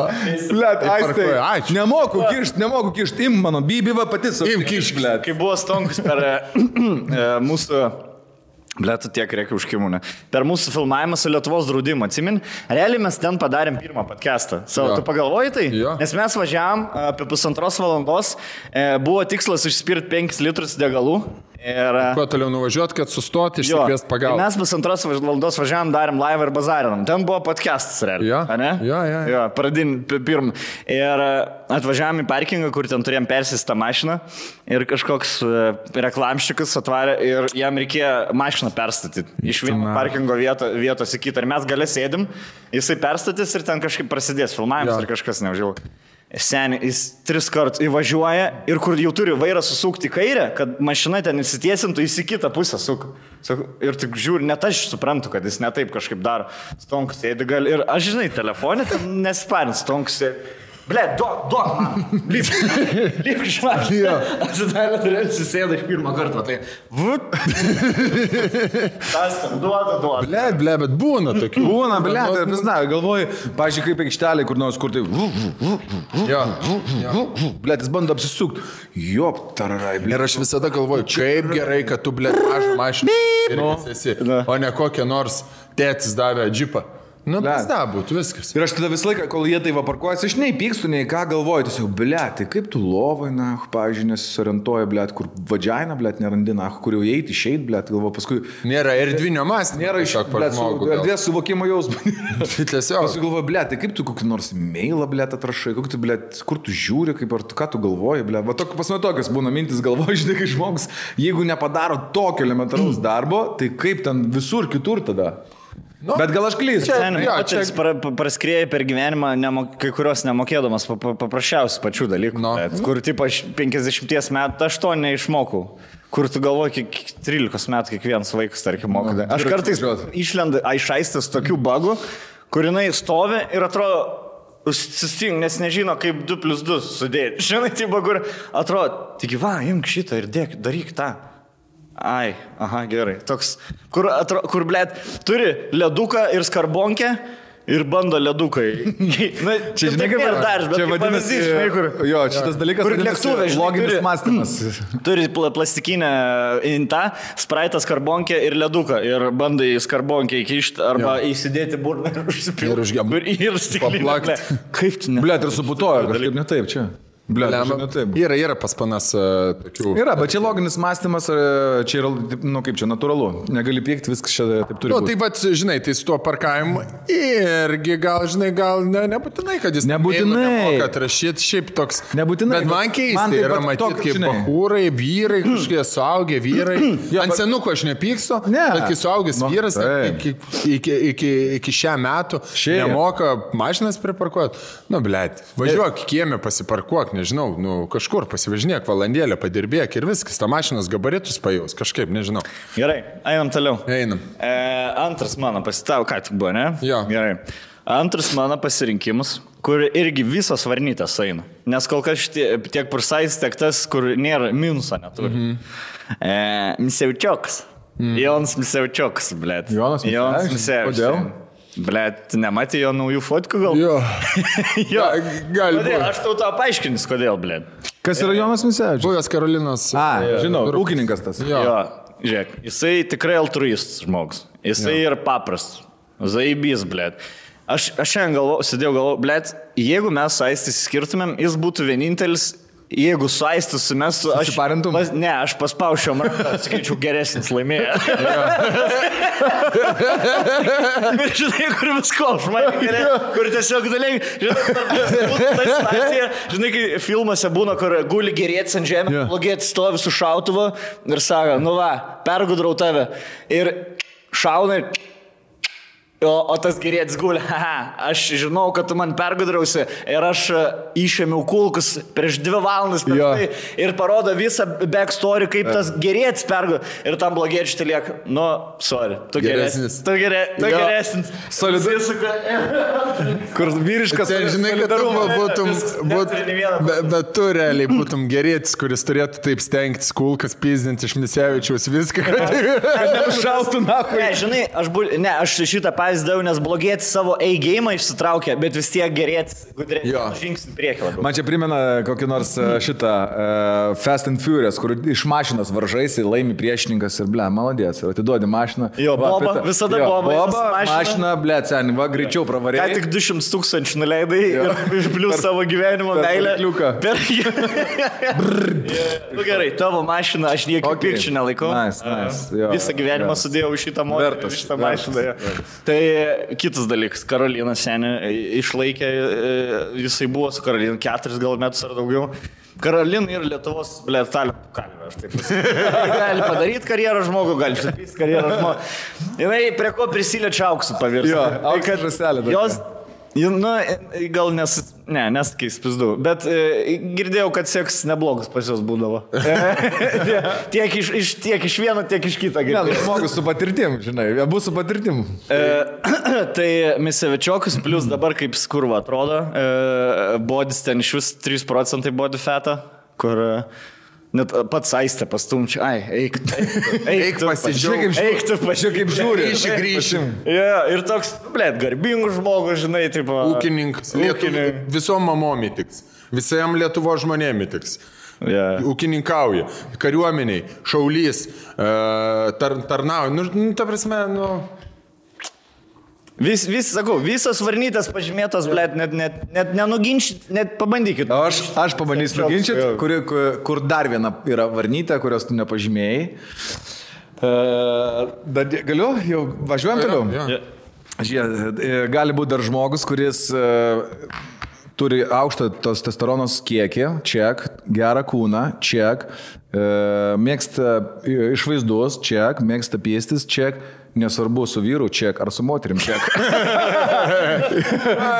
blėt, aistai. Nemoku kišt, im mano, bibiva pati su. Im kišt, blėt. Kai buvo Stonkus per mūsų... Blėtų tiek reikia užkimūnę. Per mūsų filmavimą su Lietuvos draudimu, atsimin, realiai mes ten padarėm pirmą podcastą. Tu pagalvoji tai? Jo. Nes mes važiavam apie 1,5 valandos, buvo tikslas užspirti 5 litrus degalų. Ir... Kuo toliau nuvažiuot, kad sustoti, išsikviesti pagalbą. Mes 1,5 valandos važiavam, darėm laivą ir bazarinam. Ten buvo podcastas realiai. Jo. Pradin pirmą. Ir atvažiavam į parkingą, kur ten turėjom persistą mašiną. Ir kažkoks reklamščikas atvarė ir jam reikėjo mašiną perstatyti. Iš vieno parkingo vietos į kitą. Ir mes gale sėdim, jisai perstatys ir ten kažkaip prasidės filmavimas ar kažkas neužėjau. Seniai, jis 3 kartus įvažiuoja ir kur jau turi vairą susukti į kairę, kad mašina ten įsitiesintų, jis į kitą pusę suka. Ir tik žiūri, net aš suprantu, kad jis ne taip kažkaip daro. Stonkus sėdi gal ir aš žinai, telefonė ten nesiparint, stonkus sėdi. Ble, duok man, lyg žinai. Aš dar turėjau susėdą iš pirmą kartą, tai tas tam duoda. Ble, bet būna tokių. Būna, tai pizna, galvoju, pažiūrėk, kaip aikštelė, kur nors, kur tai ble, jis bando apsisukti. Jop, tararai, ble. Ir aš visada galvoju, kaip gerai, kad tu, ble, mažą mašiną esi, o ne kokią nors tėtis davė džipą. Nu, pizda būtų viskas. Ir aš tada visą laiką, kol jie tai vaparkuojasi, aš nei pykstu, nei ką galvoju, tiesiog, ble, tai kaip tu lovai, na, pavyzdžiui, nesisorientuoja, ble, kur vadžiaina, ble, nerandi, na, kur jau įeiti, išeit, ble, galvoju, paskui... Nėra erdvinio mąstymo. Nėra iš, ble, erdvės suvokimo jausmo. Paskui galvoju, ble, tai kaip tu kokį nors mailą, ble, atrašai, kokį tu, ble, kur tu žiūri, kaip ar tu, ką tu galvoji, ble, va, pasme tokias būna mintis galvoju, žinai, kai žmogus, jeigu nepadaro tokio elementaraus darbo, tai kaip ten visur kitur tada? Nu, bet gal aš klystu. Čia praskrieja per gyvenimą, kai kurios nemokėdamas paprasčiausių pačių dalykų. No. Kur, tipo, aš 50 metų aš to neišmokau. Kur tu galvoji, 13 metų kiekvienas vaikas, tarkim, moka. No. Aš kartais išlendu aišaistas tokių bagų, kur jinai stovi ir atrodo, susting, nes nežino, kaip 2+2 sudėti. Žinai, tai bagur, atrodo, tik va, imk šitą ir daryk tą. Ai, aha, gerai. Toks, kur blėt, turi leduką ir skarbonkę ir bando ledukai. Na, čia žinai, kaip ir dar, bet čia vadinasi, žinai, kur... Jo, šitas dalykas vadinasi loginis mąstymas. Turi plastikinę intą, spraitą skarbonkę ir leduką. Ir bandai skarbonkę įkišti arba įsidėti burną ir užsipilti. Ir stiklinę. Kaip tu ne? Blėt, ir suputojo, kažkaip ne taip čia. Ble, yra pas panas tokių. Yra, bet čia loginis mąstymas, čia yra, nu kaip čia, natūralu. Negali pykti, viskas čia taip turi būti. Tai va, žinai, tai su tuo parkavimu irgi gal, žinai, gal nebūtinai, kad jis nemoka atrašyti, šiaip toks. Nebūtinai. Bet man keistai yra matyti, kaip bahūrai, vyrai, kažkokie suaugę vyrai. Ant senuko aš nepykstu, bet kai suaugęs vyras iki šią metų nemoka mašinas priparkuoti. Nu, blėt, važiuok kiemę pasiparkuok. Nežinau, nu, kažkur pasivažinėk valandėlę, padirbėk ir viskas, ta mašinos gabaritus pajaus, kažkaip, nežinau. Gerai, einam toliau. Einam. Antras mano pasitavo, ką tik buvo, ne? Jo. Gerai. Antras mano pasirinkimas, kur irgi visos varnytės eina. Nes kol kas tiek Pursais, tiek tas, kur nėra minuso neturi. Misevčiokas. Jonas Misevčiokas, blėt. Jonas Misevčiokas. Kodėl? Blet, nematė jo naujų fotkų gal? Jo. Jo. Gali būti. Aš tau paaiškinus, kodėl, blet. Kas yra Jonas Misevčius? Buvęs Karolinos. Žinau, ūkininkas tas. Jo. Žiūrėk, jisai tikrai altruistas žmogus. Jisai ir paprastas. Zaibys, blet. Aš šiandien sėdėjau galvo, blet, jeigu mes Aistis skirtumėm, jis būtų vienintelis. Jeigu su Aistis mes... Ne, aš paspaušiau ranką, skaičiau geresnis laimėjo. Ir žinai, kur visko, kur tiesiog dalykai, žinai, kai filmuose būna, kur guli gerėtis ant žemę, blogėtis stovi su šautuvu ir sako, nu va, pergudrau tave. Ir šauna ir... O tas gerėtis guli, aš žinau, kad tu man pergudrausi ir aš išėmiau kulkus prieš 2 valandas tai, ir parodo visą backstory, kaip tas gerėtis pergudrausi. Ir tam blogėčiai tai lieka, nu, sorry, tu geresnis. Tu geresnis. Solidus. Kur vyriškas. Tai žinai, kad tu bet tu realiai būtum gerėtis, kuris turėtų taip stengtis kulkas pizdinti iš Misevičiaus viską. Šautų nahui. Ne, žinai, aš šitą pavyzdžių, nes blogėti savo A-game išsitraukia, bet vis tiek gerėti žingsnį priekį labiau. Man čia primena kokį nors šitą Fast and Furious, kur iš mašinos varžaisi, laimi priešininkas ir ble, maladės, ir atiduodi mašiną. Jo, boba, visada boba. Mašina, ble, seni, va, greičiau pravarėjai. Ką tik 200 000 nuleidai ir išblius savo gyvenimo meilę. Nu gerai, tavo mašiną aš niekiek pirčių nelaikau. Visą gyvenimą sudėjau šitą modelį, šitą mašiną. Tai kitas dalykas, Karolina senė išlaikė, jisai buvo su Karolina 4 gal metus ar daugiau. Karolina yra Lietuvos, blėt, talentų kalvė, aš taip pasakysiu. Gali padaryti karjerą žmogų, gali supysti karjerą žmogų. Jinai prie ko prisiliečia auksų pavirsti. Jo, auksų žaselė. Nu, gal nesakys pizdu, bet girdėjau, kad seks neblogas pas jos būdavo. tiek iš vieno, tiek iš kito. Ne, žmogus su patirtim, žinai, abu su patirtim. Tai Misevičiokas, plus dabar kaip skurva atrodo, bodis ten iš vis 3% body fatą, kur net pats Aistė pastumčia. Eik pasižiūrėk, kaip žiūri. Grįšim. Ir toks, garbingas žmogus, žinai, taip. Ūkininkas. Visom mamom įtiks. Visam Lietuvo žmonėm įtiks. Ūkininkauja. Kariuomeniai, šaulys, tarnauja. Ta prasme, Sakau, visos varnytės pažymėtos, net nenuginčyt, net pabandykit. Aš pabandysiu nuginčyti, kur dar viena yra varnytė, kurios tu nepažymėjai. Galiu? Jau važiuojam toliau? Žiūrėk, gali būti dar žmogus, kuris turi aukštą testosteronos kiekį, ček, gerą kūną, ček, mėgsta išvaizdus, ček, mėgsta pėstis, ček. Nesvarbu su vyru ček ar su moterim ček.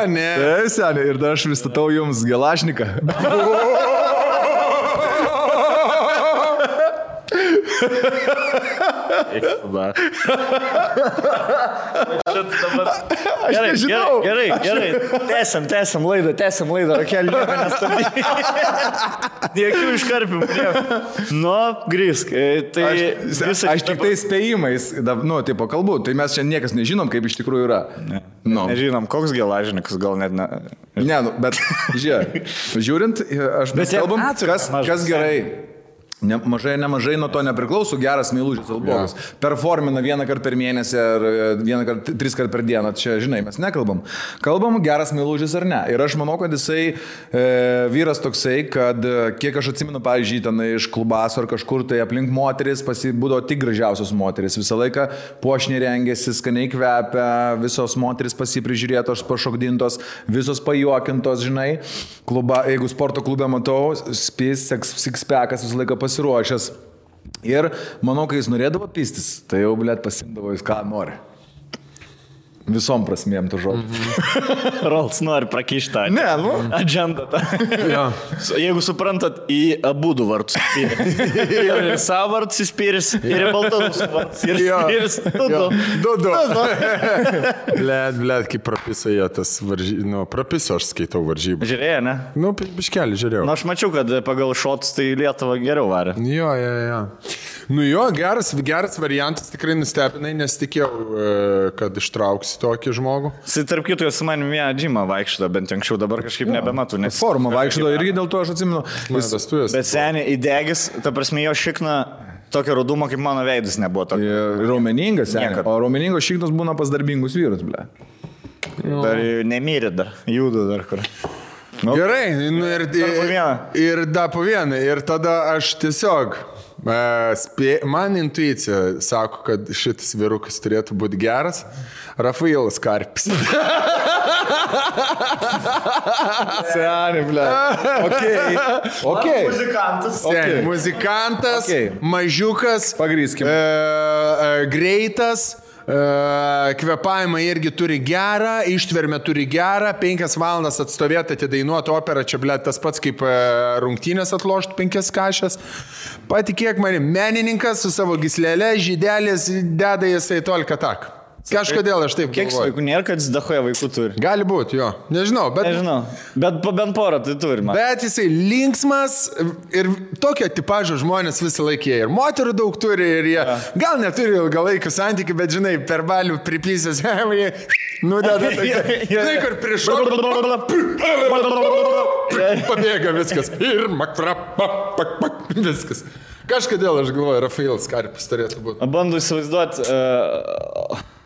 Ne. Tai seniai, ir dar aš pristatau jums Gelašniką. Gerai. Tęsiam laidą. Rakelį nieko nestabdyti. Jokių iškarpimų. Grįsk. Aš tik tai spėjimais, tipo kalbu, tai mes čia niekas nežinom, kaip iš tikrųjų yra. Nežinom, koks Gelažnikas, gal net ne. Ne, bet žiūrint, mes kalbam, kas gerai. Nemažai nuo to nepriklauso geras meilužis albogas. Performina vieną kartą per mėnesį ar tris kartą per dieną. Čia, žinai, mes nekalbam. Kalbam geras meilužis ar ne. Ir aš manau, kad jisai vyras toksai, kad kiek aš atsimenu, pavyzdžiui, ten iš klubaso ar kažkur tai aplink moteris būdavo tik gražiausios moteris. Visą laiką puošniai rengėsi, skaniai kvepia, visos moteris pasiprižiūrėtos, pašokdintos, visos pajuokintos, žinai. Jeigu sporto klube matau, six-packas visą laiką pasiruošęs. Ir manau, kai jis norėdavo pistis, tai jau, pasimdavo jis ką nori. Visom prasmėm to žodžio. Rolls nori prakištą. Ne, Agenda tą. Jeigu suprantat, į abudu vartus įspyris. Ir savo vartus įspyris, ir į baltarusų vartus įspyris. Du. Blet, kaip prapisėjo tas varžybų. Prapiso aš skaitau varžybų. Žiūrėjai, ne? Biškelį žiūrėjau. Aš mačiau, kad pagal šotus tai Lietuva geriau varė. Jo. Geras variantas, tikrai nustebinai, nes tikėjau, kad ištrauks tokį žmogų. Tarp kitų, su manim vieną džimą vaikščiojo, bent anksčiau, dabar kažkaip nebematu. Formą vaikščiojo irgi dėl to aš atsimenu. Bet seniai įdegis, ta prasme, jo šikna tokio rudumo, kaip mano veidus nebuvo tokio. Raumeningas, seniai. O raumeningos šiknos būna pas darbingus vyrus, ble. Dar nemyrė dar, juda dar kur. Gerai, ir dar po vieną. Ir tada aš tiesiog... Man intuicija sako, kad šitas vyrukas turėtų būti geras. Rafailas Karpis. Seniai, ble. Okay. Muzikantas, mažiukas, pagrįskim. Greitas. Kvepavimą irgi turi gerą, ištvermę turi gerą, 5 valandas atstovėti, atidainuoti operą, čia tas pats kaip rungtynės atlošti 5 kašės. Patikėk manim, menininkas su savo gyslelė, žydelės, deda jisai tolką tak. Kažkodėl aš taip galvoju. Kiek vaikų nėra, kad jis dahoja vaikų turi? Gali būti, jo. Nežinau. Bet bent porą tai turime. Bet jisai linksmas ir tokio tipažo žmonės visą laiką jie. Ir moterų daug turi ir jie gal neturi ilgalaikių santykių, bet žinai, per balių pripysės, nudeda tai, kur prišok. Pabėga viskas. Ir viskas. Kažkodėl aš galvoju, Rafailas Karpis turėtų būti. Bandu įsivaizduoti...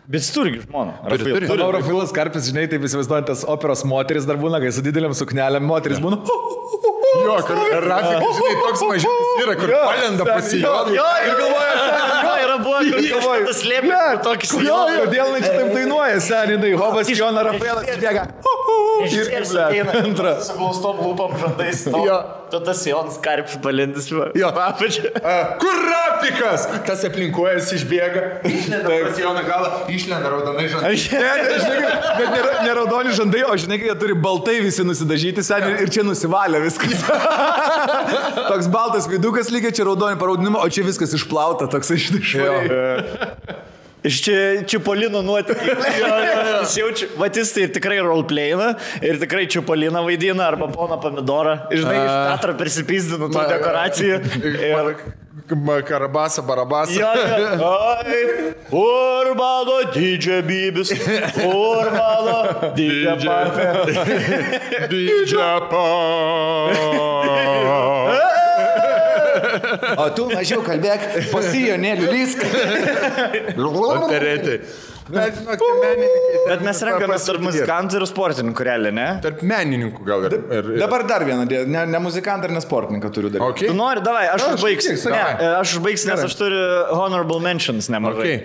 Bet jis turi žmoną. Rafailas Karpis, žinai, taip įsivaizduojant, tas operos moteris dar būna, kai su dideliam suknelėm moteris būna. Jo, kad Rafikas, žinai, toks mažiukas yra, kur palenda pasijodą. Ir galvoja, yra buvo, kur galvoja, tas slėpė tokį sijoną. Kodėl čia taip dainuoja, seniai, Hobas Joną Rafailas bėga. Ir ateina su glaustom lūpom žandais. Tu tas Jonas Karpis palendis. Kur Rafailas? Narkotikas! Tas aplinkuojas išbėga, išlenda pas Joną galą, išlenda raudonai žandai. Bet ne raudoni žandai, o žinai, jie turi baltai visi nusidažyti seniai ir čia nusivalė viskas. Toks baltas vidukas lygiai, čia raudoni paraudinimo, o čia viskas išplauta, toks išdišvai. Iš čia Čipolino nuotykiai. Jis jaučia, vatys tai tikrai roleplayina ir tikrai Čipoliną vaidina arba poną Pomidorą. Žinai, iš teatro prisipizdinu tų dekoracijų. Karabasa, barabasa. Ai, kur mano didžia bybis, kur mano didžia papė. Didžia papė. O tu mažiau kalbėk, pasijonėlių lysk. Operetai. Bet mes renkamės tarp muzikantų ir sportininkų realiai, ne? Tarp menininkų gal ir. Dabar dar vieną, ne muzikantą ir ne sportininką turiu daryti. Okay. Tu nori, davai, aš užbaigsiu. Ne, aš užbaigsiu, nes aš turiu honorable mentions nemažai.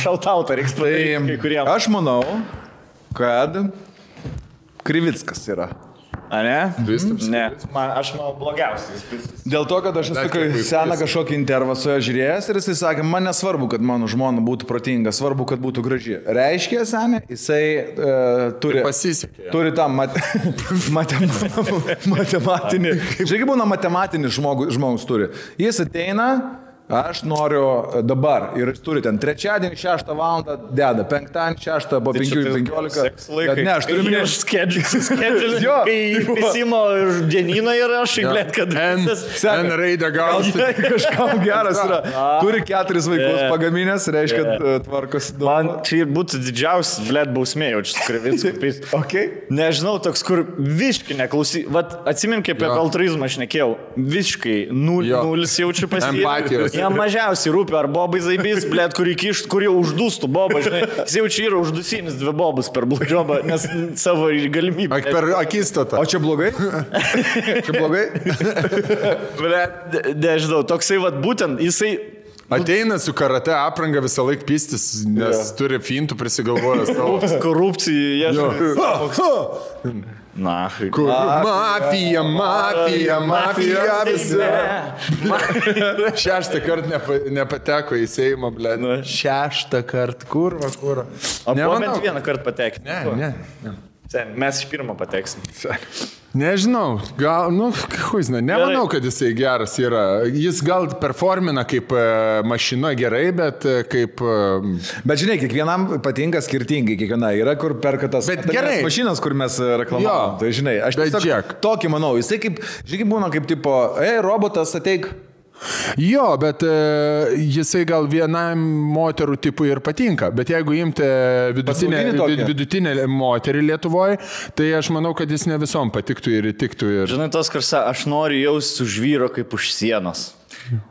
Šautautą reiks padaryti kai kuriem. Aš manau, kad Krivickas yra. A ne? Kristaps? Ne, aš manau blogiausias. Dėl to, kad aš esu seną kažkokį intervą su juo žiūrėjęs ir jisai sakė, man nesvarbu, kad mano žmona būtų protinga, svarbu, kad būtų graži. Reiškia, senė, jisai turi... Pasisekė. Turi tą matematinį... Žiūrėk, būna matematinis žmogus turi. Jis ateina... Aš noriu dabar ir jis turi ten trečiadienį 6 valandą deda, penktadienį 6 po 5:15. Ne, aš turiu minėti Skedžiulį, kai įsimo dienyną ir aš įglėt, kad N raidę gausi. Kažkam geras yra. Turi 4 vaikus pagaminęs, reiškia, kad tvarkosi daug. Man čia būtų didžiausias, blėt, bausmė, jaučiu Krivickui. Okay. Nežinau, toks, kur visiškai neklausy. Vat atsimink, kaip apie altruizmą aš nekėjau. Visiškai nulis jaučiu Empatijos. Jam mažiausiai rūpi, ar bobai zaibys, blėt, kur jau uždūstų bobą, žinai. Jis jau čia yra uždusinis 2 bobus per bludžiobą, nes savo galimybę. Per akistatą. O čia blogai? Čia blogai? Blėt, nežinau, toksai vat būtent, jisai... Ateina su karate apranga visą laiką pistis, nes turi fintų prisigalvojęs savo. Korupcijai, Na, mafija visi. 6 kartą nepateko į Seimą, blė. 6 kartą, kurva. O buvo bent 1 kartą patekti. Ne. Mes iš pirmo pateksim. Nežinau, gal, nemanau, kad jisai geras yra. Jis gal performina kaip mašina gerai, bet kaip... Bet žinai, kiekvienam patinka skirtingai, kiekviena yra, kur perka tas mašinas, kur mes reklamuojam. Tai žinai, aš tiesiog tokį manau, jisai kaip, žinai, būna kaip tipo, robotas ateik. Jo, bet jisai gal vienam moterų tipui ir patinka, bet jeigu imti vidutinę moterį Lietuvoje, tai aš manau, kad jis ne visom patiktų ir įtiktų. Žinai, tos karsa, aš noriu jaustis už vyro kaip už sienos.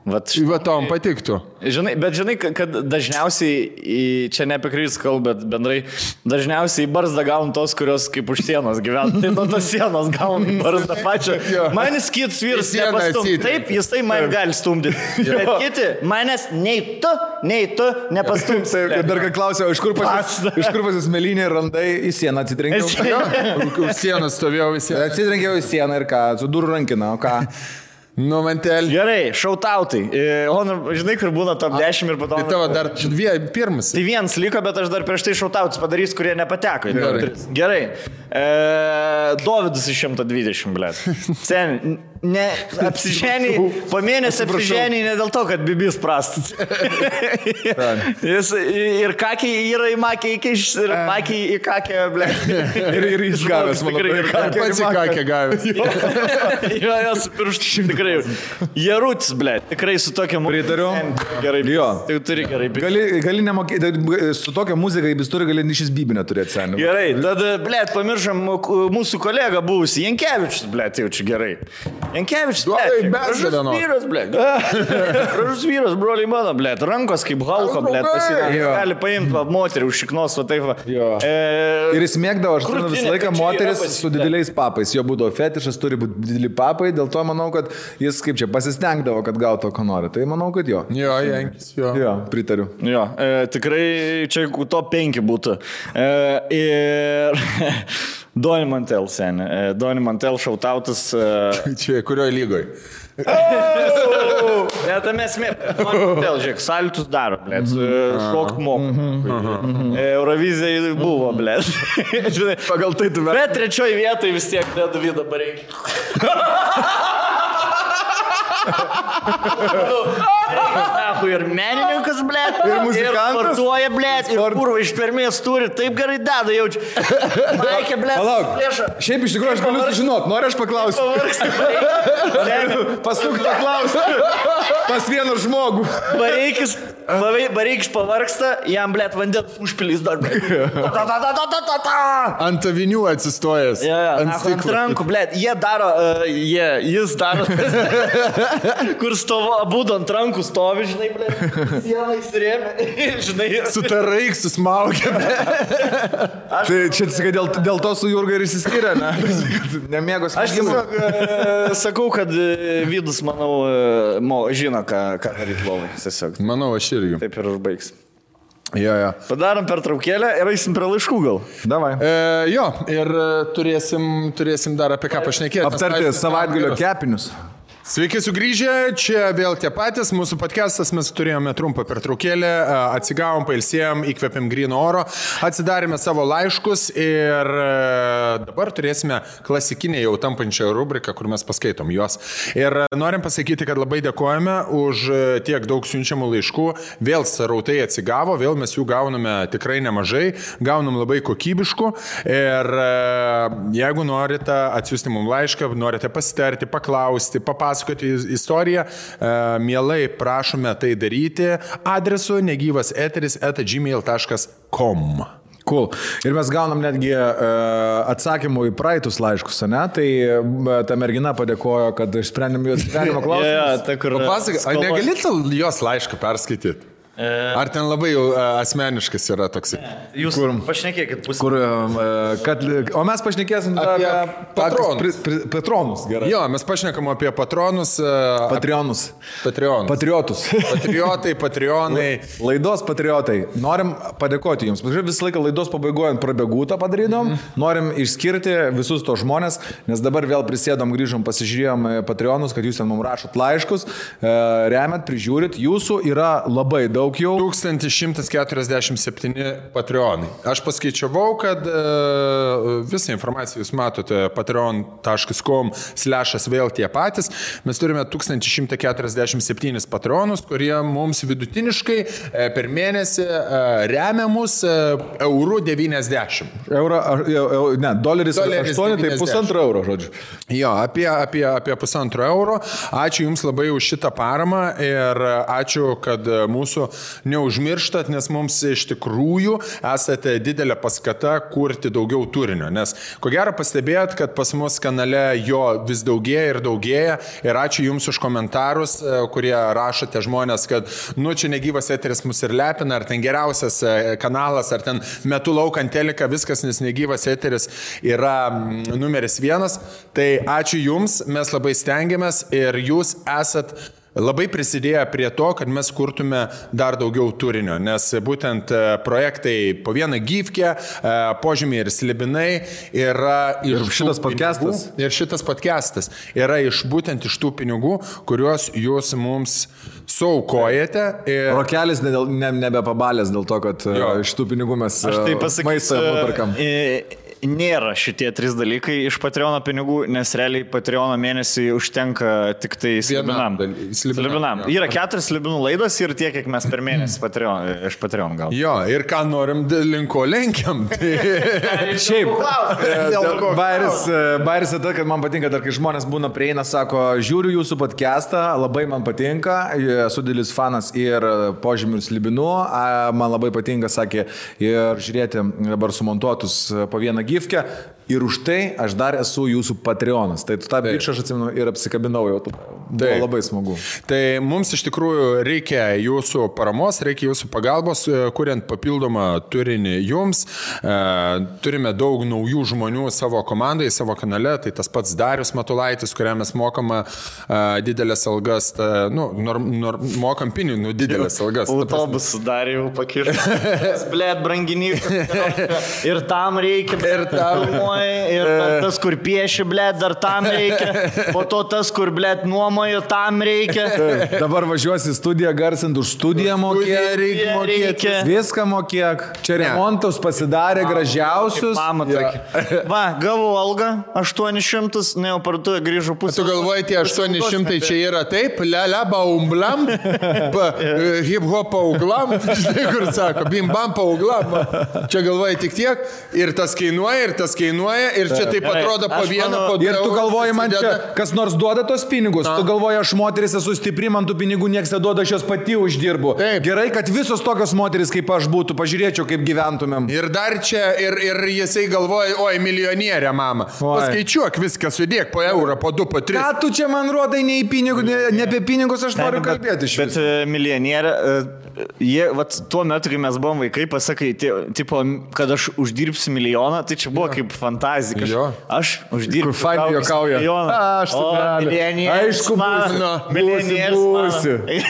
Va tom patiktų. Žinai, bet žinai, kad dažniausiai, čia ne apie Krivis kalbą, bet bendrai, dažniausiai į barzdą gaun tos, kurios kaip už sienos gyvena. Tai nuo tos sienos gaun barzdą pačią. Manis kitas vyras nepastumti. Taip, jis tai man gali stumdyti. Bet kiti, manęs nei tu nepastumti. Dar ką klausiau, iš kur pas jūs melinė randai į sieną atsitrenkiau? Už sieną stovėjau į sieną. Atsitrenkiau į sieną ir ką, su durų rankina, o ką? Nu, mantelį. Gerai, šautautai. Žinai, kur būna top 10 ir po to... Tai tavo dar pirmas. Tai vienas liko, bet aš dar prieš tai šautautus padarys, kurie nepateko. Gerai. Dovydas iš 120, blėt. Sen, ne, apsiženiai, po mėnesį apsiženiai ne dėl to, kad bibis prastas. Jis ir kakiai yra į makiai įkiš, ir makiai į kakę, blėt. Ir jis gavęs, manau. Ir pats į kakę gavęs. Jo, jos pirštų tikrai. Jarutis, blėt, tikrai su tokia muzika. Pritariu. Gerai, jo. Tai turi gerai. Gali nemokėti, su tokia muzika, jis turi gali šis bibinę turėti seniai. Gerai, tada, blėt, pamiršam mūsų kolegą buvusi, Jankevičius, blėt, jaučiu gerai. Jankevičius, blėt, gražus vyras, blėt. Gražus vyras, broliai mano, blėt, rankos kaip Halko, blėt, gali paimti moterį už šiknos, va taip va. Ir jis mėgdavo, aš turiu visą laiką moteris su dideliais papais, jo būdavo fetišas, turi būti dideli papai, dėl to manau, kad jis kaip čia pasistengdavo, kad gautų, ko nori. Tai manau, kad jo. Jo, Jankis, jo. Jo, pritariu. Jo, tikrai čia top 5 būtų. Ir Doni Mantel, seni. Doni Mantel šautautas. Čia kurioje lygoje? Bet esmė, vėl žiūrėk, salitus daro, blėt, šokt moku. Eurovizija buvo, blėt. Pagal tai tu Bet trečioji vietoje vis tiek Davidą Bareikį. Ir menininkas, blėt, ir muzikantas, ir sportuoja, blėt, ir kurva ištvermės turi, taip gerai deda, jaučiu. Maikė, blėt, palauk, šiaip iš tikrųjų aš galiu sužinot, noriu aš paklausti. Pasuk tą klausimą pas vieną žmogų. Bareikis pavargsta, jam, blėt, vandens užpilys dar, blėt. Ant avinių atsistojęs. Ant rankų, blėt, jis daro, kur stovo, abudu ant rankų stovi, žinai, blėt, sieną įsirėmė, žinai. Su tarais susmaugia. Tai čia sakai, dėl to su Jurga ir įsiskyrė, ne? Nemėgos. Aš sakau, kad Vidus, manau, žino, ką daryti lovai. Manau, aš irgi. Taip ir užbaigs. Jo. Padarom pertraukėlę ir eisim prie laiškų gal. Davai. Jo, ir turėsim dar apie ką pašnekėti. Aptarti savaitgalio kepinius. Sveiki sugrįžę, čia vėl tie patys, mūsų podcastas, mes turėjome trumpą pertraukėlę, atsigavom, pailsėjom, įkvėpėm gryno oro, atsidarėme savo laiškus ir dabar turėsime klasikinę jau tampančią rubriką, kur mes paskaitom juos. Ir norim pasakyti, kad labai dėkojame už tiek daug siunčiamų laiškų, vėl srautai atsigavo, vėl mes jų gauname tikrai nemažai, gaunam labai kokybiškų ir jeigu norite atsiųsti mums laišką, norite pasitarti, paklausti, papasakoti istoriją, mielai prašome tai daryti adresu negyvaseteris@gmail.com. Cool. Ir mes gaunam netgi atsakymų į praeitus laiškus, ne? Tai ta mergina padėkojo, kad išsprendėm jos gyvenimo klausimus. Papasakok, ar negalite jos laišką perskaityti? Ar ten labai jau asmeniškas yra toksai? Jūs pašnekėkit pusę. O mes pašnekėsim apie patronus. Patronus, gerai. Jo, mes pašnekam apie patronus. Patrionus. Patriotus. Patriotai, patrionai. Laidos patriotai. Norim padėkoti jums. Visą laiką laidos pabaigoje prabėgūtą padarydom. Norim išskirti visus tos žmonės, nes dabar vėl prisėdom, grįžom, pasižiūrėjom patronus, kad jūs ten mums rašot laiškus, remiat, prižiūrit. Jūsų yra labai daug. 1147 patreonai. Aš paskaičiavau, kad visą informaciją jūs matote patreon.com/vėl tie patys. Mes turime 1147 patreonus, kurie mums vidutiniškai per mėnesį remia mus €90. Doleris 8, tai €1,5, žodžiu. Jo, apie €1,5. Ačiū Jums labai už šitą paramą ir ačiū, kad mūsų neužmirštat, nes mums iš tikrųjų esate didelė paskata kurti daugiau turinio. Nes ko gero pastebėjot, kad pas mus kanale jo vis daugėja ir daugėja. Ir ačiū Jums už komentarus, kurie rašote žmonės, kad čia negyvas eteris mus ir lepina, ar ten geriausias kanalas, ar ten metu laukant teliką, viskas, nes negyvas eteris yra numeris 1. Tai ačiū Jums, mes labai stengiamės ir Jūs esat labai prisidėjo prie to, kad mes kurtume dar daugiau turinio, nes būtent projektai po vieną gyvkę, požymiai ir slibinai yra iš šitas podcastas. Ir šitas podcastas yra būtent iš tų pinigų, kuriuos jūs mums suaukojate. Rokelis nebepabalės dėl to, kad iš tų pinigų mes maistą nuperkam. Nėra šitie 3 dalykai iš Patreono pinigų, nes realiai Patreono mėnesį užtenka tik tai slibinam. Yra 4 slibinų laidos ir tiek, kiek mes per mėnesį iš Patreon gaunam. Jo, ir ką norim linko lenkiam. Šiaip, bairis tai, kad man patinka, dar kai žmonės būna prieina, sako, žiūriu jūsų podcastą, labai man patinka, esu didelis fanas ir požymių ir slibinų, man labai patinka, sakė, ir žiūrėti dabar sumontuotus po vieną gyvkę ir už tai aš dar esu jūsų Patreonas. Tai tą bičą aš atsimenu ir apsikabinau jau. Buvo labai smagu. Tai mums iš tikrųjų reikia jūsų paramos, reikia jūsų pagalbos, kuriant papildomą turinį jums. Turime daug naujų žmonių savo komandai, savo kanale. Tai tas pats Darius Matulaitis, kuriam mes mokama didelės algas. Mokam pinigų didelės algas. Autobusų Darijų pakirti. Blėt, branginį. Ir tam reikia. Ir tam. Ir tas, kur pieši, blėt, dar tam reikia. Po to tas, kur, blėt, nuomojo, tam reikia. Dabar važiuosi į studiją garsint, už studiją mokėk. Viską mokėk. Čia remontus pasidarė gražiausius. Mama tokia. Va, gavau algą 800, ne, jau parduotuvę grįžau pusę. Tu galvoji, tie 800 čia yra taip, lia baumblam, hip-hop pauglam, žinai, kur sako, bim-bam pauglam. Čia galvoji tik tiek, ir tas kainuoja, ir čia taip atrodo po vieną, po du. Ir tu galvoji, man čia kas nors duoda tos pinigus. Tu galvoji, aš moteris esu stipri, man tų pinigų nieks neduoda, aš jos pati uždirbu. Taip. Gerai, kad visos tokios moteris kaip aš būtų, pažiūrėčiau, kaip gyventumėm. Ir dar čia, ir jisai galvoja, oi, milijonierė, mama. Paskaičiuok viską, sudėk po eurą, po 2, po 3. Ką tu čia man rodai, ne apie pinigus aš noriu kalbėti iš bet milijonierė, jie, vat, tuo metu, kai mes buvom vaikai, pasakai, tipo, kad aš uždirbsiu milijoną, tai čia buvo kaip fantazija. Aš uždirbsiu milijoną. Aš Aišku,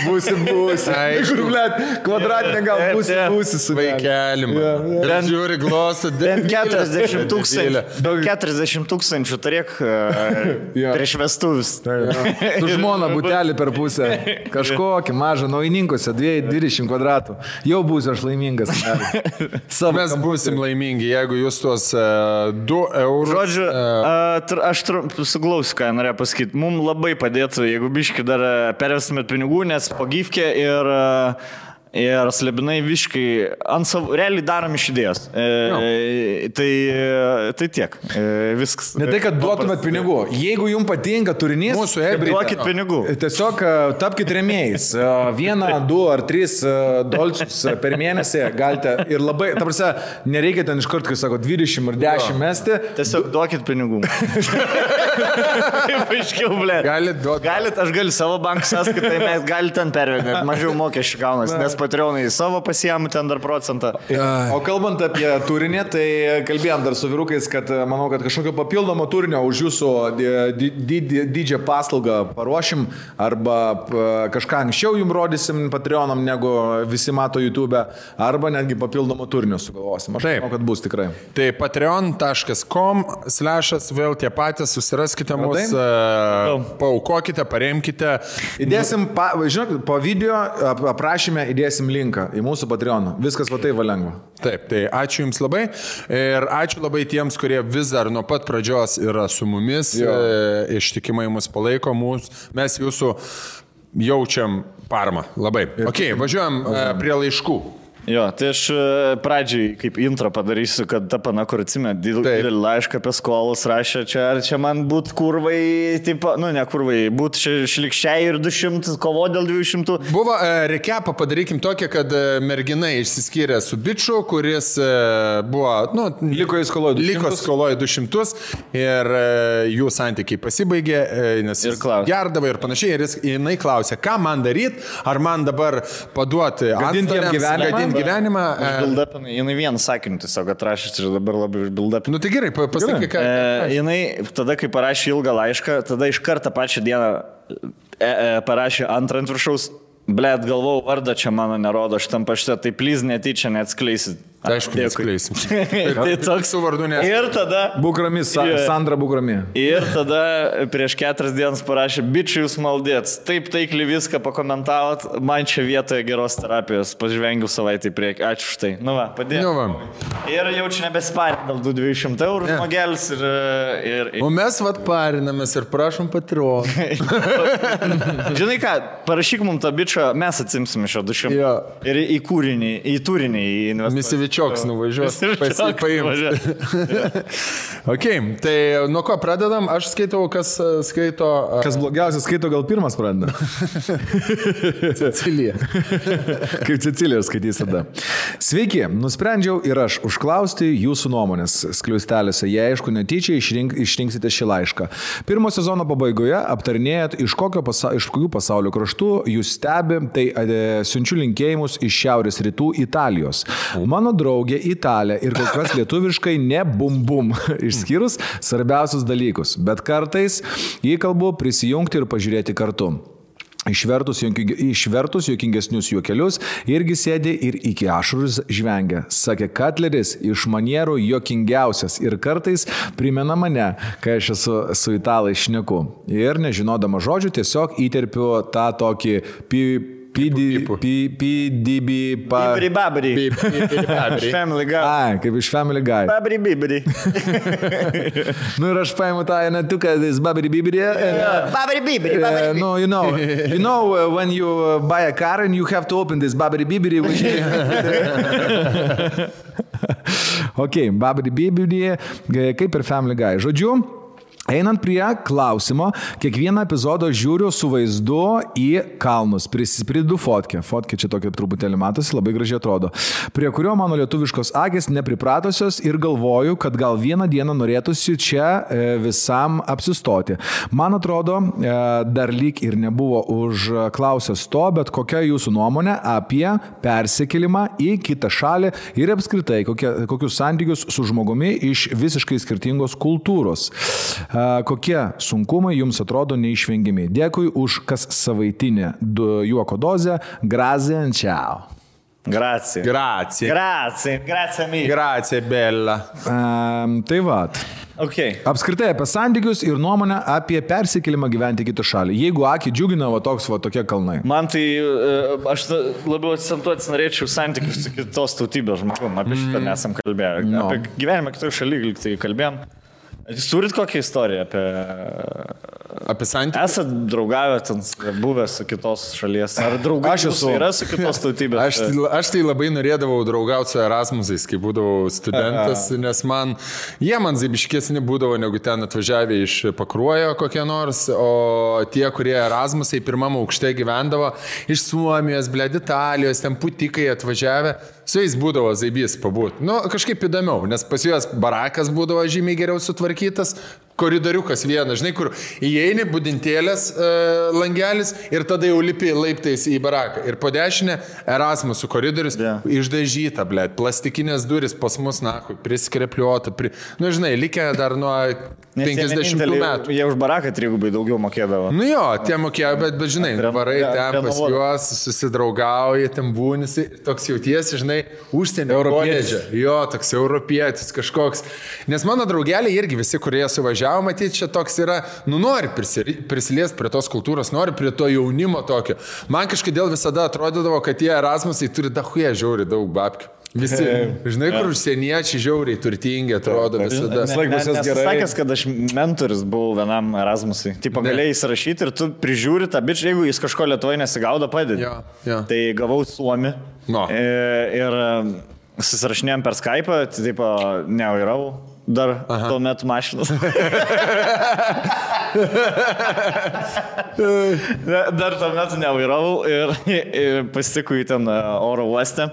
būsi. Aišku, blėt, kvadratinė gal būsi su vaikelim. Žiūri glostą. 40 tūkstančių turėk prieš vestuvis. Su žmona butelį per pusę. Kažkokį mažą naujininkose, 20 kvadratų. Jau būsiu aš laimingas. Mes būsim laimingi, jeigu jūs tuos 2 eurus. Žodžiu, aš suglausiu, ką norėjau pasakyti. Mums labai padėtų, jeigu biški dar pervestumėt pinigų, nes po gyvkė ir slebinai viškai ant savo, realiai darom iš idėjos. Tai tiek. Viskas. Ne tai, kad duotumėt pinigų. Jeigu jums patinka turinys, duokit pinigų. Tiesiog tapkite rėmėjais. 1, 2 ar 3 dolcius per mėnesį galite. Ir labai, ta prasme, nereikia ten iš karto, kai sako, 20 ir 10 mesti. Tiesiog duokit pinigų. Taip aiškiau, blė. Galit, aš galiu savo bankų sąskaitai, mes galite ten pervedinėti. Mažiau mokesčių gaunas, nes Patreonai savo pasiėmų ten dar procentą. O kalbant apie turinį, tai kalbėjom dar su vyrukais, kad manau, kad kažkokio papildomo turinio už jūsų didžią paslaugą paruošim arba kažką anksčiau jums rodysim Patreonam, negu visi mato YouTube, arba netgi papildomo turinio sugalvosim. Aš manau, kad bus tikrai. Tai patreon.com/ vėl tie patys, susiraskite mus, paaukokite, paremkite. Įdėsim, žinok, po video aprašyme įdėsim linką į mūsų Patreoną. Viskas va taip va lengva. Taip, tai ačiū Jums labai ir ačiū labai tiems, kurie vis dar nuo pat pradžios yra su mumis, ištikimai mus palaiko, mes Jūsų jaučiam paramą. Labai. Ok, važiuojam prie laiškų. Jo, tai aš pradžiai kaip intro padarysiu, kad ta pana, kur atsimė, didelį laišką apie skolus rašė, čia man būt kurvai, taip, nu ne kurvai, būt šlikščiai ir 200, kovo dėl 200. Buvo rekepą padarykim tokią, kad mergina išsiskyrė su biču, kuris buvo, nu, liko skoloje 200 ir jų santykiai pasibaigė, nes jis gerdavo ir panašiai, ir jinai klausė, ką man daryti, ar man dabar paduoti atstariams gyvenimą. Užbildapinai, jinai vieną sakinį tiesiog atrašys ir dabar labai užbildapinai. Nu tai gerai, pasakyk, ką. Jinai tada, kai parašė ilgą laišką, tada iš karto pačią dieną parašė antrą ant viršaus, blėt, galvau, vardą čia mano nerodo šitam pašte, tai please netyčia neatskleisit. Aišku, neatskleisim. Tai toks su vardu nes. Ir tada... Bukrami, Sandra Bukrami. Ir tada prieš 4 dienas parašė, bičiai jūs maldėts, taip taikliai viską pakomentavot, man čia vietoje geros terapijos, pažvengiu savaitę į priekį, ačiū už tai. Nu va, padėjau. Nu va. Ir jau čia nebesiparinė dėl 200 eurų žmogelis ir... O mes vat parinamės ir prašom Patreon. Žinai ką, parašyk mums tą bičą, mes atsimsim iš 200. Jo. Ir į turinį investuoti. Čioks nuvažiuos, pasipaimti. Ok, tai nuo ko pradedam? Aš skaitau, kas skaito... Kas blogiausias skaito, gal pirmas pradeda. Cecilija. Kaip Cecilija skaitys tada. Sveiki, nusprendžiau ir aš užklausti jūsų nuomonės skliausteliuose. Jei aišku, netyčia išrinksite šį laišką. Pirmo sezono pabaigoje aptarinėjat, iš kokių pasaulio kraštų jūs stebi, tai siunčiu linkėjimus iš šiaurės rytų Italijos. Mano draugė Italė ir kol kas lietuviškai ne bum, išskyrus svarbiausius dalykus, bet kartais jį kalbu prisijungti ir pažiūrėti kartu. Išvertus juokingesnius juokelius irgi sėdė ir iki ašarus žvengia. Sakė, Katleris iš manierų juokingiausias ir kartais primena mane, kai aš esu su italais šneku. Ir nežinodama žodžių tiesiog įterpiu tą tokį Babri. Family Guy. Ai, kaip iš Family Guy. Babri bibri. Nu ir aš paimu tą netuką, this babri bibri. Babri bibri. No, you know when you buy a car and you have to open this babri bibri. Ok, babri bibri, kaip ir Family Guy. Žodžiu, einant prie klausimo, kiekvieną epizodą žiūriu su vaizdu į kalnus, prisipridu fotkę. Fotkė čia tokia truputėlį matosi, labai gražiai atrodo. Prie kurio mano lietuviškos akys nepripratusios ir galvoju, kad gal vieną dieną norėtųsi čia visam apsistoti. Man atrodo, dar lyg ir nebuvo užklausęs to, bet kokia jūsų nuomonė apie persikėlimą į kitą šalį ir apskritai kokius santykius su žmogumi iš visiškai skirtingos kultūros. Kokie sunkumai jums atrodo neišvengiami. Dėkui už kas savaitinę juoko dozę. Grazie, ciao. Grazie. Grazie, bella. Tai vat. Okay. Apskritai apie santykius ir nuomonę apie persikėlimą gyventi kitą šalį. Jeigu akį džiugina tokie kalnai. Man tai, aš labiau akcentuoti norėčiau santykius su kitos tautybės žmogum. Apie šitą nesam kalbėję. No. Apie gyvenimą kitoje šalyje tai kalbėjom. Jūs turit kokią istoriją apie santykius? Esat draugavę, buvę su kitos šalies? Ar draugas yra su kitos tautybės? Aš tai labai norėdavau draugauti su Erasmusais, kai būdavau studentas, nes jie man zaibiškesni būdavo, negu ten atvažiavę iš Pakruojo kokie nors, o tie, kurie Erasmusai pirmam aukšte gyvendavo, iš Suomijos, Italijos, ten putikai atvažiavę, su jais būdavo zaibys pabūt. Nu, kažkaip įdomiau, nes pas juos barakas būdavo žymiai geriau sutvarkytas, koridoriukas vienas, žinai, kur įeini budintėlės langelis ir tada jau lipi laiptais į baraką. Ir po dešinę Erasmusų koridorius išdažyta, blėt, plastikinės duris pas mus, priskrepliuota, nu, žinai, likę dar nuo 50 metų. Jie už baraką trigubai daugiau mokėdavo. Nu jo, tie mokėjo, bet žinai, varai ten pas juos, susidraugauja, ten būnisi, toks jautiesi, žinai, užsienio koledže. Jo, toks europietis kažkoks. Nes mano draugeliai irgi visi, kurie suvažiavo, matyti, čia toks yra, nu nori prisiliesti prie tos kultūros, nori prie to jaunimo tokio. Man kažkodėl visada atrodydavo, kad tie Erasmusai turi dahuje žiauri daug babkių. Visi, žinai, kur užsieniečiai žiauriai turtingi atrodo visada. Sakęs, kad aš mentorius buvau vienam Erasmusui. Taip, galėjai įsirašyti ir tu prižiūri tą bičią, jeigu jis kažko Lietuvoje nesigaudo, padedi. Tai gavau Suomį ir susirašinėjom per Skype'ą, taip nevairau dar tuo metu mašinas. Dar tuo metu nevairavau ir pasitikau į ten oro uostę.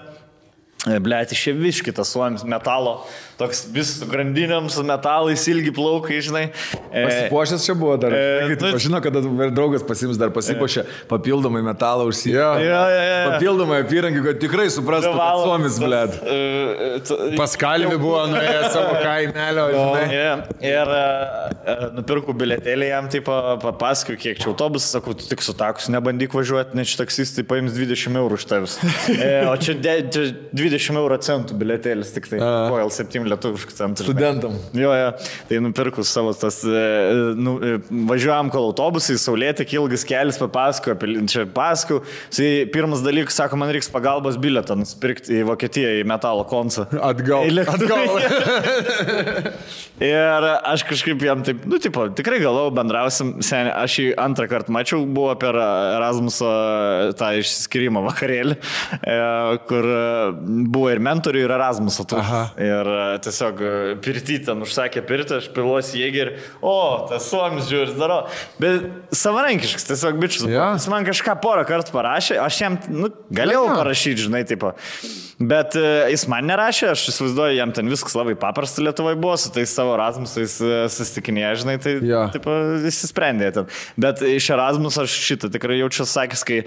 Blėt, išėviški tas Suomis metalo, toks vis su grandinėm, su metalais, ilgi plaukai, žinai. Pasipuošęs čia buvo dar. Žinau, kad draugas pasims dar pasipuošę papildomai metalą užsijęs. Papildomai apyrankį, kad tikrai suprastų, kad Suomis, blėt. Paskalvi buvo nuėjęs savo kaimelio, žinai. Ir nupirkau biletėlį jam, tai papasakiau, kiek čia autobusas, sakau, tu tik su takus nebandyk važiuoti, nes čia taksistai paims 20 eurų iš tavęs. O čia 20 euro centų biletėlis, tik tai Royal 7 lietuviškų centų. Studentam. Jo, tai nupirkus savo tas, važiuojam kol autobusai, saulėti, ilgas kelias, papasakau. Pirmas dalykas, sako, man reiks pagalbos bilietą nusipirkti į Vokietiją, į metalo koncą. Atgal. Ir aš kažkaip jam taip, tikrai galvojau, bendrausim, seniai, aš jį antrą kartą mačiau, buvo per Erasmuso tą išsiskyrimo vakarėlį, kur buvo ir mentorių, ir Erasmuso. Ir tiesiog pirtį ten užsakė pirtį, aš piluosi jėgį ir, tas Suomis žiūris daro. Bet savarankiškas, tiesiog bičius. Jis man kažką porą kartų parašė, aš jam galėjau parašyti, žinai, tipo. Bet jis man nerašė, aš įsivaizduoju, jam ten viskas labai paprasta Lietuvoje buvo, su tais savo Erasmusais susitikinėje, žinai, tai tipo, įsisprendė ten. Bet iš Erasmus aš šitą tikrai jaučiu sakęs, kai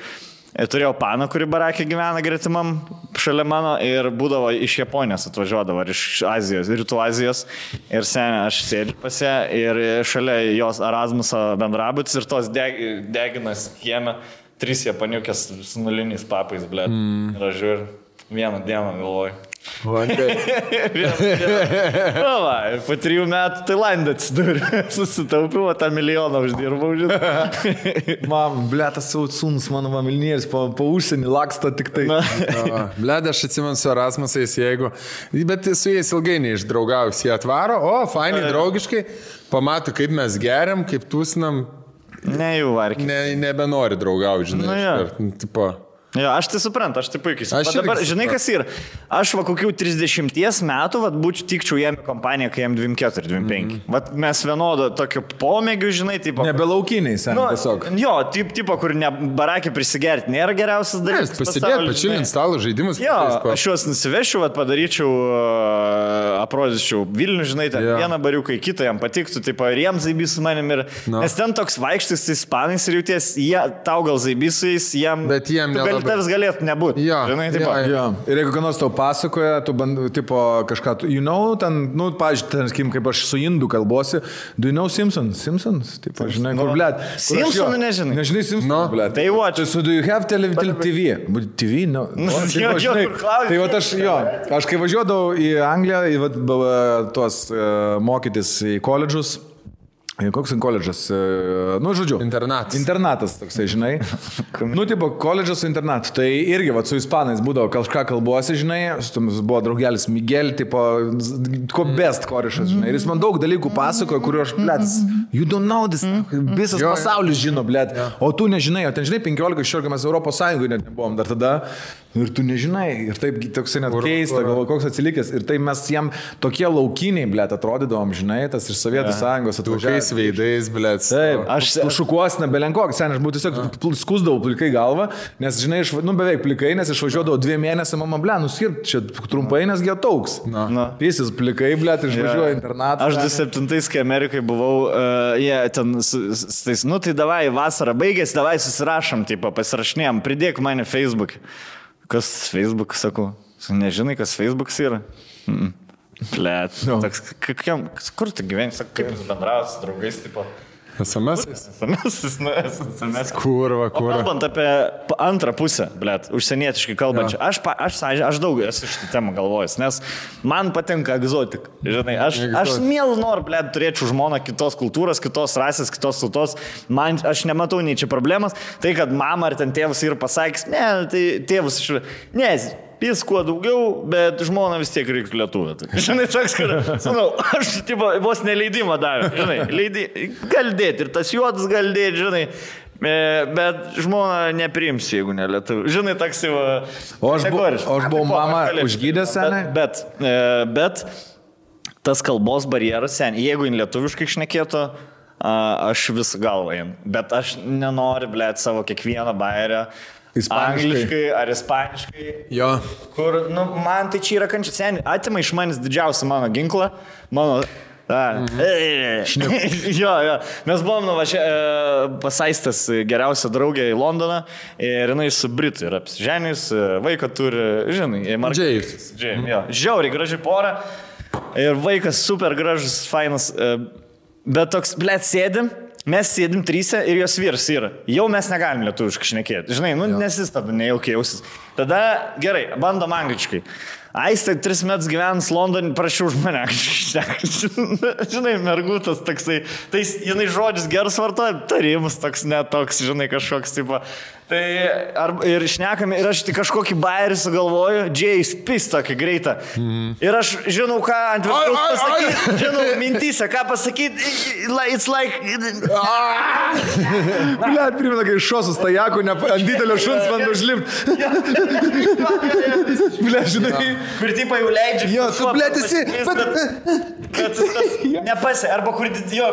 turėjau paną, kuri barakė gyvena gretimam šalia mano ir būdavo iš Japonijos atvažiuodavo, ar iš Azijos, Rytų Azijos. Ir seniai aš sėdžiu pas ją ir šalia jos Erasmuso bendrabutis ir tos deginas kieme. 3 japaniukės su nuliniais papais, blėt. Ir aš žiūriu, vieną dieną galvoju. Va, ir po 3 metų Tailandė atsidūrė. Susitaupiau, tą milijoną uždirbau, žinai. Mam, blėtas savo sūnus, mano mamilnėris, po užsienį laksto tik tai. Blėt, aš atsimenu su Erasmusais, jeigu... Bet su jais ilgai neišdraugaus, jie atvaro, fainai, draugiškai, pamato, kaip mes geriam, kaip tūsinam. Ne, jau varkiai. Nebenori draugauti, žinai. Tipo... Jo, aš tai suprantu, aš tai puikiai suprantu. Dabar, žinai, kas yra? Aš va kokių 30 metų, va, tikčiau jam kompaniją, kai jam 24, 25. Va, mes vienodo tokio pomėgių, žinai, tipo... Nebelaukiniai, sen, tiesiog. Jo, tipo, kur ne barakį prisigerti, nėra geriausias dalykas. Pasidėti, pačilint stalo žaidimus. Jo, aš juos nusivešiu, va, padaryčiau, aprodyčiau Vilnių, žinai, ten vieną bariuką į kitą, jam patiktų, tipo, ir jam zaibys su manim. Nes ten toks vaikštis ispanais ir jauties, tau gal zaibysais, jam... Bet jiem nelabai. Tavs galėtų nebūti. Žinai, Ir jeigu ką nors tau pasakoja, tu tipo kažką, ten, pažiūrėjau, kaip aš su indų kalbosi, do you know Simpsons? Simpsons? Tipo, žinai, kur, blėt. Simpsonų nežinai. Nežinai Simpsons, blėt. Tai watch. So do you have TV? TV? No. Tai va aš kai važiuodavau į Angliją, į tuos mokytis į koledžus, koks koledžas, žodžiu. Internatas toksai, žinai. Tipo, koledžas su internatu. Tai irgi, su ispanais būdavo kažką kalbuosi, žinai, buvo draugelis Miguel, tipo, best korišas, žinai. Ir jis man daug dalykų pasakojo, kuriuo aš, blėt, you don't know this, visas pasaulis žino, blėt, o tu nežinai, o ten, žinai, 15-16 mes Europos Sąjungoje net nebuvom dar tada. Ir tu nežinai, ir taip toksai net keista, galvo, koks atsilikęs. Ir tai mes jam tokie laukiniai, blėt, atrodydavom, žinai, tas iš Sovietų Sąjungos atvažiavęs. Veidais, blėt. Taip, aš šukuos nebelenkoks, sen, aš būtų tiesiog skusdavau plikai galvą, nes, žinai, beveik plikai, nes išvažiuodavau 2 mėnesių, mama, blėt, nuskirp čia trumpai, nes gėtauks. Jis plikai, blėt, išvažiuoja internatą. Aš 27, kai Amerikai buvau, jie ten, tai davai, vasarą baigėsi, davai susirašom, tipo, pasirašinėjom, pridėk mane Facebook. Kas Facebook, sakau? Nežinai, kas Facebookas yra? Blet. Kur tu gyveni? Kaip jūs bendravas su draugais, tipo? SMS. Kurva. Kalbant apie antrą pusę, blet, užsienietiškai kalbančią, aš daug esu šitą temą galvojęs, nes man patinka egzotika. Žinai, aš mielu noriu, blet, turėčiau žmoną kitos kultūros, kitos rasės, kitos tautos. Aš nematau nei čia problemas. Tai, kad mama ar ten tėvas yra pasakęs, ne, tai tėvus jis kuo daugiau, bet žmona vis tiek reiktų lietuvę. Žinai, toks, kad, aš tipo, vos neleidimą davė, žinai, gali dėti ir tas juodas gali dėti, žinai, bet žmona nepriims, jeigu ne lietuvė. Žinai, toks jau... O aš buvau mama užgydęs, senai? Bet tas kalbos barjeras, senai, jeigu jin lietuviškai šnekėtų, aš vis galvą jin, bet aš nenoriu, blėt, savo kiekvieną bairę angliškai ar ispaniškai. Jo. Kur, man tai čia yra kančia, seniai, atima iš manęs didžiausią mano ginklą, mano... Jo. Mes buvom pasaistas geriausia draugė į Londoną ir jinai su Britu yra apsiženys, vaiką turi, žinai, Džėjus. Žiauriai graži pora ir vaikas super gražus, fainas, bet toks, blėt, mes sėdim 3 ir jos vyras yra. Jau mes negalim lietuviškai šnekėti. Žinai, nes jis tada nejaukiai jausis. Tada gerai, bandom angliškai. Aistė 3 metus gyvenus Londone, prašiau už mane šnekti. Žinai, mergutas toksai. Tai jinai žodžius geras vartoja, tarimus toks netoks, žinai, kažkoks tipo. Tai ir šnekame, ir aš tik kažkokį bairį sugalvoju, Džėjus pis tokį greitą. Ir aš žinau, ką ant viršaus pasakyti, žinau, mintyse, ką pasakyti, it's like... Blet, primena, kai šosus tajakų, ant didelio šuns man užlipti. Blet, žinai. Kur tipo jau leidžia. Jo, tu, blet, esi... Nepasė, arba kur... Jo,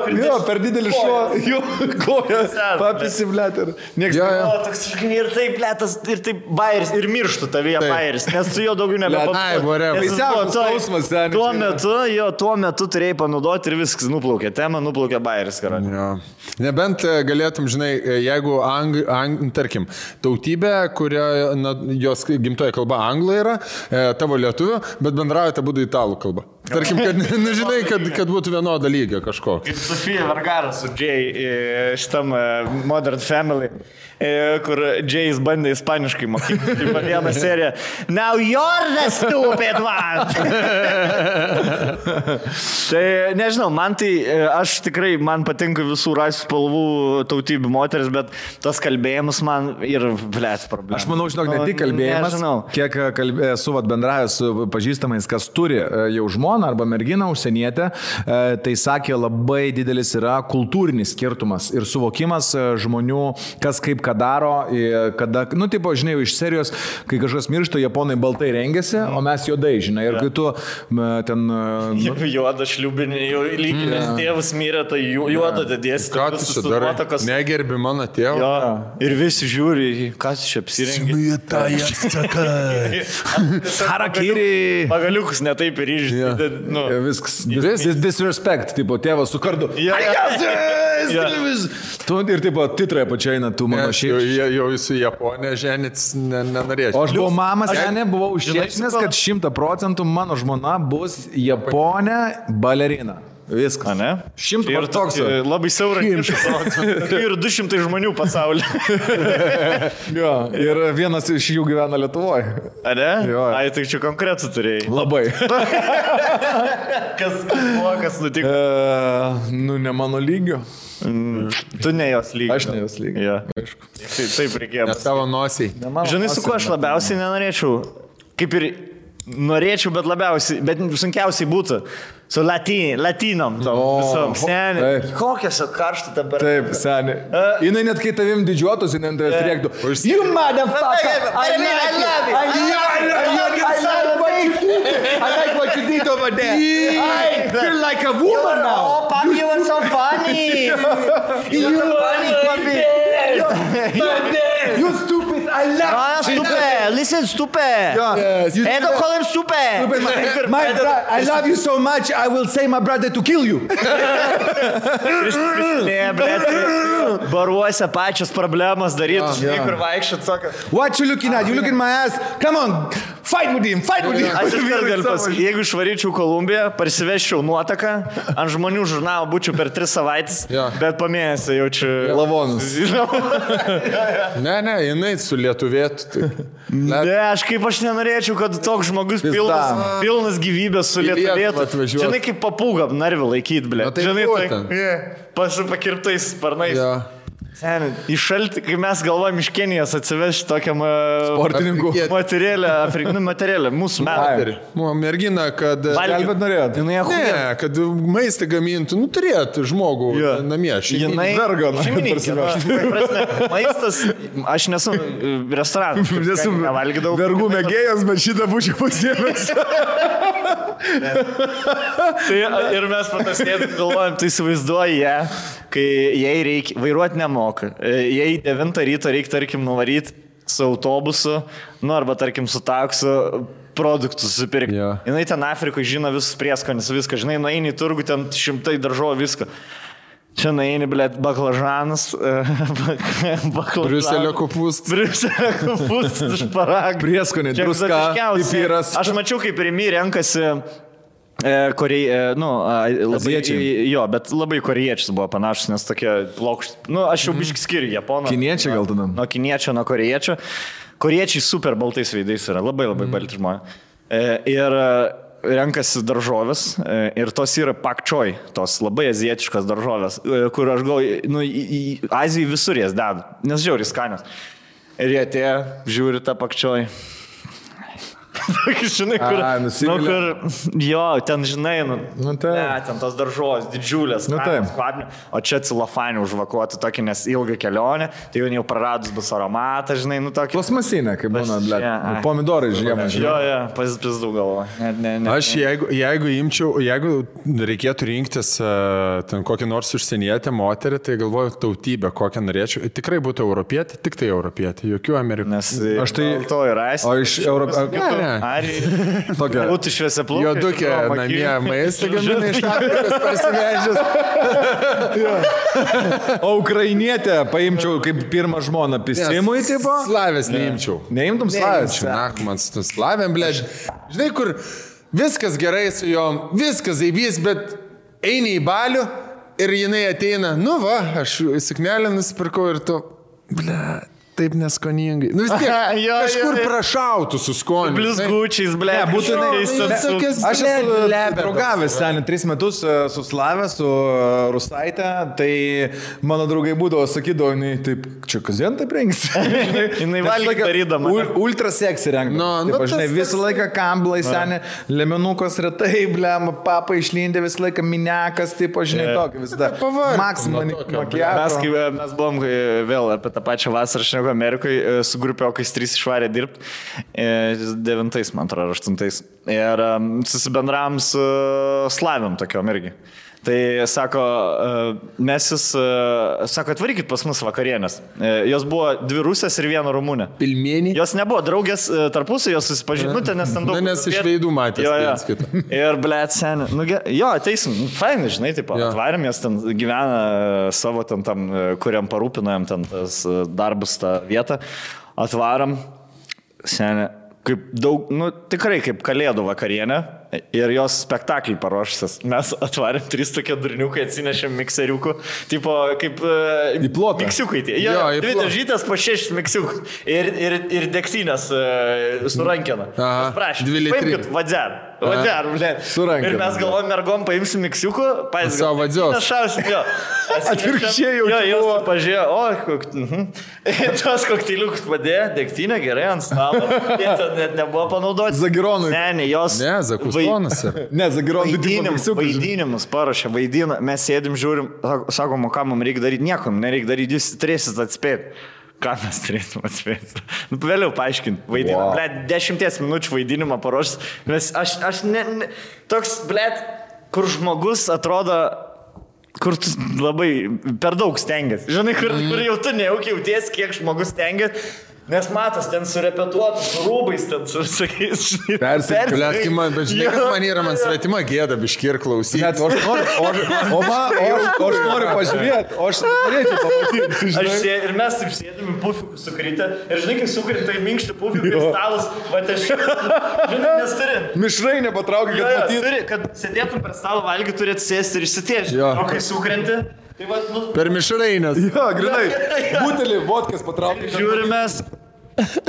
per didelį šuo. Jo, koja. Papisi, blet. Ir taip, blėtas, ir taip bairis, ir mirštų tavyje bairis, nes su jo daugiau nebepapasakos. Tuo metu turėjai panaudoti ir viskas nuplaukė. Tema nuplaukė bairis, karanė. Nebent galėtum, žinai, jeigu, tarkim, tautybė, kurio jos gimtoji kalba anglų yra, tavo lietuvių, bet bendraujate būdų italų kalba. Tarkim, kad, nu, žinai, kad būtų vienoda lygio kažko. Kaip Sofija Vergara su Jay šitam Modern Family, kur Jay's bandė ispaniškai mokyti. Vieną seriją. Now you're the stupid one! Tai nežinau, man tai, aš tikrai, man patinka visų rasių spalvų tautybių moteris, bet tas kalbėjimas man ir blėt problema. Aš manau, žinok, ne tik kalbėjimas, kiek esu bendravęs su pažįstamais, kas turi jau žmoną arba merginą užsienietę, tai sakė, labai didelis yra kultūrinis skirtumas ir suvokimas žmonių, kas kaip ką daro, kada, nu, tipo, žinai, iš serijos, kai kažkas miršta, japonai baltai rengiasi, o mes juodai, žinai, ir kai tu ten... Juoda šliubinė, lyginės tėvas mirė, tai juoda dėdėsi. Ką tu čia darai? Negerbi mano tėvą? Jo, ir visi žiūri, kas čia apsirengė. Harakiri. Pagaliukus netaip ir išdė. Viskas. Disrespect, tipo, tėvas su kardu. Ir tipo, titrai pačiaina, tu mano šiaip. Jau su Japonija ženits nenorėčiau. O aš buvau mamas, buvau užsienęs, kad 100% mano žmona bus Japonė balerina. Viskas. Ne? 100 ir toks labai siauras ir 200 žmonių pasaulyje. Jo, ir vienas iš jų gyvena Lietuvoje. A ne? Jo. Ai, tai čia konkretų turėjai. Labai. Kas buvo, kas nutiko? Nu, ne mano lygio. Tu ne jos lygio. Aš ne jos lygio. Ja. Taip reikėjo. Ne tavo nosiai. Žinai, su kuo aš labiausiai nenorėčiau? Kaip ir norėčiau, bet labiausiai, bet sunkiausiai būtų. Su latinom, visom. Seniai. Kokias karštą dabar. Taip, seniai. Jinai net kai tavim didžiuotus, jinai ant tavęs rėktų. You motherfucker! I like what you did over there. I feel like a woman now. Oh, Pam, you were so funny. You were funny, Papi. You stupid. I love you. Stupid. Listen, stupid. Hey, don't call him stupid. I love you so much. I will say my brother to kill you. Ne, blėt, baruose pačios problemos darytų, žinai, kur vaikščiat, sako. What you looking at? You looking at my ass? Come on, fight with him, fight with him. Aš iškart galiu pasakyti, jeigu išvaryčiau Kolumbiją, parsiveščiau nuotaką, ant žmonių žurnalą būčiau per 3 savaitės, bet po mėnesį jaučiu lavonus. Ne, jinai su lietuvėtų. Ne, aš nenorėčiau, kad toks žmogus pilnas gyvybės su lietuvėtų. Žinai, kaip papūga narvį laikyti, blė. Žinai, pasipakirtais sparnais. Seniai, iš šaltį, kai mes galvojam iš Kenijos atsivežti tokiam sportininkų materialę, mūsų metai. Mergina, kad... Gelbėt norėjot? Ne, kad maistą gamintų, nu turėtų žmogų namie. Jinai šeimininkė. Maistas, aš nesu restoranas. Nesu vergų mėgėjas, bet šitą būčiau pasiėmęs. Ir mes patasnėtum galvojam, tai įsivaizduoji ją, kai jai reikia, vairuoti nemoka. Jei 9 ryto reikia, tarkim, nuvaryti su autobusu, nu arba, tarkim, su taksu produktus susipirkti. Jinai ten Afrikoje žino visus prieskonis, viską, žinai, nueini į turgų, ten 100 daržovių, viską. Čia nueini, blėt, baklažanas, Briuselio kopūstas, šparagų. Prieskonė, druska, pipiras. Aš mačiau, kaip Rimi renkasi jo, bet labai korėjiečius buvo panašus, nes tokie plokšti. Nu, aš jau biškį skiriu Japoną. Kiniečiai gal tada? Nuo kiniečio, nuo korėjiečio. Korėjiečiai super baltais veidais yra, labai balti žmonės. Ir renkasi daržovės ir tos yra pak choi, tos labai azijietiškos daržovės, kur aš galvoju, nu, į Aziją visur jas dedu, nes žiauriai skanios. Ir jie atėjo, žiūri tą pak choi. Žinai, kur, jo, ten žinai, ten tos daržovės, didžiulės, o čia cilofanį užvakuoti tokį, nes ilgą kelionę, tai jau praradus bus aromatą, žinai, nu tokį. Plasmasinė, kaip būna, pomidorai žiemą, žinai. Jo, pazdau galvo. Aš jeigu reikėtų rinktis ten kokį nors užsienietę moterį, tai galvoju tautybę, kokią norėčiau. Tikrai būtų europietė, tik tai europietė, jokių amerikų. Nes to yra aišku. O iš Europos... Būtų šviesia plaukai. Jodukė namie maistą gamina iš Afrikos parsivežęs. O ukrainietę paimčiau kaip pirmą žmoną pisimui, tipo? Slavės neimčiau. Neimtum slavės? Na, man su slavėm, blėž. Žinai, kur viskas gerai su jom, viskas zaibys, bet eini į balių ir jinai ateina, nu va, aš suknelę nusipirkau ir tu, ble, taip neskoningai. Nu vis tiek, kažkur prašautų su skoniu. Blizgučiais, ble, būtinai. Aš esu draugavęs ten 3 metus su Slave, su Rusaitė, tai mano draugai būdavo, sakydavo, jinai taip, čia kasdien taip rengsi. Jinai valgė darydama. Ultra seksį rengdama. Žinai, visą laiką kamblai seni, lemenukos retai, blem, papa išlindė visą laiką minekas, taip, žinai, tokį visada. Maksimum makiažą. Mes buvom vėl apie tą pačią vasarą šnekų Amerikoje su grupiokais 3 išvarė dirbti, 9, man atrodo, 8. Ir susibendravom su Slaviam tokiom irgi. Tai sako, mes jūs, sako, atvarykit pas mus vakarienės. Jos buvo 2 rusės ir 1 rumunė. Pilmenį. Jos nebuvo draugės tarpusai, jos susipažinutė, nes ten daug... Nes iš veidų matės. Ir, blėt, seni, jo, ateisim, fainai, žinai, taip, atvarėm, jos ten gyvena savo ten tam, kuriam parūpinojom ten tas darbus, tą vietą. Atvaram, seni, kaip daug, nu, tikrai kaip kalėdų vakarienė. Ir jos spektaklį paruošęs. Mes atvarėm 3 tokie durniukai, atsinešėm mikseriukų. Tipo, kaip... Į plotą. Miksiukai tie. Jo, 2 dažytas po 6 miksiukų. Ir degtinės su rankena. Prašym, paimkit vadzer. Vadzer, blė. Su rankena. Ir mes galvojom, mergom paimsim miksiukų. Savo vadzios. Našausim, jo. Atvirkščiai jau čia buvo. Pažiūrėjo, tos kokteiliukus padėjo, degtinė gerai ant stalo. Jie ten net nebuvo panaudoti. Zagironui. Ne, jos... Ne, Zakustonas. Ne, Zagironui. Vaidinimus paruošė, vaidina. Mes sėdim, žiūrim, sakom, ką mums reikia daryti. Nieko nereikia daryti, jūs turėsit atspėti. Ką mes turėsim atspėti? Nu, vėliau paaiškinti. Vaidinimą. Blet, 10 minučių vaidinimą paruošęs. Aš toks, blet, kur žmogus atrodo, kur tu labai per daug stengiasi. Žinai, kur jau tu nejaukiai jauties, kiek žmogus stengiasi. Nes matas, ten surepetuotas, su rūbais, ten su sakys, žinai. Persikliat, bet žinai, kas man yra, man svetima gėda biški ir klausyti. Net, aš noriu pažiūrėti, o aš norėčiau pamatyti. Ir mes taip sėdėm į pufikų sukritę. Ir žinai, kai sukritą į minkštį pufikų ir stalas, va aš, žinai, nes turi. Mišrai nepatraukia, kad matyti. Turi, kad sėdėtum per stalą valgį, turi atsėsti ir išsitiežti. O kai sukrenti, tai va, nu... Per mišrainės. Jo, grinai. Butelį, vodkas patraukia. Žiūrimės.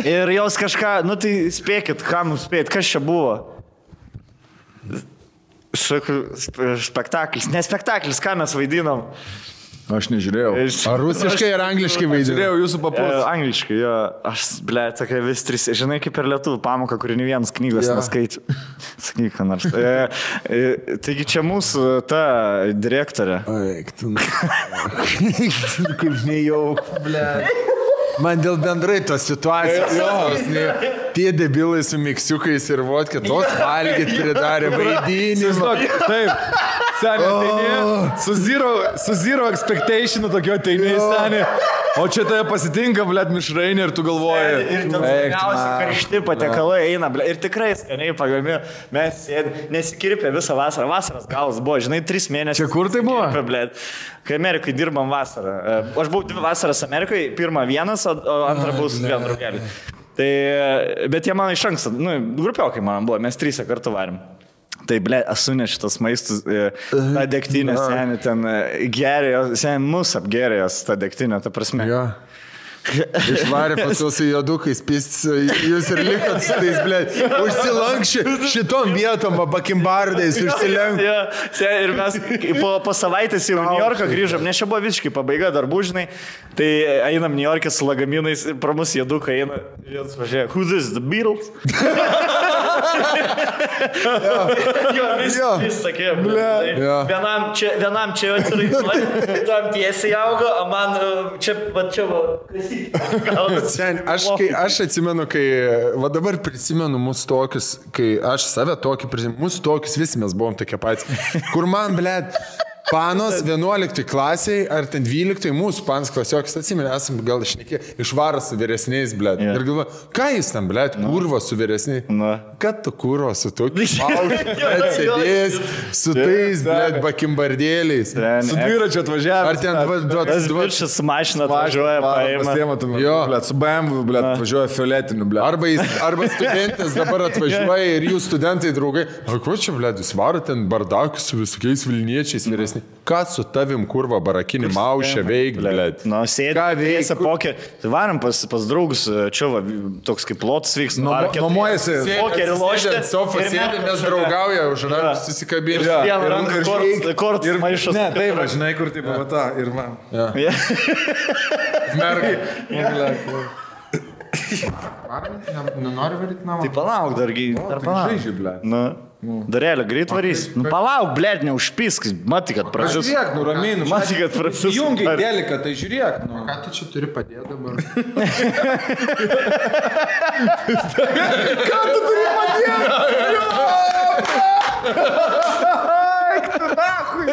Ir jos kažką, nu tai spėkit, ką mums spėt, kas čia buvo? Spektaklis, ne spektaklis, ką mes vaidinom? Aš nežiūrėjau. Ar rusiškai ar angliškai vaidinau? Žiūrėjau jūsų papus. Angliškai, jo. Aš, ble, tokia vis 3, žinai, kaip per lietuvių pamoką, kuri ne vienas knygos neskaičiu. Sakyk, ką nors. Taigi čia mūsų ta direktorė. Eik, tu. Kaip nejauk, ble. Man dėl bendrai tos situacijos, tie debilai su miksiukais ir vodka, tos valgyt pridarė vaidinimą. Taip, seniai, su zero expectation tokio ateini, seniai. O čia tave pasitinka, blėt, mišrainė ir tu galvoji. Ir ten skaniausi karšti patiekalai eina, blėt, ir tikrai skaniai pagami. Mes nesikirpė visą vasarą. Vasaras galas buvo, žinai, 3 mėnesius. Čia kur tai buvo? Blėt, kai Amerikai dirbam vasarą. Aš buvau 2 vasaras Amerikai, pirmą vienas, o antrą buvau su 2 draugelį. Tai, bet jie man iš anksto, nu, grupiokai man buvo, mes 3 kartu varim. Tai, ble, esu šitas maistus, ta degtinė, seniai, ten gerėjo, seniai, mus apgerėjo ta degtinė, ta prasme. Jo. Išvarė pas su jodukais, jūs ir likot su tais, ble, užsilankščiai šitom vietom, bakimbardais, užsilenk. Ja, ir mes po savaitės jau New Yorką grįžom, nes čia buvo visiškai pabaiga darbų, žinai, tai einam New York'e su lagaminais, pro mus jodukai eina, ir jis važiuoja, who this, the Beatles? Jo, vis sakė, vienam čia atsiraiduoja, tam tiesiai augo, o man čia va, Aš atsimenu, kai, va dabar prisimenu mūsų tokius, kai aš save tokį prisimenu, mūsų tokius visi mes buvom tokie patys, kur man, blėt, Panos 11 klasiai, ar ten 12, mūsų panas klasiokas, atsimenu, esam gal išnekė, išvaras su vyresniais, blėt. Yeah. Ir galva, ką jis ten, blėt, kurva su vyresniais? Kad tu kurva su tokiu sėdės, su tais, blėt, bakimbardėliais. Su dviračiu atvažiavęs. Ar ten Tas viršas su mašina atvažiuoja, paima. Jo, blėt, su BMW, blėt, atvažiuoja fioletiniu, blėt. Arba studentas dabar atvažiuoja ir jų studentai draugai. O ko čia, blėt, jūs varo ten bardakus su visokiais vilniečiais vyresniais? Ką su tavim, kurva, barakinį maušę veik, blėt? Nu, sėdėsi pokerį. Tai varom pas draugus, čia va, toks kaip lotas vyks. Nuomojasi. Pokerį lošti. Sofa sėdė, mes draugauja, už rankų susikabinti. Vieną ranką kortas maišas. Ne, taip, žinai, kur taip pavata ir man. Mergai. Nenori varyti namą? Tai palauk, dargi. Žaidžiu, blėt. Darėlė, greit varys. Nu, palauk, blėt, neužpisk. Matai, kad pražys. Žiūrėk, nuraminu. Matai, kad pražys. Jungiai dėlika, tai žiūrėk. Ką tu čia turi padėti dabar? Ką tu turi padėti? Eik tu nachui.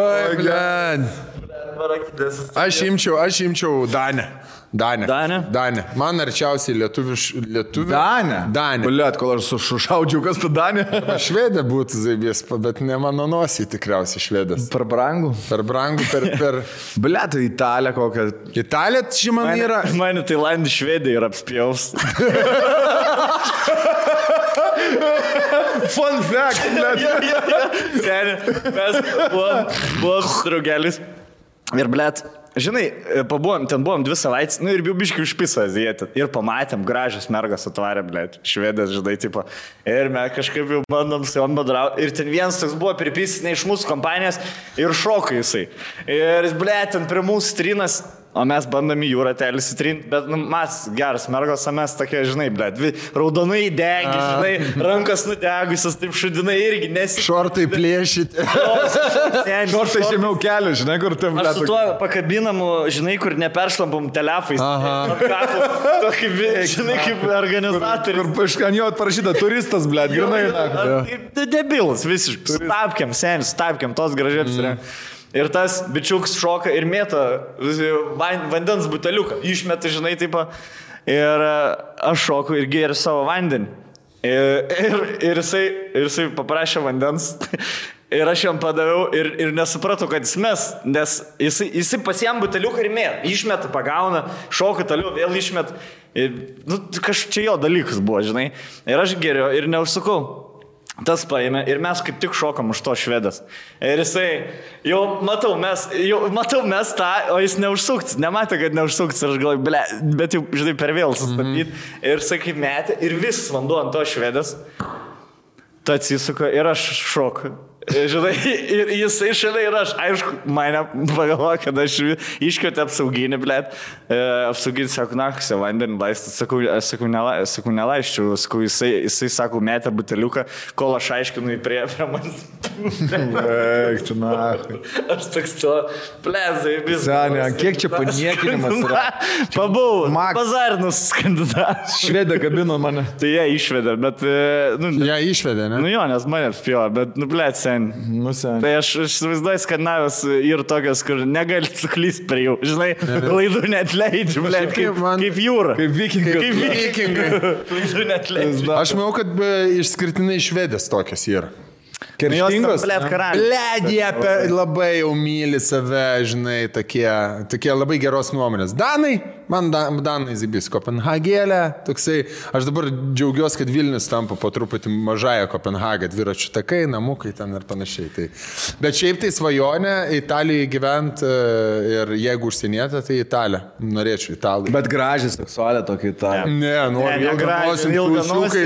Oi, blėt. Aš imčiau Danę. Man arčiausiai lietuvių. Danė. Blėt, kol aš sušaudžiau, kas tu Danė? Švedė būtų zaibės, bet ne mano nosį tikriausiai švedas. Per brangų. Per brangų, per... Blėt, Italija kokią. Italija, čia man yra... Mane Tailandį Švedija ir apspjaus. Fun fact, blėt. Mes buvom draugelis. Ir, blėt, žinai, ten buvom 2 savaitės, nu ir biškiai užpiso azijėti. Ir pamatėm, gražios mergos atvarė, blėt, švedės, žinai, tipo. Ir mes kažkaip jau bandom su jom bendrauti. Ir ten vienas toks buvo pripysęs ne iš mūsų kompanijos ir šoko jisai. Ir, blėt, ten prie mūsų trinas. O mes bandom į jūrą telis įtrinti, bet nu, mes geras mergos, o mes tokie, žinai, blėt, raudonai degi, žinai, rankas nudegusios, taip šudinai irgi nesi. Šortai plėšyti. Šortai žemiau kelių, žinai, kur tam blėt. Aš su tuo pakabinamu, žinai, kur neperšlampam telefais. Tokį, žinai, kaip organizatorius. Kur ant jo parašyta turistas, blėt, grinai. Debilas, visiškai. Stapkiam, tos gražiai. Ir tas bičiuks šoka ir mėta vandens buteliuką. Išmeta, žinai, taip. Ir aš šoku ir gėriu savo vandenį. Ir jisai paprašė vandens. Ir aš jam padaviau ir nesupratau, kad jis mes. Nes jisai pasiėm buteliuką ir mėta. Išmeta, pagauna, šoka toliau, vėl išmeta. Nu, kažkaip čia jo dalykas buvo, žinai. Ir aš gėriu ir neužsukau. Tas paėmė ir mes kaip tik šokam už to švedas. Ir jisai, jau matau mes tą, o jis neužsukts, nematė, kad neužsukts. Ir aš galvoju, ble, bet jau, žinai, per vėl sustabdyti. Ir jisai kaip metė ir visas vanduo ant to švedas. Tai atsisuka ir aš šoku. Žinai, ir jisai šalia ir aš, aišku, mane pagalvoja, kad aš iškvietė apsauginį, blėt. Apsauginį, sako, nakusia, vandenį laistą. Sakau, nelaisčiau. Sakau, jisai, sako, metė buteliuką, kol aš aiškinu į prie manęs. Eik, tu nahui. Aš toks to, plezai, visą. Senė, kiek čia paniekinimas yra? Pabuvau, bazarinus kandidatas. Švedė kabino mane. Tai jie išvedė, bet... Jie išvedė, ne? Nu jo, nes mane apspėjo, bet, blėt, sen. Tai aš įsivaizduoju Skandinavijos ir tokios, kur negali suklysti prie jų. Žinai, klaidų net leidžiu, blėt, kaip jūra. Kaip vikingai. Klaidų net leidžiu. Aš manau, kad išskirtinai švedės tokios yra. Kerštingos. Blėt, jie labai jau myli save, žinai, tokie labai geros nuomonės. Danai, man Danai zibis, Kopenhagėlė, toksai, aš dabar džiaugiuosi, kad Vilnius tampa po truputį mažąją Kopenhagą, dviračių takai, namukai ten ir panašiai. Tai. Bet šiaip tai svajonė Italijoje gyventi ir jeigu užsienietė, tai Italija. Norėčiau Italų. Bet gražiai seksualė tokia Italija. Ne, noriu ilgą nosį.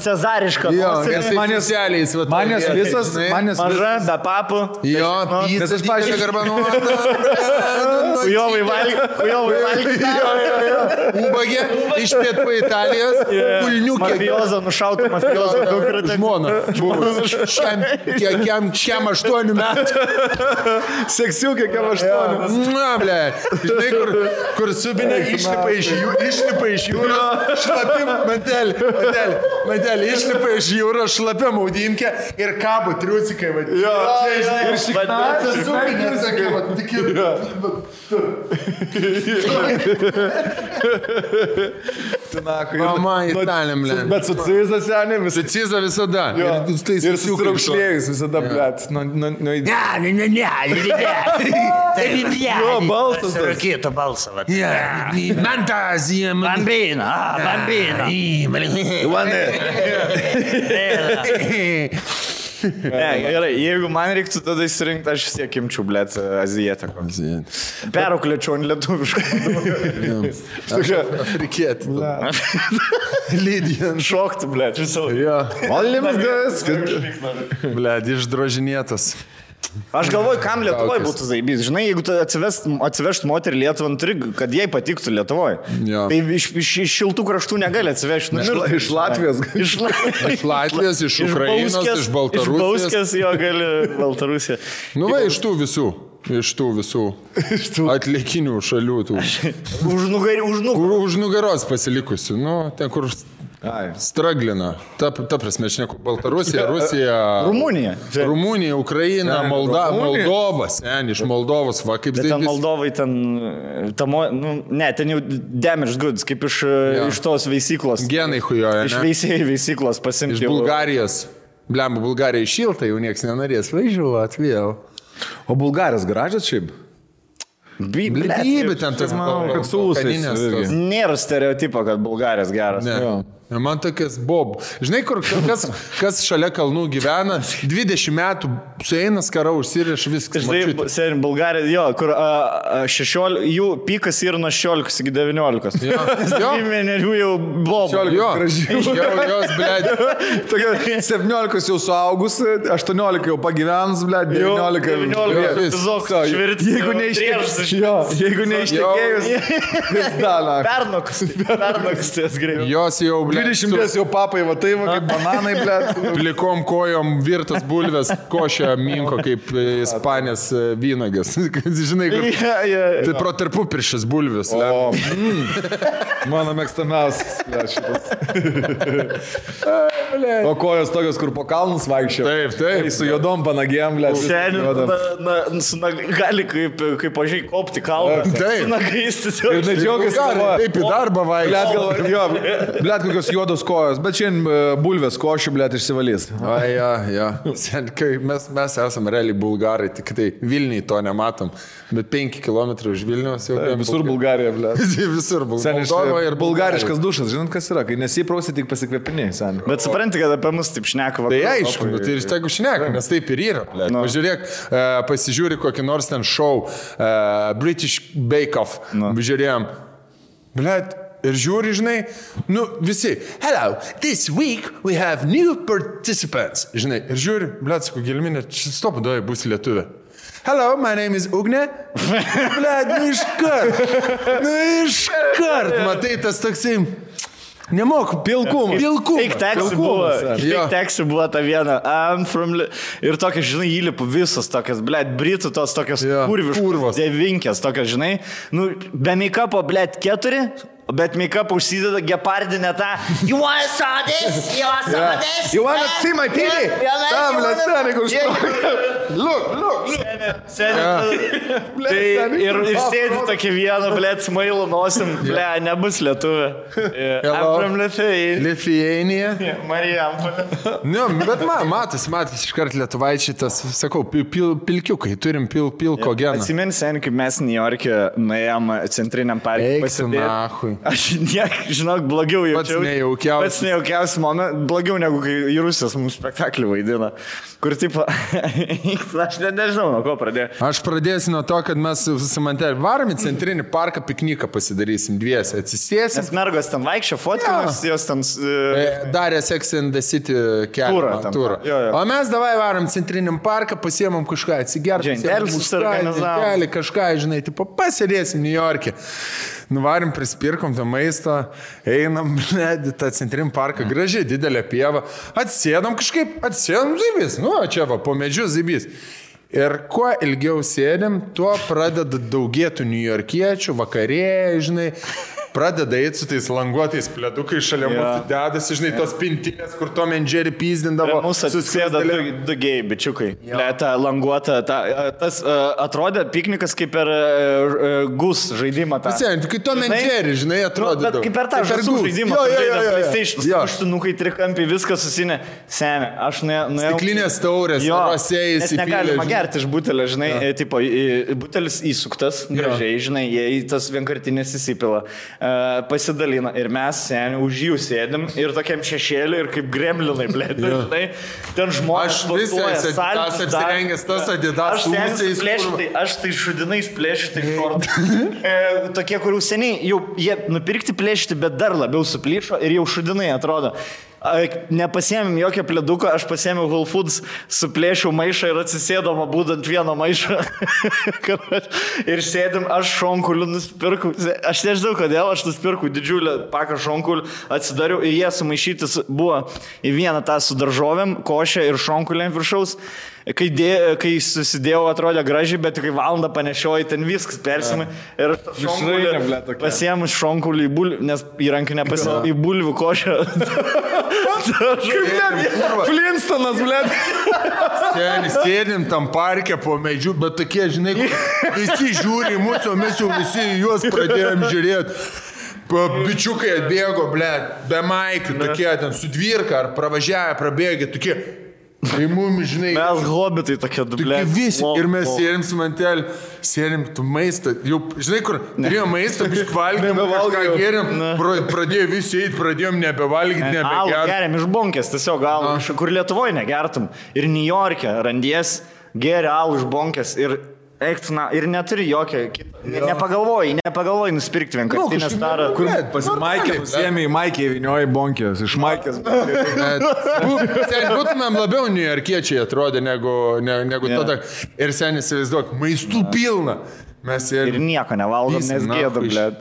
Cezarišką nosį. Manęs visas, maža, be papų. Jo, pysas, pažiūrė, garbanuota. Kujovai valgyti. Ubagė iš pietų Italijos, kulniukė. Mafiozo nušauta, mafiozo dukra. Žmona. Kiam 8 metų. Seksiukė, kiam 8. Na, ble. Žinai, kur subinė išlipa iš jūros, šlapim, mantelį, išlipa iš jūros, šlapia maudinkę ir kabo triusikai, va. Ir šiknatas subinė, sakai, va, tik Mama, Italijam, ble. Bet su Ciza senė visą. Ciza visada. Ir susiraukšlėjus visada, blėt. Jo, balsas. Rakėto balsą. Fantazija. Bambina. Ne, gerai, jeigu man reiktų tada įsirinkti, aš vis tiek imčiau, blėt, azijietę. Perauklėčiau ant lietuviškų. Afrikietį. Lydijan. Šokti, blėt, visą. Olimas gas. Blėt, išdrožinėtas. Aš galvoju, kam Lietuvoje būtų zaibys. Žinai, jeigu tu atsivešt moterį Lietuvą, turi, kad jai patiktų Lietuvoje. Tai iš šiltų kraštų negali atsivežti. Iš Latvijos. Iš Latvijos, iš Ukrainos, iš Baltarusijos. Iš Bauskės jo gali Baltarusija. Nu va, iš tų visų atlikinių šalių. Už nugaros pasilikusių. Nu, ten kur... Straglina. Ta prasme, aš neku. Baltarusija, Rusija. Rumunija, Ukraina, Moldova. Sen, iš Moldovos, va, kaip tai. Bet ten Moldovai, ten jau damaged goods, kaip iš tos veisyklos. Genai hujoja, ne? Iš veisėjų veisyklos pasimti. Iš Bulgarijos. Blemba, Bulgarija šilta, jau nieks nenorės važiuot vėl. O Bulgarijos gražios šiaip? Blybė ten tas, manau, kad su ūsais. Nėra stereotipo, kad Bulgarijos geras. Ne. Man tokias bob. Žinai, kur kas šalia kalnų gyvena, 20 metų sueina skara, užsiriš viskas. Žinai, Bulgarija, jo, kur 16, jų pikas yra nuo 16 iki 19. Jo. Vienerių jau bob. Jo, jos, blėd. 17 jau suaugus, 18 jau pagyvenus, blėd, 19. Jeigu neištekėjus, pernokas ties greitai. Jos jau, blėd. 20 jau papai, va tai va, kaip bananai, blėt. Plikom kojom virtas bulvės, košė minko kaip ispanės vynagas. Žinai, kur... Tai pro tarpupiršis bulvės. Mano mėgstamiausias, blėt, šitas. O kojos tokios, kur po kalnus vaikščio. Taip. Su juodom panagėm, blėt. Gali kaip pažiai kopti kalbą. Taip. Su nagais. Ir nedžiaugiasi. Taip į darbą vaikščio. Blėt, kokios juodos kojos, bet šiandien bulvės košių, blėt, išsivalys. Mes esame realiai bulgarai, tik tai Vilniui to nematom, bet 5 km už Vilniaus jau... Visur Bulgarija, blėt. Visur Bulgarija. Bulgariškas dušas, žinot, kas yra, kai nesiprausi, tik pasikvėpiniai, sen. Bet supranti, kad apie mus taip šneka. Tai aišku, tai ir tegu šneka, nes taip ir yra, blėt. Pažiūrėk, pasižiūri kokį nors ten show, British Bake Off, žiūrėjom, blėt. Ir žiūri, žinai, visi, hello, this week we have new participants. Žinai, ir žiūri, blėt, sako, Gelminė, stop, duoja, bus lietuvė. Hello, my name is Ugne. Blėt, iškart, matai, tas toksai... Nemoku, pilkumas. Tik teksų buvo ta viena. Ir tokia, žinai, įlipu visos tokias, blėt, britų tos tokias kurviškos, devinkės tokias, žinai. Be make-upo, blėt, 4, bet make-upą užsideda gepardinę tą. You wanna saw this? You wanna see my titty? Tam, blėt, senai, kur štokia. Look. Ir sėdi tokia viena, blėt, smailu nosim, blėt, nebus lietuvė. From Lithuania. Marijampolė. Bet matas, iškart lietuvaičiai tas, sakau, pilkiukai, turim pilko geną. Atsimeni, seniai, kaip mes New York'e nuėjom centriniam parke pasidėti. Aš žinok, blogiau jaučiau. Pats nejaukiausias momentas, blogiau negu kai Rusijos mums spektaklį vaidina. Kur tipo, aš nežinau, ko pradėjai? Aš pradėsiu nuo to, kad mes su Mantelį varom į centrinį parką, pikniką pasidarysim dviesi, atsisėsim. Nes mergos ten vaikščia, fotkinas, jos ten... Darė Sex and the City turą. O mes davai varom centriniam parką, pasiemam kažką atsigerti. Džentelis kažką, žinai, tipo, pasėdėsim New York'e. Nuvarim, prispirkom tą maistą, einam, tą centrinį parką, gražiai, didelė pieva, atsėdam zybys, čia va, po medžiu zybys. Ir kuo ilgiau sėdėm, tuo pradeda daugėtų niujorkiečių, vakarėjai, žinai, pradeda eiti su tais languotais pledukai šalia mūsų dedasi, žinai, tos pintinės, kur Tom and Jerry pyzdindavo. Mūsų atsisėda du gėjai, bičiukai. Ta languota, tas atrodė piknikas kaip per gus žaidimą. Kai Tom and Jerry, žinai, atrodė. Bet kaip per tą žaidimą žaidimą. Aštunukai, trikampiai, viskas susinė. Seni, aš nuėjau. Stiklinės taurės, rosėjai, nes negalima gerti iš butelio, žinai, tipo, butelis įsuktas, gražiai, žinai, jie tas vienkartinės įsipila. Pasidalina ir mes seniai už jų sėdim ir tokiam šešėliu ir kaip gremlinai, blėt, žinai, ten žmonės sportuoja, saltis, apsirengęs tas Adidas, aš tai šudinais plėšiu, tai šortai. Tokie, kurių seniai jau jie nupirkti plėšti, bet dar labiau suplyšo ir jau šudinai atrodo. Nepasiėmėm jokio pleduko, aš pasiėmiau Whole Foods, suplėšiau maišą ir atsisėdama būdant vieną maišą. Ir sėdim, aš šonkulių nusipirkau. Aš nežinau, kodėl, aš nusipirkau didžiulę paką šonkulių, atsidariau ir jie sumaišytis buvo į vieną tą su daržovėm, košę ir šonkulėm viršaus. Kai susidėjau, atrodė gražiai, bet kai valandą panešioju, ten viskas persimai. Ir pasiėmus šonkulį į bulvių, nes įrankį nepasiėmė į bulvių košę. Flintstonas, blėt. Sėdim tam parke po medžių, bet tokie, žinai, visi žiūri mūsų, mes jau visi juos pradėjom žiūrėti. Bičiukai atbėgo, blėt, be maikių, tokie ten su dvirka ar pravažiavę, prabėgė, tokie. Tai mums, žinai... Mes hobitai tokie dublė. Visi. Ir mes sėdim su Mantelį, sėdim tu maistą. Jau, žinai, kur turėjom maistą, valgėm, kažką gėrėm, pradėjo visi eiti, pradėjom nebevalgyti, nebegerti. Alų geriam iš bonkės, tiesiog alų, kur Lietuvoje negertum. Ir New York'e randies, geri alų iš bonkės ir... Eiktina, ir neturi jokio kito. Nepagalvoji nusipirkti vienkartinę starą. Kur pasimaikė, pasiėmė į maikę įvinioji bonkės, iš maikės. Būtumėm labiau niujorkiečiai atrodė negu tada. Ir seniai įsivaizduok, maistų pilna. Ir nieko nevalgom, nes gėdam, blėt.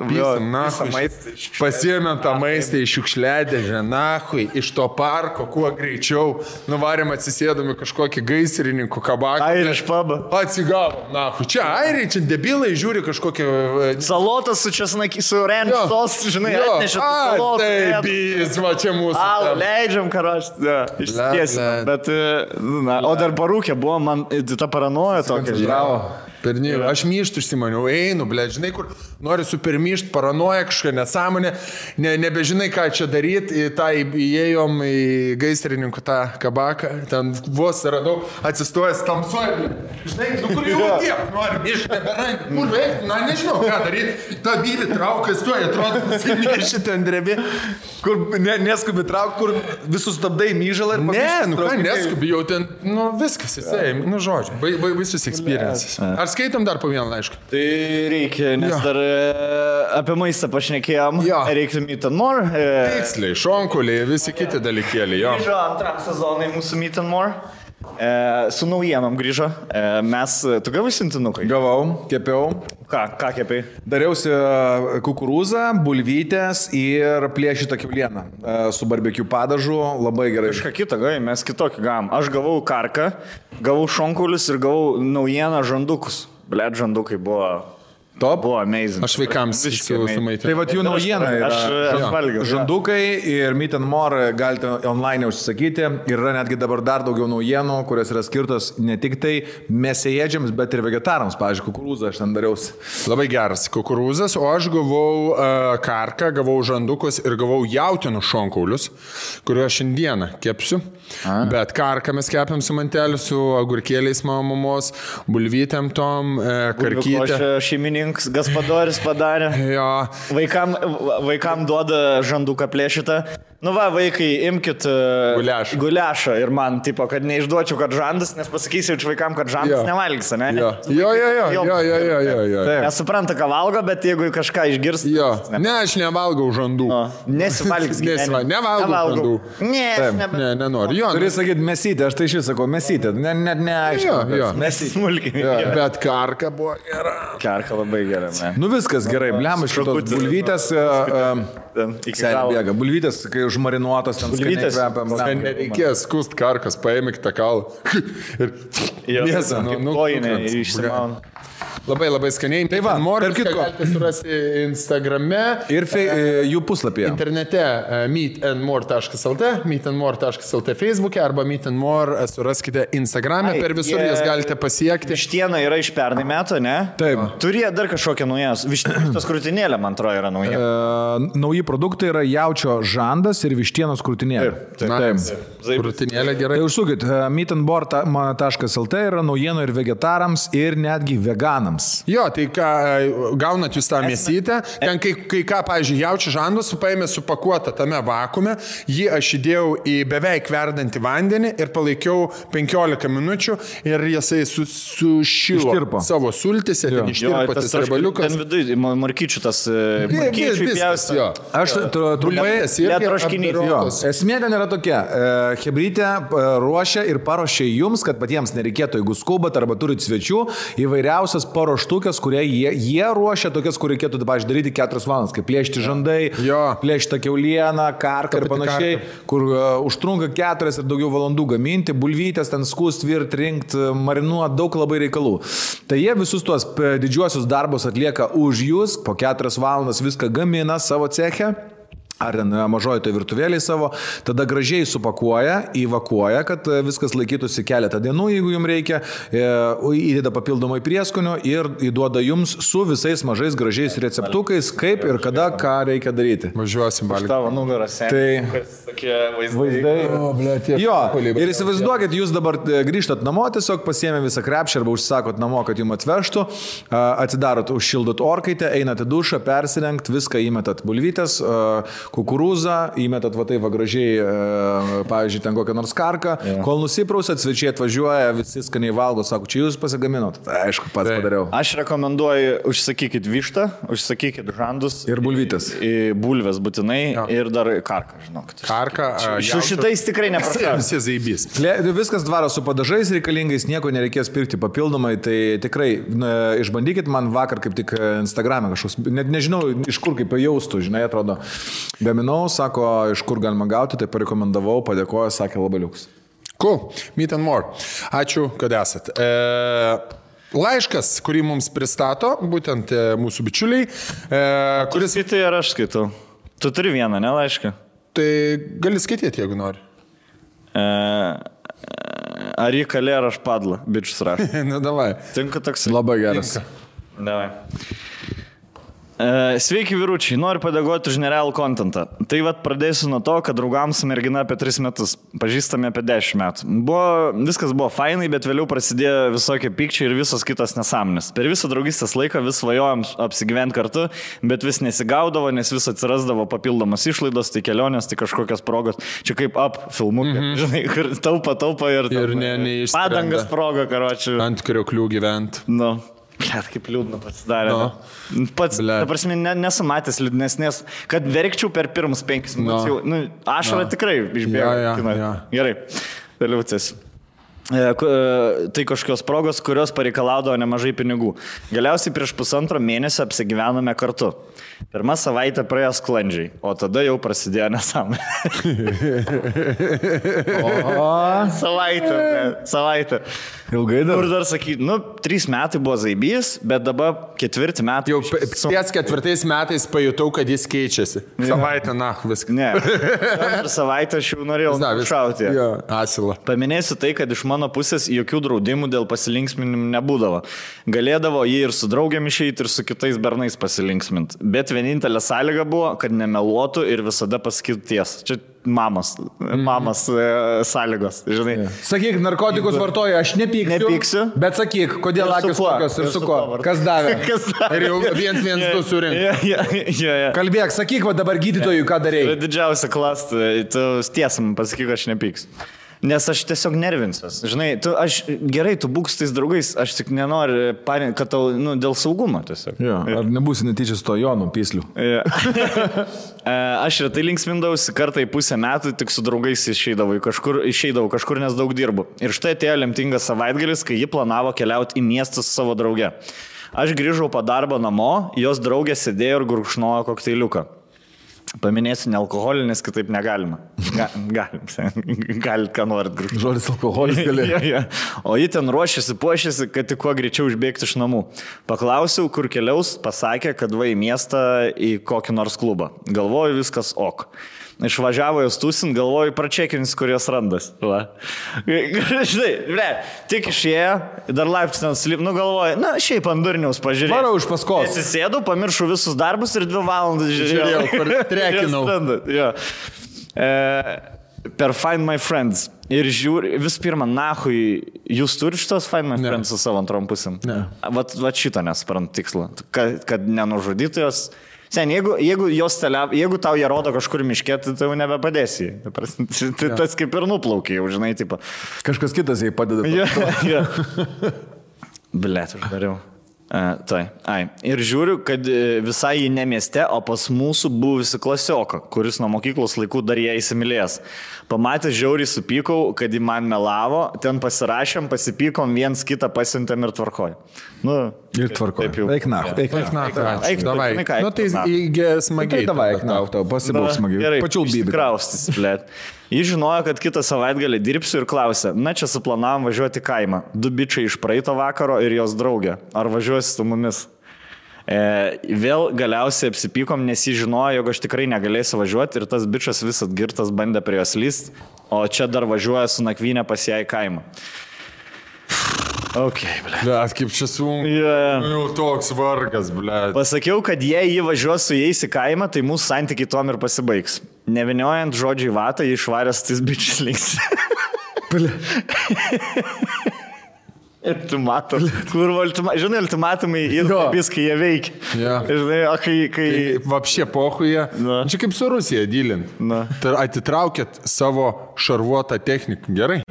Pasiėmėm tą maistą iš šiukšliadėžę, nahui, iš to parko, kuo greičiau. Nuvarėm atsisėdami kažkokį gaisrininkų kabaką. Airiš pabą. Atsigavom, nahui. Čia airiai, čia debilai žiūri kažkokią... Salotas su česnaki, su ranch sos, žinai, atnešė salotą. Taip, va čia mūsų. Leidžiam, karoš. Išsitiesim. Bet, o dar parūkė buvo, man ta paranoja tokia. Bravo. Aš myštų išsimaniau, einu, blėt, žinai, kur nori supermyšt, paranoja kažką nesąmonę, nebežinai, ką čia daryti, įėjom į gaisrininkų tą kabaką, ten vos radau, atsistojęs tamsuoja, žinai, kur jau tiek, nori myšt, neberandi, kur veikti, nežinau, ką daryti, ta bylį traukia, stoja, atrodo, nusimiršti ten drebi, kur neskubi traukti, kur visus stabdai myžalą ir ką neskubi, jau ten, viskas, jisai, žodžiu, baisus experiences. Ar skaitom dar po vieną laišką? Tai reikia, nes dar apie maistą pašnekėjom. Reiktų Meat and More. Tiksliai, šonkuliai, visi kiti dalykėliai. Grįžo antram sezonai mūsų Meat and More. Su naujienom grįžo. Tu gavai sintinukai? Gavau, kepiau. Ką kepiai? Dariausi kukurūzą, bulvytės ir plėšytą kiaulieną su barbecue padažu, labai gerai. Kažką kitą gavai, mes kitokį gavom. Aš gavau karką, gavau šonkulius ir gavau naujieną žandukus. Blet, žandukai buvo... Top. Buvo amazing. Aš vaikams sumaitinau. Tai vat jų naujiena yra. Aš valgiau. Žandukai ir Meat and More galite online užsisakyti. Yra netgi dabar dar daugiau naujienų, kurios yra skirtos ne tik tai mėsėėdžiams, bet ir vegetarams. Pavyzdžiui, kukurūzą aš ten dariausi. Labai geras kukurūzas, o aš gavau karką, gavau žandukus ir gavau jautienos šonkaulius, kuriuos šiandieną kepsiu. Bet karką mes kepiam su Manteliu, su agurkėliais mamos, bulvytėm tom, karkytė. Gaspadoris padarė. Jo. Vaikam duoda žanduką plėšytą, Nu va, vaikai, imkit guliašą ir man, tipo, kad neišduočiau, kad žandas, nes pasakysiu vaikam, kad žandas nevalgys, ne? Jo. Nesupranta, ką valgo, bet jeigu kažką išgirs... Jo, ne, aš nevalgau žandų. Nesivalgys. Nevalgau žandų. Ne, nenoriu. Turi sakyti mesytė, aš tai iš vis sakau mesytė, net neaišku. Mesytė smulkiai. Bet karka buvo gera. Karka labai gera, ne. Nu viskas gerai, blem, iš šitos bulvytės, bėga. Bulvytės, kai užmarinuotos, ten skaniai kvepia. Nereikės skust karkas, paėmėk tą kalą. Ir mėsą, kojinė išsimauna. Labai skaniai. Tai va, tarp kitko. Galite surasti Instagrame. Ir jų puslapyje. Internete meetandmore.lt, Facebook'e arba meetandmore suraskite Instagram'e. Per visur jas galite pasiekti. Vištiena yra iš pernai metų, ne? Taip. Turėjo dar kažkokią naujas. Vištienos krūtinėlė, man atrodo, yra nauja. Nauji produktai yra jaučio žandas ir vištienos krūtinėlė. Taip. Krūtinėlė gerai. Tai užsukit, meetandmore.lt yra naujienų ir vegetarams, ir netgi veganams. Jo, tai ką, gaunat jūs tą mėsytę, ten kai ką, pavyzdžiui, jaučio žandas paėmė supakuotą tame vakuume, jį aš įdėjau į beveik verdantį vandenį ir palaikiau 15 minučių ir jisai sušilo savo sultise, ten ištirpo tas rebaliukas. Ten vidui, markyčių tas markyčių pjausti. Aš trumpai troškinys. Esmė ten yra tokia, chebrytė ruošia ir paruošia jums, kad patiems nereikėtų, jeigu skubat arba turit svečių, įvairiausias paruoštukės, kurie jie ruošia tokias, kur reikėtų, pavyzdžiui, daryti 4 valandas, kaip plėšti žandai, plėšti kiaulieną, karką ir panašiai, kur užtrunka 4 ir daugiau valandų gaminti, bulvytės, ten skust, virt, rinkt, marinuot, daug labai reikalų. Tai jie visus tuos didžiuosius darbus atlieka už jūs, po 4 valandas viską gamina savo ceche. Ar mažoji tai virtuvėliai savo, tada gražiai supakuoja, įvakuoja, kad viskas laikytųsi keletą dienų, jeigu jums reikia, įdeda papildomai prieskonių ir įduoda jums su visais mažais gražiais receptukais, kaip ir kada, ką reikia daryti. Važiuosim, Balį. Tavo nugaras, tai tokie vaizdai. Jo, ir įsivaizduokit, jūs dabar grįžtat namo, tiesiog pasiėmė visą krepšį arba užsakot namo, kad jums atvežtų, atsidarot, užšildot orkaitę, einat į dušą, persirengt, viską įmetat bulvytės, kukurūzą, įmetat va taip va gražiai, pavyzdžiui, ten kokią nors karką, kol nusiprausat, svečiai atvažiuoja, visi skaniai valgo, sako, čia jūs pasigaminot. Tai aišku, pats padariau. Aš rekomenduoju, užsakykit vištą, užsakykit žandus. Ir bulvytės. Bulvės būtinai ir dar karką, žinokit. Karką. Su šitais tikrai neprašau. Viskas dvaro su padažais reikalingais, nieko nereikės pirkti papildomai, tai tikrai išbandykit, man vakar kaip tik Instagram'e kažkoks, net nežinau, iš kur kaip jaustų, žinai, atrodo. Gaminau, sako, iš kur galima gauti, tai parekomendavau, padėkoju, sakė labai liuks. Cool, Meet and More. Ačiū, kad esat. Laiškas, kurį mums pristato, būtent mūsų bičiuliai, kuris... Skaitai ar aš skaitau? Tu turi vieną, ne laišką? Tai gali skaityti, jeigu nori. Ar jį kalė, ar aš padla, bičius rašo. Na, davai. Tinka toks. Labai geras. Davai. Sveiki vyručiai, noriu padėkoti už nerealų kontentą. Tai vat pradėsiu nuo to, kad draugams mergina apie 3 metus, pažįstame apie 10 metų. Viskas buvo fainai, bet vėliau prasidėjo visokie pykčiai ir visos kitos nesąmonės. Per visą draugystės laiką vis svajojom apsigyventi kartu, bet vis nesigaudavo, nes vis atsirasdavo papildomas išlaidos, tai kelionės, tai kažkokios progos. Čia kaip filmukai, žinai, kur taupa ir padangas proga, karočiui. Ant krioklių gyvent. Nu. Blet, kaip liūdna pasidarė. Pats, ta prasme, nesumatęs liūdnesnės, kad verkčiau per pirmus 5 minučių. Ašara tikrai išbėgo. Gerai, vėliau cės. Tai kažkokios progos, kurios pareikalaudavo nemažai pinigų. Galiausiai prieš 1,5 mėnesio apsigyvenome kartu. Pirmą savaitę praėjo sklandžiai, o tada jau prasidėjo nesąmonė. Savaitę. Ilgai dar. Kur dar sakyti, 3 metai buvo zaibys, bet dabar 4 metai. Jau ties 4 metais pajutau, kad jis keičiasi. Savaitę, viską. Ne. Per savaitę aš jau norėjau šauti. Asilą. Paminėsiu tai, kad iš mano mano pusės jokių draudimų dėl pasilinksminimų nebūdavo. Galėdavo jį ir su draugiam išeiti, ir su kitais bernais pasilinksminti. Bet vienintelė sąlyga buvo, kad nemeluotų ir visada pasakytų tiesą. Čia mamos sąlygos, žinai. Sakyk, narkotikus vartoja, aš nepyksiu. Bet sakyk, kodėl akis tokios ir su ko? Kas davė? Ir jau 1-1-2 surinkti. Kalbėk, sakyk, va dabar gydytojui, ką darėjai. Didžiausia klasta, tu tiesam pasakyk, aš nepyksiu. Nes aš tiesiog nervinsiuos. Žinai, tu būk su tais draugais, aš tik nenoriu, kad tau, dėl saugumo tiesiog. Jo, ar nebūsi netyčia su to Jonu Pysliu? Aš retai linksmindavausi, kartą į pusę metų tik su draugais išeidavau kažkur, nes daug dirbu. Ir štai atėjo lemtingas savaitgalis, kai ji planavo keliauti į miestą su savo drauge. Aš grįžau po darbo namo, jos draugė sėdėjo ir gurkšnojo kokteiliuką. Paminėsiu nealkoholinis, kitaip negalima. Galit, ką norit grįžti. Žodis alkoholis gali. O ji ten puošėsi, kad tik kuo greičiau išbėgti iš namų. Paklausiau, kur keliaus, pasakė, kad va į miestą į kokį nors klubą. Galvoju, viskas ok. Išvažiavo jos tūsint, galvoju, pračekins, kur jos randas. Žinai, tik išėjo, dar laiptis ten slip, galvoju, šiaip ant durniaus pažiūrėjau. Varau iš paskos. Atsisėdau, pamiršau visus darbus ir 2 valandas žiūrėjau, kur trekinau. Per Find My Friends. Ir žiūri, vis pirma, nahui, jūs turite šitos Find My Friends su savo antrom pusėm? Ne. Vat šito nesprant tikslą, kad nenužudytų jos. Sen, jeigu tau jie rodo kažkur miške, tai tau nebepadėsi. Tas kaip ir nuplaukia, jau žinai, tipo. Kažkas kitas jai padeda. Blet, uždariau. Ir žiūriu, kad visai jį ne mieste, o pas mūsų buvusi klasioką, kuris nuo mokyklos laikų dar ją įsimylės. Pamatęs žiauriai supykau, kad jį man melavo, ten pasirašėm, pasipykom, viens kitą pasiuntėm ir tvarkoj. Ir tvarkoj. Eik nahu. Davai. Tai smagiai. Davai, eik nahu, tau pasibūk smagiai. Gerai, pačiulbybė. Kraustis, blet. Jis žinojo, kad kitą savaitgalį dirbsiu ir klausė, čia suplanavom važiuoti į kaimą. 2 bičiai iš praeito vakaro ir jos draugė. Ar važiuosi su mumis? Vėl galiausiai apsipykom, nes jis žinojo, jog aš tikrai negalėsiu važiuoti ir tas bičas vis atgirtas bandė prie jos lyst, o čia dar važiuoja su nakvynė pas ją į kaimą. Blet, kaip čia sunku. Jau toks vargas, blet. Pasakiau, kad jei jį važiuos su jais į kaimą, tai mūsų santykiai tuom ir pasibaigs. Neviniojant žodžiai vatą, jį išvaręs tais bičiais links. Ir tu mato, žinai, ultimatumai ir viskai jie veikia. Žinai, o kai... Vapšė pohuje. Čia kaip su Rusija dylint. Atitraukėt savo šarvuotą techniką. Gerai?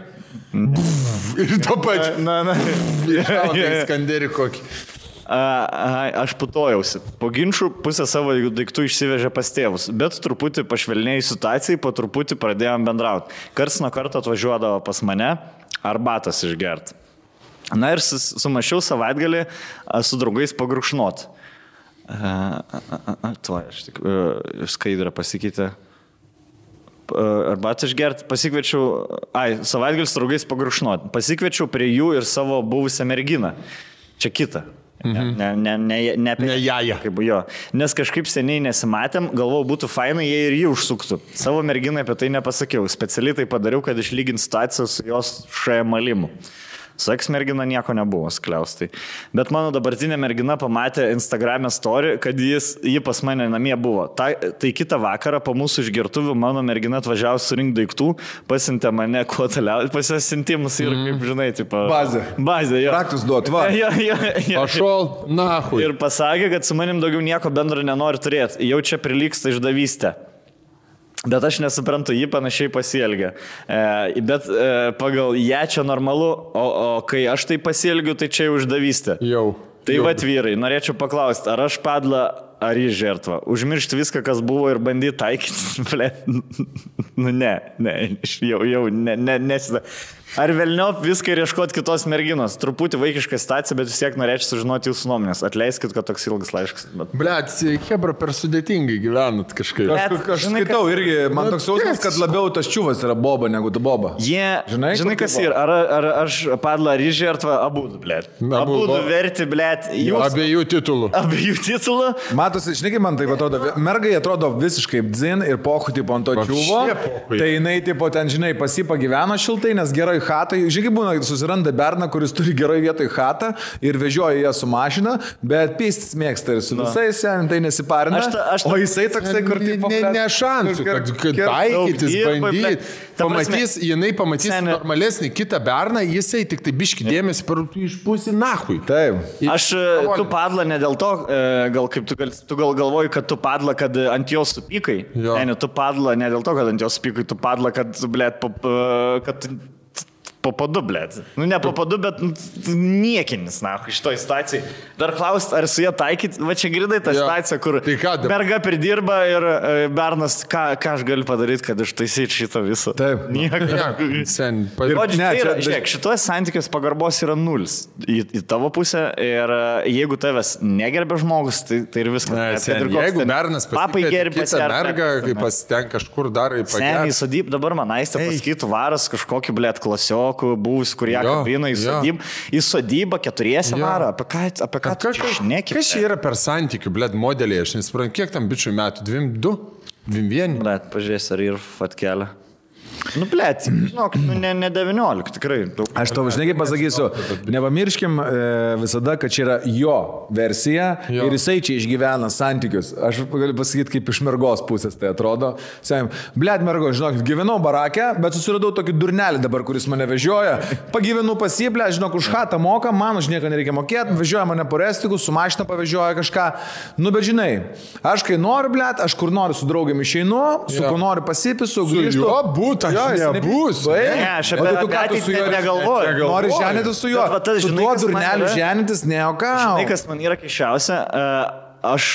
Ir to pačiu. Skanderį kokį. Aš putojausi. Po ginčių pusę savo daiktų išsivežė pas tėvus, bet truputį pašvelnėjai situacijai, po truputį pradėjom bendrauti. Karts nuo karto atvažiuodavo pas mane arbatos išgerti. Na ir sumašiau savaitgalį su draugais pagurkšnot. Aš tik skaidrą pasikeitė. Arbatą išgerti, savaitgalis su draugais pagurkšnot. Pasikviečiau prie jų ir savo buvusią merginą. Čia kita. Ne jaja. Kaip jo. Nes kažkaip seniai nesimatėm, galvau, būtų fainai, jei ir jį užsuktų. Savo merginai apie tai nepasakiau. Specialiai tai padariau, kad išlygint situaciją su jos šmalimu. Su eksmergina nieko nebuvo skliaustai. Bet mano dabartinė mergina pamatė Instagram'e story, kad ji pas mane namie buvo. Tai kitą vakarą po mūsų išgertuvių mano mergina atvažiavo surinkti daiktų, pasiuntė mane kuo toliau, pasisintimus ir, kaip žinai, tipo... Bazė, jo. Raktus duot, va. Pašol, nahui. Ir pasakė, kad su manim daugiau nieko bendro nenori turėti. Jau čia prilygsta išdavystė. Bet aš nesuprantu, jį panašiai pasielgia. Bet pagal ją čia normalu, o kai aš tai pasielgiu, tai čia jau išdavystė. Tai vat vyrai, norėčiau paklausti, ar aš padla, ar jį žertva. Užmiršti viską, kas buvo ir bandyti taikyti. Ne. Ar velniop viską ir ieškoti kitos merginos. Truputį vaikiška situacija, bet vis tiek norėčiau sužinoti jūsų nuomonės. Atleiskit, kad toks ilgas laiškas. Blet, hebra per sudėtingai gyvenat kažkaip. Aš skaitau irgi, man toks jausmas, kad labiau tas čiuvas yra boba negu tu boba. Žinai, kas yra? Ar aš padla, ar žertva, abudu, blet. Abudu verti, blet. Abiejų titulų. Abiejų titulų. Matosi, žinai, kaip man tai atrodo, mergai atrodo visiškai dzin ir pochu tipo ant to čiuvo. Tai jinai tipo ten, žinai, pasipagyveno šiltai, nes gerai chatai. Žinai, būna, susiranda berną, kuris turi gerai vietoj chatą ir vežioja ją su mašina, bet pistis mėgsta ir su visais, tai nesiparina. O jisai toksai, kur tipo... Ne šansų, kad taikytis, bandyti. Pamatys, jinai pamatys normalesnį kitą berną, jisai tik tai biški dėmesį išpūsi nahui. Taip. Tu padla ne dėl to, gal kaip tu galvoji, kad tu padla, kad ant jos supykai. Ne, tu padla ne dėl to, kad ant jos supykai, tu padla, kad, blėt, kad po padu, blėt. Nu, ne po padu, bet niekinis, na, šitoj situacijai. Dar klaust, ar su jie taikyti, va čia girdai tą situaciją, kur merga pridirba ir bernas, ką aš galiu padaryti, kad ištaisyti šitą visą. Taip. Žiūrėk, šitos santykios pagarbos yra nulis į tavo pusę ir jeigu tavęs negerbė žmogus, tai ir viskas. Jeigu bernas pasikvietė kitą mergą, kai pasitenk kažkur dar į pagerį. Seniai sodyb, dabar man aistė pasakytų varas kažkokį, blėt, klasiokų, buvus, kurie kabina į sodybą, keturiesi varą. Apie ką tu šneki? Kas čia yra per santykių, blėt, modeliai? Aš nesuprantu, kiek tam bičių metų? 2? 21? Blėt, pažiūrės, ar ir fatkelė. Nu, blėt, žinok, ne 19, tikrai. Aš tau, žinai, kaip pasakysiu, nepamirškim visada, kad čia yra jo versija ir jisai čia išgyvena santykius. Aš galiu pasakyti, kaip iš mergos pusės tai atrodo. Sakym, blėt, mergo, žinok, gyvenau barakę, bet susiradau tokį durnelį dabar, kuris mane vežioja. Pagyvenu pas jį, blėt, žinok, už chatą moka, man už nieką nereikia mokėti, vežioja mane po restiku, su mašina pavežioja kažką. Nu, bet žinai, aš kai noriu, blėt, aš kur noriu su draugėm išeinu, su kuo noriu pasipisu, grįžtu. Nebus. Ne, aš apie ateitį negalvoju. Nori ženytis su juo. Su tuo durneliu ženytis neokau. Žinai, kas man yra keiščiausia, aš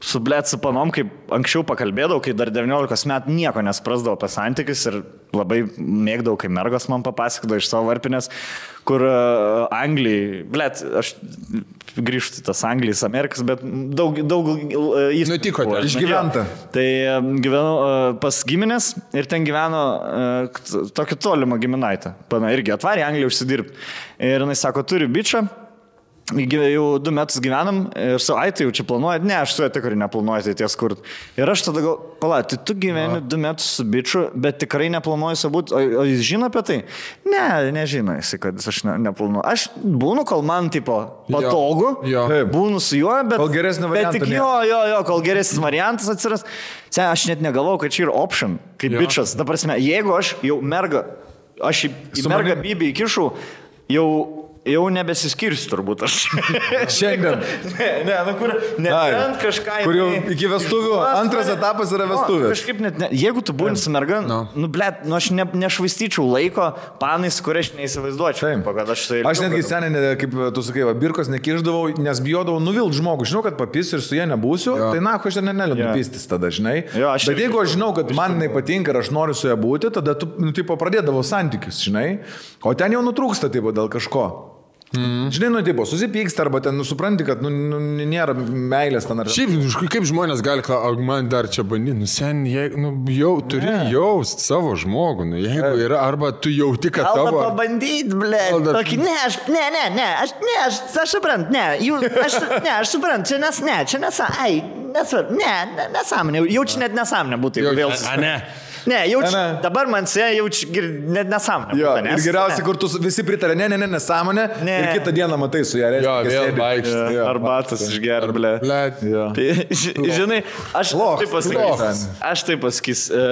su blėt su panom, kaip anksčiau pakalbėdavau, kai dar 19 metų nieko nesprasdavau apie santykius ir labai mėgdavau, kai mergos man papasakodavo iš savo varpinės, kur Anglijai, blėt, aš grįžtu tas Anglijos, Amerikas, bet daug nutiko, išgyventa. Tai gyvenau pas giminės ir ten gyveno tokį tolimą giminaitę. Pana irgi atvarė Angliją užsidirbti. Ir jinai sako, turi bičą. Jau 2 metus gyvenam ir su tai jau čia planuoja. Ne, aš su tikrai neplanuoju tai ties kur. Ir aš tada tai tu gyveni 2 metus su biču, bet tikrai neplanuoju su būt. O jis žino apie tai? Ne, nežino jis, kad aš neplanuoju. Aš būnu, kol man tipo patogu, būnu su juo, bet... Kol geresnį variantą. Bet tik kol geresnis variantas atsiras. Aš net negalvojau, kad čia yra option, kaip bičas. Dabar, jeigu aš jau aš į mergą bybį įkišau, jau nebesiskirsiu turbūt aš. Šiandien. Kur nebent kažką... Kur jau iki vestuvių, antras etapas yra vestuvės. Kažkaip net, jeigu tu būni su merga, aš nešvaistyčiau laiko panais, kur aš neįsivaizduočiau. Aš netgi seniai, kaip tu sakai, birkos nekiždavau, nes bijodavau nuvilt žmogų. Žinau, kad papis ir su jie nebūsiu, tai aš ten neliu pistis tada, žinai. Bet jeigu aš žinau, kad man jinai patinka ir aš noriu su ją būti, tada tu pradėdavau santykius, žinai. O ten jau nutrūksta dėl kažko. Žinai, susipyksta arba ten supranti, kad nėra meilės ten ar... Šiaip, kaip žmonės gali klausti, man dar čia bandyti, jau turi jaust savo žmogų, jeigu yra, arba tu jauti, kad tavo... Alba pabandyti, blėt, tokį, aš suprantu, aš suprantu, nesąmonė, jaučiu net nesąmonė būtų, jeigu vėl... Ne, dabar man jaučiu net nesąmonę. Ir geriausiai, kur tu visi pritarė, nesąmonę, ir kitą dieną matai su ją. Vėl vaikšti. Arbatas išgeria, blė. Tai, žinai, aš taip pasakysiu.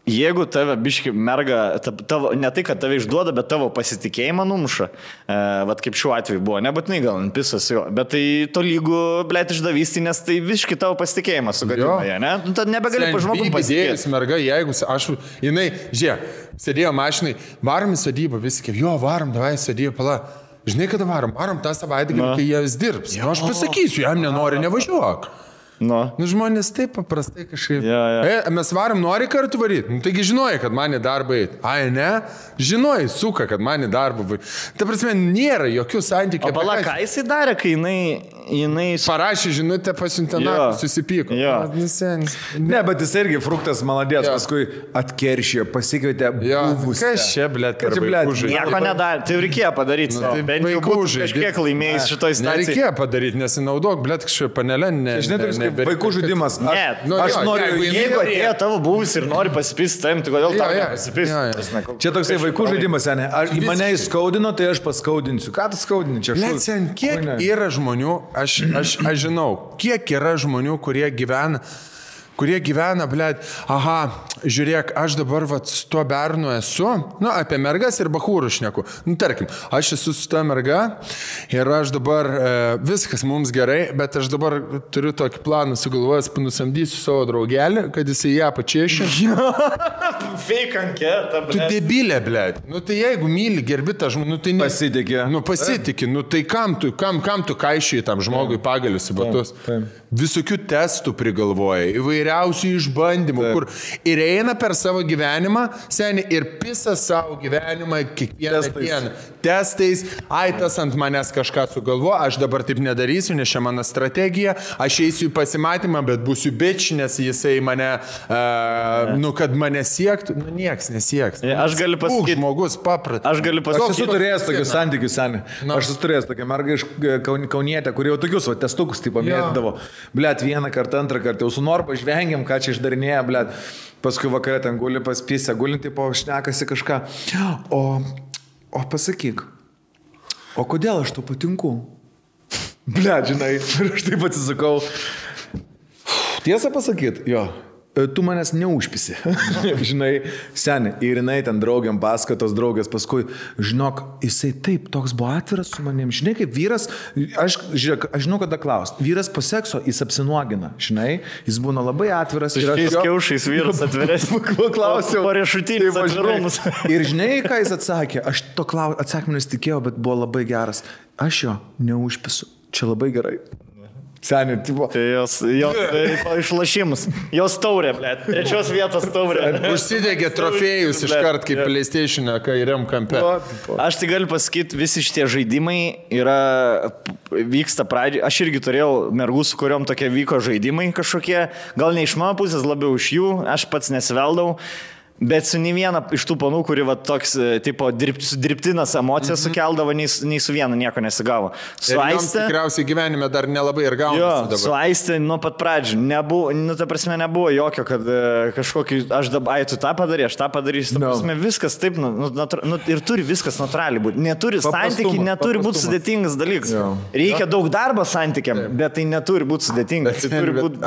Jeigu tave biški merga, ne tai, kad tave išduoda, bet tavo pasitikėjimą numuša, vat kaip šiuo atveju buvo, nebūtinai gal pisas jo, bet tai to lygų, blėt, išdavystį, nes tai visiškai tavo pasitikėjimą sugadina, ne? Tad nebegali pa žmogų pasitikėti. Merga, jeigu jinai, sėdėjo mašinai, varom į sodybą, visi kaip, varom, davai sodybą, pala. Žinai, kada varom tą savaitgalį, kai jie vis dirbs. Aš pasakysiu, jam nenori, nevažiuok. Žmonės taip paprastai kažkaip. Mes varom, nori kartu varyti. Taigi žinojai, kad man į darbą eit. Ne? Žinojai, suka, kad man į darbą varyti. Ta prasme, nėra jokių santykių. O pala, ką jisai darė, kai jinai jinai... Parašė žinutę, pasiuntė, susipyko. Ne, bet jis irgi fruktas maladės, paskui atkeršė, pasikvietė buvusį. Kas čia, blėt, per vaikų žaidimą? Nieko nedarė, tai reikėjo padaryti. Bent jau būtų kažkiek laimėjęs šitoj situacijai. Nereikėjo padaryti, nesinaudok, blėt, kažkaip panelė, žinai, vaikų žaidimas. Aš noriu, jeigu atėjo tavo buvus ir nori pasipisti, tai kodėl tau nepasipisti? Čia toksai vaikų žaidimas, ne? Ar mane įskaudino, tai aš paskaudinsiu. Ką tu skaudini čia? Lecen, kiek yra žmonių, aš žinau, kiek yra žmonių, kurie gyvena, blėt, žiūrėk, aš dabar su tuo bernu esu, apie mergas ir bachūrų šneku. Tarkim, aš esu su ta merga ir aš dabar, viskas mums gerai, bet aš dabar turiu tokį planą sugalvojęs, nusamdysiu savo draugelį, kad jisai ją pačiešė. Fake anketą, blėt. Tu debilė, blėt. Tai jeigu myli, gerbi tą žmogų, tai pasitikė. Pasitikė, tai kam tu kaišiai tam žmogui pagalius į batus? Visokių testų prigalvoja, įvairiausių išbandymų, kur ir eina per savo gyvenimą, seniai, ir pisa savo gyvenimą kiekvieną dieną. Testais, tas ant manęs kažką sugalvo, aš dabar taip nedarysiu, nes čia mano strategija, aš eisiu į pasimatymą, bet būsiu bitch, nes jisai mane, kad mane siektų, nieks nesieks. Aš galiu pasakyti. Žmogus paprat. Aš galiu pasakyti. Aš esu turėjęs tokius santykius, seniai. Aš esu turėjęs tokią mergą iš Kaunietę, kurie jau tokius testukus taip pamėtydavo. Blet, vieną kartą, antrą kartą, jau su Norba žvengiam, ką čia išdarinėja, blet. Paskui vakarė ten guli paspysę, gulinti po šnekasi kažką. O pasakyk, o kodėl aš tau patinku? Blet, žinai, ir aš taip atsisakau. Tiesą pasakyt, jo. Tu manęs neužpisi, žinai, seniai, ir jinai ten draugiam paskatos draugės, paskui, žinok, jisai taip, toks buvo atviras su manim, žinai, kaip vyras, aš žinau, kada klaust, vyras po sekso jis apsinuogina, žinai, jis būna labai atviras. Šiais kiaušais vyras atviras, klausiau, po riešutinius atvirumus. Ir žinai, ką jis atsakė, aš to atsakymą nesitikėjau, bet buvo labai geras, aš jo neužpisu, čia labai gerai. Seniai, tipo. Tai jos išlašimus. Jos taurė, blėt. Trečios vietos taurė. Užsidegė trofėjus iškart kaip PlayStation kairiam kampe. Aš tai galiu pasakyti, visi šitie žaidimai vyksta pradžiai. Aš irgi turėjau mergų, su kuriuom tokie vyko žaidimai kažkokie. Gal ne iš mano pusės, labiau iš jų. Aš pats nesiveldau. Bet su nei viena iš tų panų, kuri toks, tipo, dirbtinas emocijas sukeldavo, nei su viena nieko nesigavo. Su Aiste... Tikriausiai gyvenime dar nelabai ir gaunasi dabar. Su Aiste nuo pat pradžių nebuvo, ta prasme, nebuvo jokio, kad kažkokį, aš dabar, tu tą padarė, aš tą padarysiu. Ta prasme, viskas taip, ir turi viskas natūraliai būti. Neturi santykiai, neturi būti sudėtingas dalykas. Reikia daug darbo santykiam, bet tai neturi būti sudėtingas.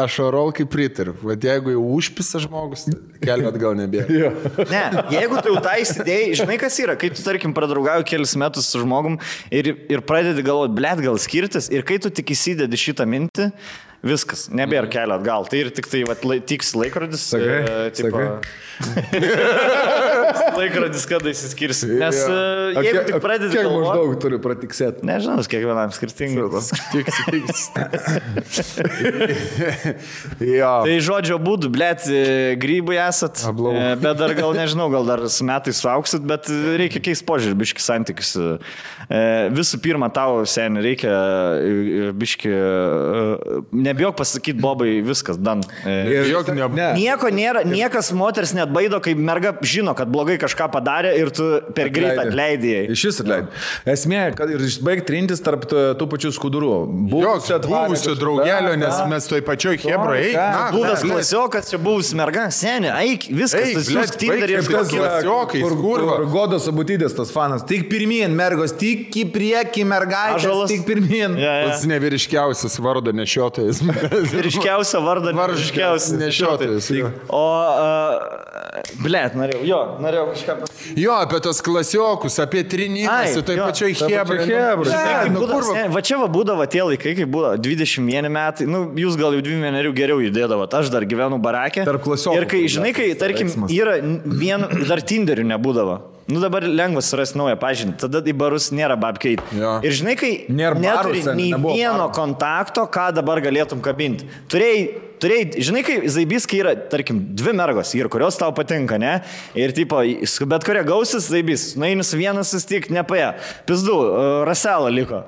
Aš orolkai pritariu. Vat jeigu jau užpisa žmogus, kelmet gal nebėra. Ne, jeigu tu jau tą įsidėjai, žinai kas yra, kai tu, tarkim, pradraugauji kelis metus su žmogum ir pradedi galvoti, blėt, gal skirtis, ir kai tu tik įsidedi šitą mintį, viskas, nebėra kelio atgal. Tai ir tik tai tiks laikrodis. Laikrodis, kada įsiskirsi. Nes jeigu tik pradedi kiek galvoti... maždaug turi pratiksėti? Nežinau, kiekvienam skirtingai. Tai žodžio būdų, blėt, grybai esat, bet dar gal nežinau, gal dar su metais suauksit, bet reikia keisti požiūrį, biški santykius. Visų pirma, tau, seniai, reikia biški... Nebijok pasakyti, Bobai, viskas, dan. Nieko nėra, niekas moters net baido, kai merga žino, kad blogai kažką padarė ir tu per greitą atleidėjai. Iš vis atleidai. Esmė, kad ir išbaig trintis tarp tų pačių skudurų. Buvusio draugelio, nes mes toj pačioj Hebra, eik. Buvęs klasiokas, čia buvus merga, seniai, eik, viskas, tas jūs Tinderį klasiokai, kur Godos Abutytės tas fanas. Tik pirmyn, mergos, tik į priekį, mergaitės, tik pirmyn. Pats nevyriškiausias vardo nešiotojas. Vyriškiausia vardą nešiotojas. O, blėt, norėjau kažką pasakyti. Jo, apie tos klasiokus, apie trinimas, tai pačioj Hebra. Va čia būdavo tie laikai, kai buvo 21 metai, jūs gal jau 21 geriau judėdavot, aš dar gyvenu barake. Ir kai, žinai, kai, tarkim, yra dar Tinderių nebūdavo. Dabar lengva surasti naują pažinti, tada į barus nėra babkeit. Ir žinai, kai neturi nei vieno kontakto, ką dabar galėtum kabinti. Turėjai, žinai, kai zaibyskai yra, tarkim, 2 mergos, ir kurios tau patinka, ne? Ir tipo, bet kurie gausis zaibys, naini su vienas sustik, nepaė. Pizdu, Raselą liko.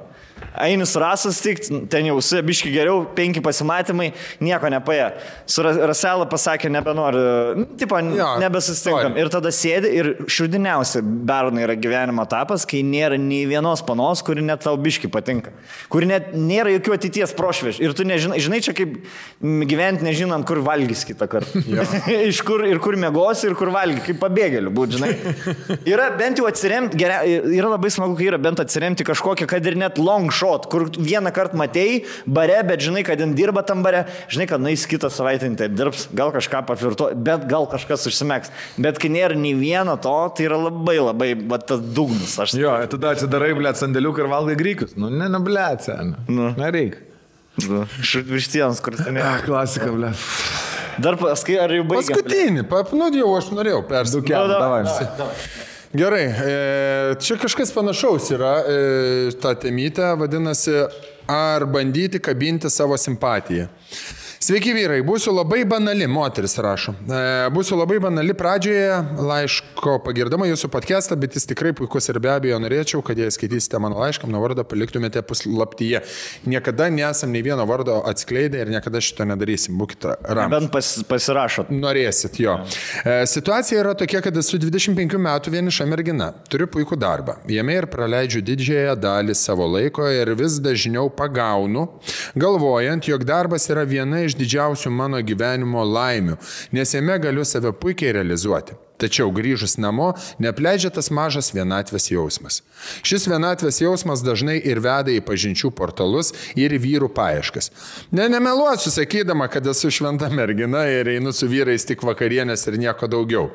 Ainis Rasas tik, ten jau su biški geriau, 5 pasimatymai, nieko nepaėjo. Su Raselą pasakė, nebenori, tipo, nebesusitinkam. Ir tada sėdi ir širdiniausia bernai yra gyvenimo etapas, kai nėra nei vienos panos, kuri net tau biški patinka. Kuri net nėra jokių ateities prošveš. Ir tu žinai, čia kaip gyventi nežinant, kur valgys kitą kartą. Iš kur ir kur mėgosi ir kur valgy, kaip pabėgėlių būt, žinai. Yra bent jau atsiremti, yra labai smagu, kai yra bent atsiremti kažkokią, kad ir net long shot, kur vieną kartą matėjai bare, bet žinai, kad jin dirba tam bare, žinai, kad nais kitą savaitę taip dirbs, gal kažką paflirtuo, bet gal kažkas užsimeks. Bet kai nėra nei vieno to, tai yra labai, tas dugnas. Jo, tada atsidarai, blėt, sandėliuką ir valgai grykius. Nu, blėt, sen. Nereik. Virštienas, kur ten yra. Klasika, blėt. Dar paskai, ar jau baigėm? Paskutinį, jau aš norėjau persidukiam. Davai. Gerai, čia kažkas panašaus yra, ta temytė vadinasi, ar bandyti kabinti savo simpatiją. Sveiki vyrai, būsiu labai banali, moteris rašo. Būsiu labai banali pradžioje laiško pagirdama jūsų podcastą, bet jis tikrai puikus ir be abejo norėčiau, kad jei skaitysite mano laišką, mano vardą paliktumėte puslaptyje. Niekada nesam nei vieno vardo atskleidę ir niekada šito nedarysim, būkite ramūs. Bent pasirašot. Norėsit, jo. Situacija yra tokia, kad esu 25 metų vieniša mergina. Turiu puikų darbą. Jame ir praleidžiu didžiąją dalį savo laiko ir vis dažniau pagaunu, galvojant, jog darbas yra viena iš didžiausių mano gyvenimo laimių, nes jame galiu save puikiai realizuoti. Tačiau grįžus namo neapleidžia tas mažas vienatvės jausmas. Šis vienatvės jausmas dažnai ir veda į pažinčių portalus ir vyrų paieškas. Nemeluosiu sakydama, kad esu šventa mergina ir einu su vyrais tik vakarienės ir nieko daugiau.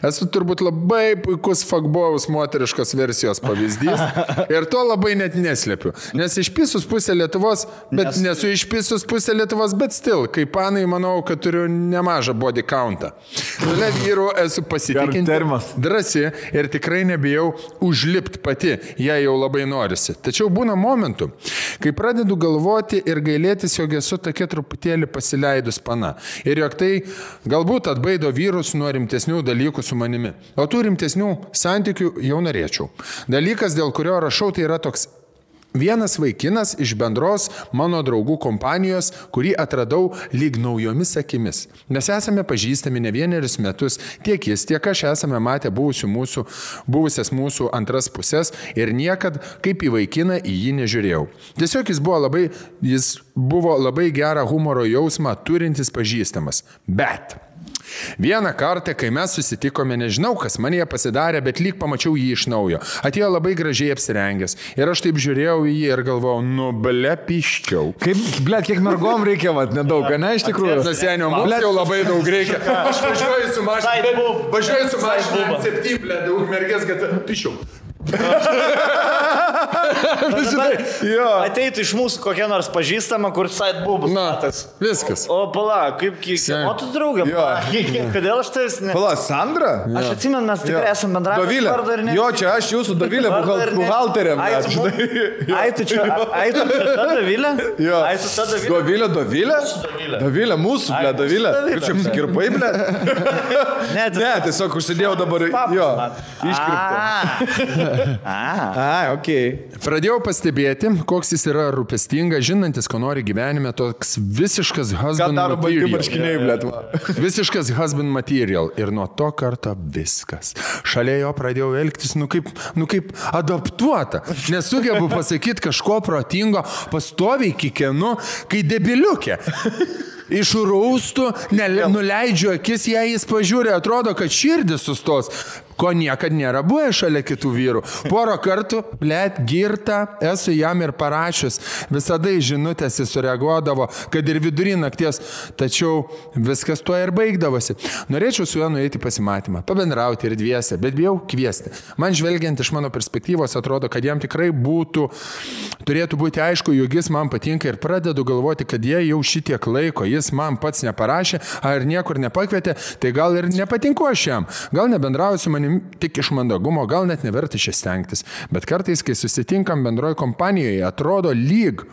Esu turbūt labai puikus fuckboyaus moteriškos versijos pavyzdys ir to labai net neslepiu. Nes išpisus pusę Lietuvos, bet nesu išpisus pusę Lietuvos, bet still, kaip panai, manau, kad turiu nemažą body countą. Šalia vyrų esu drąsi ir tikrai nebijau užlipti pati, jei jau labai norisi. Tačiau būna momentų, kai pradedu galvoti ir gailėtis, jog esu tokia truputėlį pasileidus pana. Ir jog tai galbūt atbaido vyrus nuo rimtesnių dalykų su manimi. O tų rimtesnių santykių jau norėčiau. Dalykas, dėl kurio rašau, tai yra toks. Vienas vaikinas iš bendros mano draugų kompanijos, kurį atradau lyg naujomis akimis. Mes esame pažįstami ne vienerius metus, tiek jis, tiek aš esame matę buvusias mūsų antras pusės ir niekad kaip į vaikiną į jį nežiūrėjau. Tiesiog jis buvo labai gerą humoro jausmą turintis pažįstamas. Bet vieną kartą, kai mes susitikome, nežinau, kas man jie pasidarė, bet lyg pamačiau jį iš naujo. Atėjo labai gražiai apsirengęs. Ir aš taip žiūrėjau į jį ir galvojau, piščiau. Kiek mergom reikia, nedaug, ne, iš tikrųjų. Senio, mums jau labai daug reikia. Aš važiuoju su mašina, 7, daug mergės, kad piščiau. Ateitų iš mūsų kokia nors pažįstama, kur side boobas. Viskas. O pala, kaip o tu draugė? Kodėl aš tavęs ne? Pala, Sandra? Aš atsimenu, mes tikrai esame bendravę. Dovilė. Jo, čia aš jūsų Dovilė, buhalterė. Ai, tu čia ta Dovilė? Jo. Ai, tu ta Dovilė? Dovilė? Dovilė, mūsų, ble, Dovilė. Kaip čia apsikirpai, ble? Ne, tiesiog užsidėjau dabar. Jo, iškirpta. Okay. Pradėjau pastebėti, koks jis yra rūpestingas, žinantis, ko nori gyvenime, toks visiškas husband material. Visiškas husband material. Ir nuo to karto viskas. Šalia jo pradėjau elgtis, kaip adaptuota. Nesugebu pasakyti kažko protingo, pastoviai kikenu, kai debiliukė. Iš rūstų, nuleidžiu akis, jei jis pažiūrė, atrodo, kad širdis sustos. Ko niekad nėra buvę šalia kitų vyrų. Porą kartų, girta, esu jam ir parašius. Visada į žinutės jis sureaguodavo, kad ir vidury nakties, tačiau viskas tuo ir baigdavosi. Norėčiau su juo nueiti pasimatymą, pabendrauti ir dviese, bet bijau kviesti. Man žvelgiant iš mano perspektyvos atrodo, kad jam tikrai turėtų būti aišku, jog jis man patinka ir pradedu galvoti, kad jei jau šitiek laiko jis man pats neparašė, ar niekur nepakvietė, tai gal ir nepatinku aš jam. Gal nebendrauju su manim tik iš mandagumo, gal net neverta čia stengtis. Bet kartais, kai susitinkam bendroje kompanijoje, atrodo lyg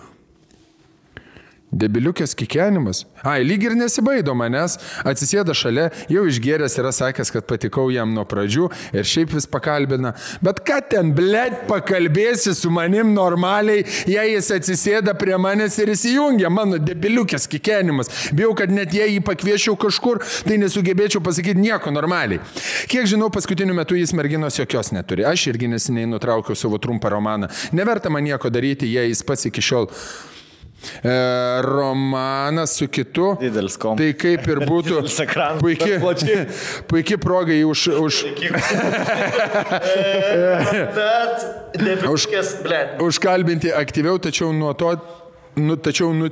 Debiliukės kikenimas. Lyg ir nesibaido manęs, atsisėda šalia, jau išgėręs yra sakęs, kad patikau jam nuo pradžių ir šiaip vis pakalbina. Bet ką ten, blėt, pakalbėsi su manim normaliai, jei jis atsisėda prie manęs ir įsijungia, mano debiliukės kikenimas. Bijau, kad net jei jį pakviešiau kažkur, tai nesugebėčiau pasakyti nieko normaliai. Kiek žinau, paskutiniu metu jis merginos jokios neturi. Aš irgi neseniai nutraukiau savo trumpą romaną. Neverta man nieko daryti, jei jis pats iki šiol romanas su kitu. Tai kaip ir būtų puikiai progai užkalbinti aktyviau, tačiau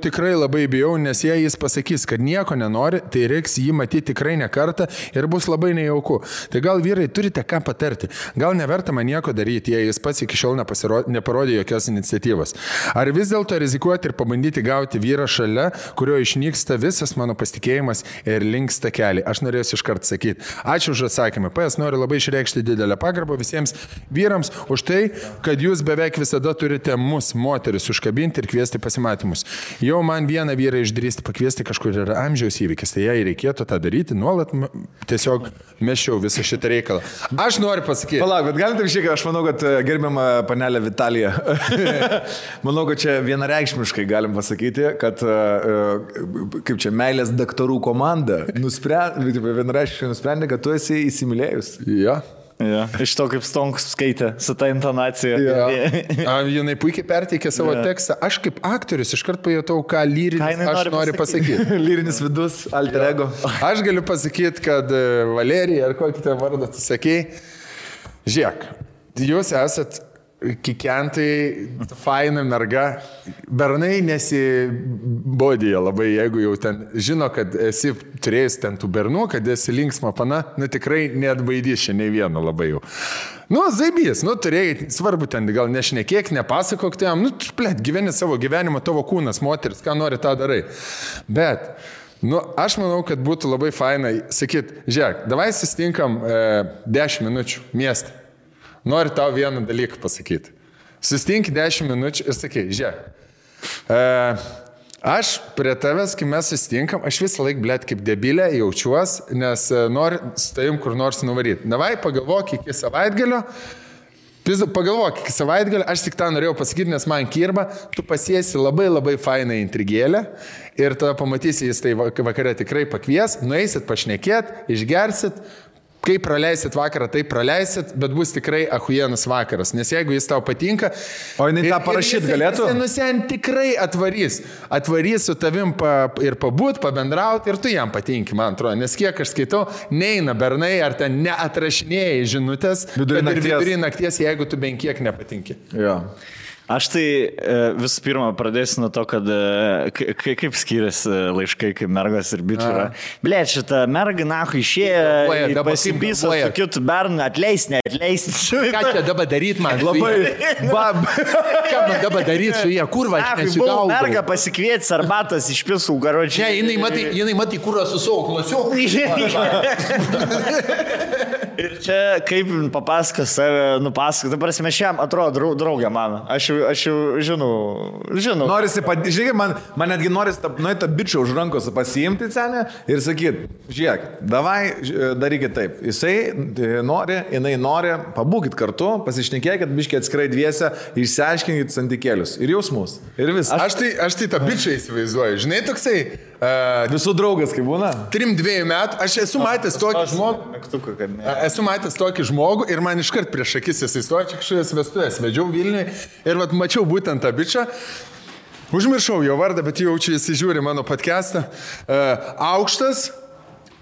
tikrai labai bijau, nes jei jis pasakys, kad nieko nenori, tai reiks jį matyti tikrai ne kartą ir bus labai nejauku. Tai gal vyrai turite ką patarti? Gal neverta man nieko daryti, jei jis pats iki šiol neparodė jokios iniciatyvos? Ar vis dėlto rizikuoti ir pabandyti gauti vyrą šalia, kurio išnyksta visas mano pasitikėjimas ir linksta keliai? Aš norėsiu iškart sakyti. Ačiū už atsakymą. PS noriu labai išreikšti didelę pagarbą visiems vyrams už tai, kad jūs beveik visada turite mus, moteris, užkabinti ir kviesti pasimatyti. Jau man vieną vyrą išdrįsti pakviesti kažkur yra amžiaus įvykis, tai jei reikėtų tą daryti, nuolat tiesiog meščiau visą šitą reikalą. Aš noriu pasakyti. Palauk, bet galite išėti, aš manau, kad gerbiama panelė Vitalija, manau, kad čia vienareikšmiškai galim pasakyti, kad kaip čia meilės daktarų komanda vienareikšmiškai nusprendė, kad tu esi įsimylėjus. Ja. Ja. Iš to, kaip Stonkus skaitė su ta intonacija. Ja. Jinai puikiai perteikė savo tekstą. Aš kaip aktorius iškart pajutau, ką lyrinis aš noriu pasakyti. Lyrinis vidus, alter ego. Aš galiu pasakyti, kad Valerija, ar kokį tą vardą tu sakei, žiūrėk, jūs esat kikentai, faina merga, bernai nesibodėja labai, jeigu jau ten žino, kad esi turėjęs ten tų bernų, kad esi linksma pana, tikrai neatbaidys čia nei vieno labai jau. Zaibys, turėjai, svarbu ten, gal nešnekėk, nepasakok tam, gyveni savo gyvenimą, tavo kūnas, moteris, ką nori, tą darai. Bet, aš manau, kad būtų labai faina sakyt, žiūrėk, davai susitinkam 10 minučių miestą. Noriu tau vieną dalyką pasakyti. Susitink 10 minučių ir sakai, žiūrėk, aš prie tavęs, kai mes susitinkam, aš visą laiką, blėt, kaip debilė jaučiuos, nes noriu su tavim kur nors nuvaryti. Davai, pagalvok iki savaitgalio, aš tik tą norėjau pasakyti, nes man kirba, tu pasiesi labai labai fainą intrigėlę ir tada pamatysi, jis tai vakare tikrai pakvies, nueisit pašnekėt, išgersit, kai praleisit vakarą, tai praleisit, bet bus tikrai ahujienas vakaras. Nes jeigu jis tau patinka... O jinai tą parašyti galėtų? Jis tikrai atvarys. Atvarys su tavim ir pabūt, pabendrauti ir tu jam patinki, man atrodo. Nes kiek aš skaitau, neina bernai ar ten neatrašinėjai žinutės, vidury nakties, jeigu tu bent kiek nepatinki. Jo. Aš tai visų pirma pradėsiu nuo to, kad kaip skiriasi laiškai, kaip mergas ir bičių yra. Blėt, šitą mergą nahu išėjo, pasipyso su kitu bernu, atleis. Ką čia dabar daryt man? Labai. Ką man dabar daryt su jie? Kurva, aš nesigaudau. Mergą pasikvietęs arbatas iš pisų garočiai. Ne, jinai matai kurą su savo klasiu. Ir čia kaip papasakos save, nupasakos. Dabar mes šiam atrodo draugė mano. Aš jau žinau. Norisi, žiūrėk, man netgi norisi tą bičią už rankos pasiimti cenę ir sakyti, žiūrėk, davai, darykit taip. Jisai nori, jinai nori, pabūkit kartu, pasišnekėkit, biškiai atskirai dviese, išsiaiškinkit santykėlius ir jausmus. Ir visą. Aš tai tą bičią įsivaizduoju. Žinai, toksai... Visų draugas, kaip būna? 3-2 metų. Aš esu matęs tokį žmogų ir man iškart prieš akis jis įstojo, čia kažkokias vestuvės vedžiau Vilniui ir mačiau būtent tą bičą. Užmiršau jo vardą, bet jau čia jis žiūri mano podcastą. Aukštas,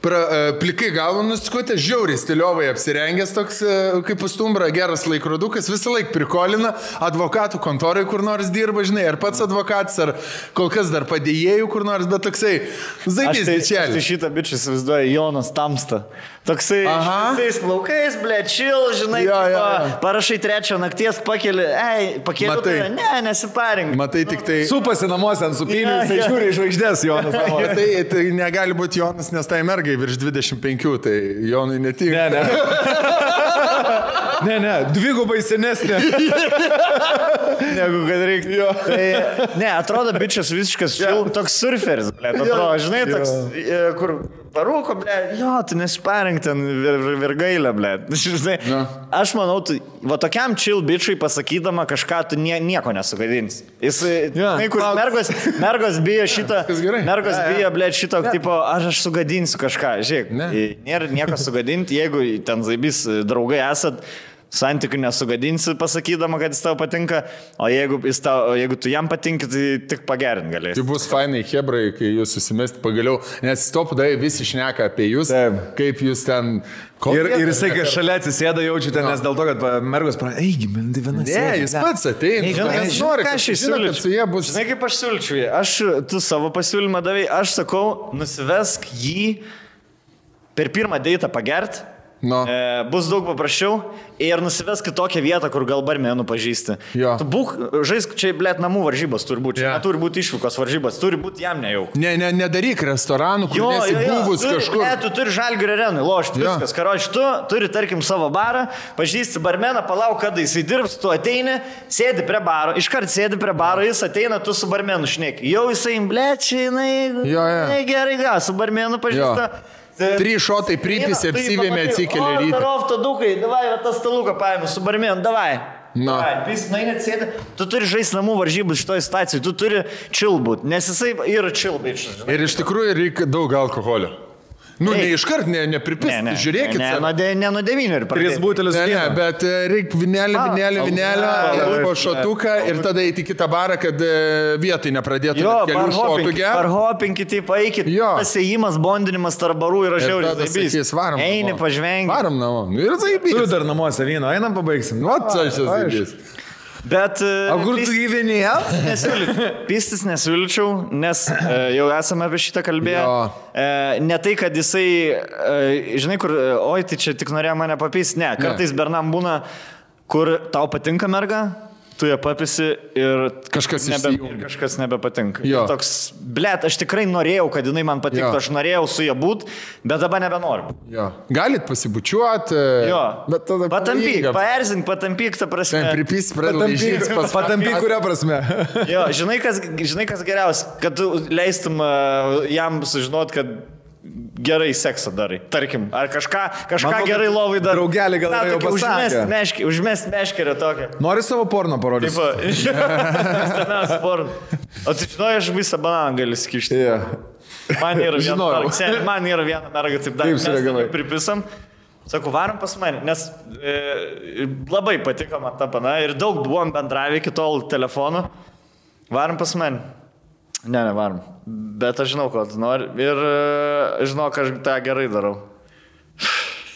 plikai galvą nuskutė, žiauriai stiliovai apsirengęs toks kaip pustumbra, geras laikrodukas, visą laiką prikolina, advokatų kontorai kur nors dirba, žinai, ar pats advokatas, ar kol kas dar padėjėjų kur nors, bet toksai zaibys bičelis. Aš šitą bičią įsivaizduoju, Jonas Tamsta. Toksai visais plaukais, blečil, žinai, parašai 3 nakties, pakeli, nesiparink. Matai tik tai... Supasi namuose ant supinių, jisai žiūri iš žvaigždės Jonas. Tai negali būti Jonas, nes tai mergai virš 25, tai Jonui netinka. Ne. Ne, dvigubai senesnė. Negu kad reikia. Tai, ne, atrodo, bičias visiškas toks surferis, ble. Atrodo, žinai, toks, kur parūko, ble, jo, tu nesiparink ten virgailę, ble. Žinai, aš manau, tu, va tokiam chill bičiui pasakydama kažką, tu nieko nesugadins. Jis, kur mergos bijo šito, mergos bijo, ble, šito, tipo, aš sugadinsiu kažką, žiūrėk, nėra nieko sugadinti, jeigu ten zaibys draugai esat, santykių nesugadinsi pasakydama, kad jis tau patinka, o jeigu tu jam patinki, tai tik pagerint galėsi. Tai bus fainai hebrai, kai jūs susimesti pagaliau, nes stopdai visi šneka apie jūs, kaip jūs ten... Ir jisai, kai šalia atsisėda, jaučiu ten, nes dėl to, kad mergos pradeda, eigi, man tai vienas. Ne, jis pats ateina. Ką aš įsiūlyčiau? Žinai, kaip aš siūlyčiau. Tu savo pasiūlymą davai, aš sakau, nusivesk jį per pirmą deitą pagert. No. Bus daug paprasčiau ir nusivesk į tokią vietą, kur gal barmenų pažįsti. Jo. Tu būk, žaisk, čia, blėt, namų varžybos turi būti. Čia neturi būti išvykos varžybos, turi būti jam nejau. Nedaryk restoranų, kur nesi buvus kažkur. Ne, tu turi Žalgirio arenui lošti viskas. Karoči, tu turi, tarkim, savo barą, pažįsti barmeną, palauk, kada jisai dirbs, tu ateini, sėdi prie baro, iškart sėdi prie baro, jis ateina, tu su barmenu šneki. Jau jisai, blėt, čia jinai gerai, su barmenu pažįsta. 3 šotai pripisi, apsivėmė, atsikėlė rytą. O, tarov, tadukai, davai, tą staluką paėmė su barmenu, davai. No. Jis net sėdi, tu turi žaisti namų varžybų šitoje situacijoje, tu turi chill būt, nes jisai yra chill bičias. Ir iš tikrųjų reikia daug alkoholio. Nu, ne iškart, nepripist, žiūrėkit. Ne nuo 9 ir pradėti. 3 butelis vyno. Bet reikia vinelį, po šotuką ir tada eiti kitą barą, kad vietoj nepradėtų kelių šotų gerti. Parhopinkit, taip, eikit. Pasėjimas, bondinimas tarp barų yra žiauriai zaibys. Eini, pažvengi. Varom namo. Ir zaibys. Tu dar namuose vyno, einam pabaigsim. O, čia zaibys. Bet... O kur tu gyveni? Pistis nesiūlyčiau, nes jau esame apie šitą kalbėję. Ne tai, kad jisai, žinai, kur, oi, tai čia tik norėjo mane papisti. Ne, kartais bernam būna, kur tau patinka merga, tu ją papisi ir kažkas nebepatinka. Toks, blėt, aš tikrai norėjau, kad jinai man patiktų, aš norėjau su ją būt, bet dabar nebenoriu. Galit pasibučiuoti, bet tada paerzink, patampyk, ta prasme. Pripys, pradalaižyt, patampyk, kuria prasme. Žinai, kas geriausia, kad tu leistum jam sužinot, kad gerai seksą darai, tarkim, ar kažką gerai lovai darai. Draugelį gal jau pasakė. Užmest meškerę tokią. Nori savo porno parodyti? Taip, porno. O tu žinojai, aš visą bananą gali skišti. Man yra viena merga, taip dar mes pripisam. Sakau, varom pas mane, nes labai patiko man ta pana ir daug buvom bendravę iki tol telefonu. Varom pas mane. Nevarom. Bet aš žinau, ko tu nori. Ir žinau, kad aš tą gerai darau.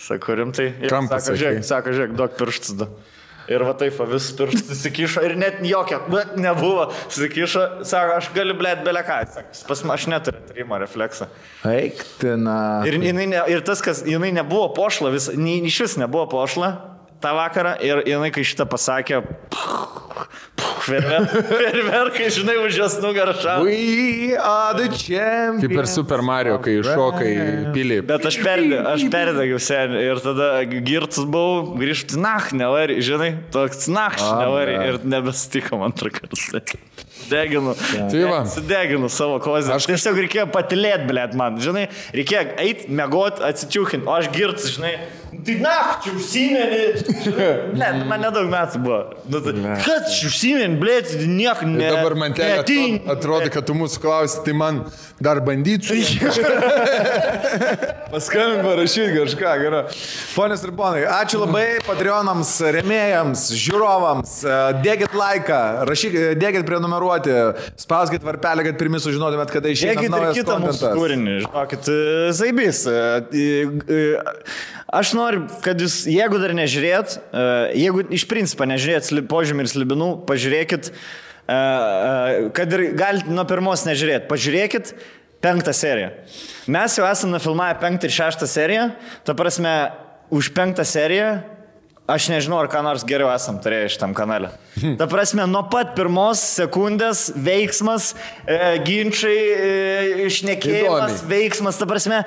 Sakau, rimtai. Sako, žiūrėk, duok pirštus. Ir va taip, vis pirštus įsikišo ir net jokio, bet nebuvo. Įsikišo, sako, aš galiu blėt beleką. Pas man aš neturiu trimo refleksą. Eiktina. Ir tas, kas jinai nebuvo pošla, iš vis nebuvo pošla tą vakarą. Ir jinai, kai šitą pasakė, Ferverkai, žinai, už jos nugarą šau. We are the champions. Kaip ir Super Mario, kai šokai pilį. Bet aš perdegiau seniai ir tada girtus buvau, grįžti, nevari, žinai, toks nevari ir nebesitiko antrą kartą. Sudeginu savo kozę. Aš tiesiog reikėjo patilėti, blėt, man, žinai, reikėjo eiti, mėgoti, atsitiukinti, o aš girtus, žinai, tai čia užsimeni, blėt, man nedaug metų buvo. Kad čia užsimeni, blėt, nieko ne. Dabar man atrodo, kad tu mūsų klausi, tai man dar bandyčiau. Paskambink parašyti kažką, gerai. Ponios ir ponai, ačiū labai Patreonams, rėmėjams, žiūrovams, dėkit laiką, dėkit prenumeruoti, spauskit varpelį, kad pirmi sužinotumėt, kada išeina naujas kontentas. Dėkit ir kitą mūsų kūrinį, žinokit, zaibys. Aš noriu, kad jūs, jeigu dar nežiūrėt, jeigu iš principo nežiūrėt Požemių ir Slibinų, pažiūrėkit, kad ir galite nuo pirmos nežiūrėt, pažiūrėkit 5 seriją. Mes jau esame nufilmavę 5 ir 6 seriją, ta prasme, už 5 seriją Aš nežinau, ar ką nors geriau esam turėję šitam kanale. Ta prasme, nuo pat pirmos sekundės veiksmas, ginčiai, išnekėjimas, veiksmas, ta prasme,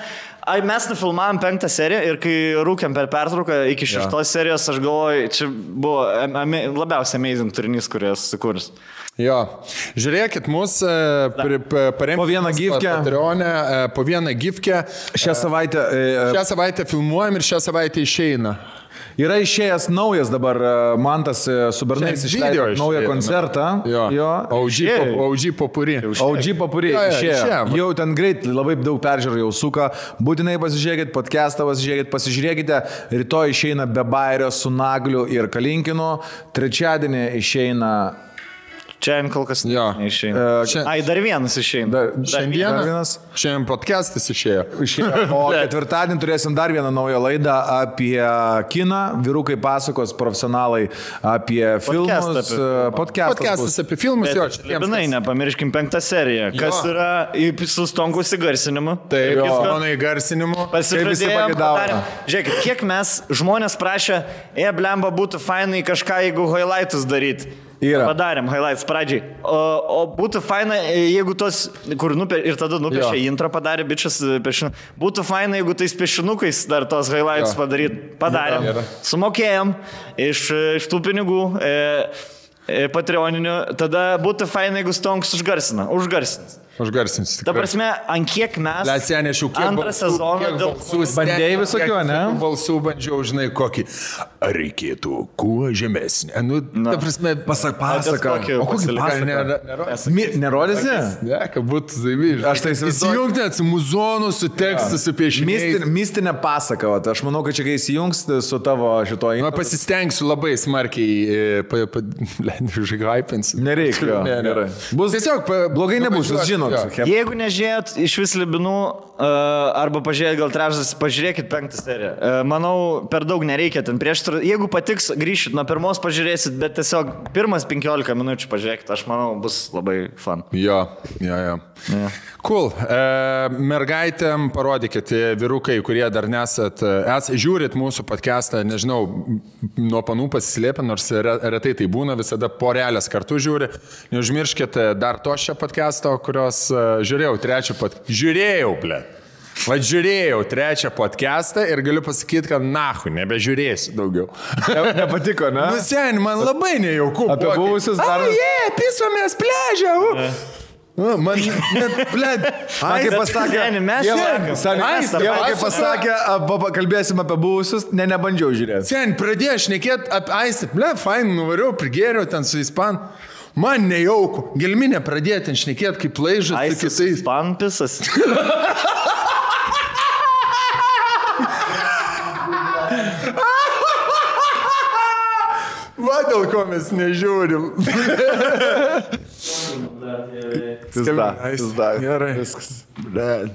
mes nufilmavom 5 seriją ir kai rūkėm per pertrauką iki 6 serijos, aš galvoju, čia buvo labiausiai amazing turinys, kurį esu sukūręs. Jo, žiūrėkit, mūsų paremti po vieną gifkę. Po vieną gifkę. Šią savaitę filmuojam ir šią savaitę išeina. Yra išėjęs naujas dabar, Mantas su Bernais išleido naują koncertą. Jo. OG Popuri. OG Popuri išėjo. Jau ten greit labai daug peržiūrų jau suka. Būtinai pasižiūrėkit podcastą, pasižiūrėkite. Rytoj išeina Be Bairio su Nagliu ir Kalinkinu. Trečiadienį išeina... Čia kol kas neišeina. Ai, dar vienas išeina. Šiandien podcastas išėjo. O ketvirtadienį turėsim dar vieną naują laidą apie kiną. Vyrukai pasakos, profesionalai apie filmus. Podcastas apie filmus. Libinai, nepamirškim 5 seriją. Kas yra su Stonkus įgarsinimu. Taip, mano įgarsinimu. Pasižadėjom, padarėm. Žiūrėkit, kiek mes žmonės prašė, blemba būtų fainai kažką, jeigu highlightus daryti. Padarėm highlights pradžiai. O būtų faina, jeigu tos, kur ir tada nupiešė intro padarė, bičias piešinu. Būtų faina, jeigu tais piešinukais dar tos highlights padarėm. Sumokėjom iš tų pinigų patreoninių. Tada būtų faina, jeigu Stonks užgarsins. Ta prasme, ant kiek mes antrą sezoną bandėjai visokių, ne? Balsų bandžiau, žinai, kokį. Ar reikėtų kuo žemesnį? Ta prasme, pasaka. O kokį pasaką? Nerodysi? Ne, kad būtų zaimyžiai. Aš tai įsijungti su muzonu, su tekstu, su piešiniais. Mistinė pasaka. Aš manau, kad čia kai įsijungs su tavo šitoj... Pasistengsiu labai smarkiai užhypinsiu. Nereikia. Tiesiog blogai nebus, jūs žinot. Jeigu nežiūrėt iš vis Libinų, arba pažiūrėt gal trečdas, pažiūrėkit 5 seriją. Manau, per daug nereikia ten prieš. Jeigu patiks, grįšit nuo pirmos, pažiūrėsit, bet tiesiog pirmas 15 minučių pažiūrėkit, aš manau, bus labai fun. Jo. Cool. Mergaitėm parodykit, vyrukai, kurie dar nesat, žiūrit mūsų podcastą, nežinau, nuo panų pasislėpę, nors retai tai būna, visada porelės kartu žiūri. Neužmirškit dar to šią podcastą, kurios žiūrėjau trečią podcastą ir galiu pasakyti, kad nahui, nebežiūrėsiu daugiau. Nepatiko, ne? Sen, man labai nejauku. Apie buvusius dar... Pisomės pležę. Man, blėd, kaip pasakė, kalbėsim apie buvusius, nebandžiau žiūrėti. Sen, pradėjau šnekėti apie Aistę, fain, nuvariau, prigėriau ten su Ispan. Man nejauku, gelminė pradėti ten šnekėti kaip laižas su kitais. Ispan pisas. Va dėl ko mes nežiūrim. Pizda. Gerai. Viskas. Blėd.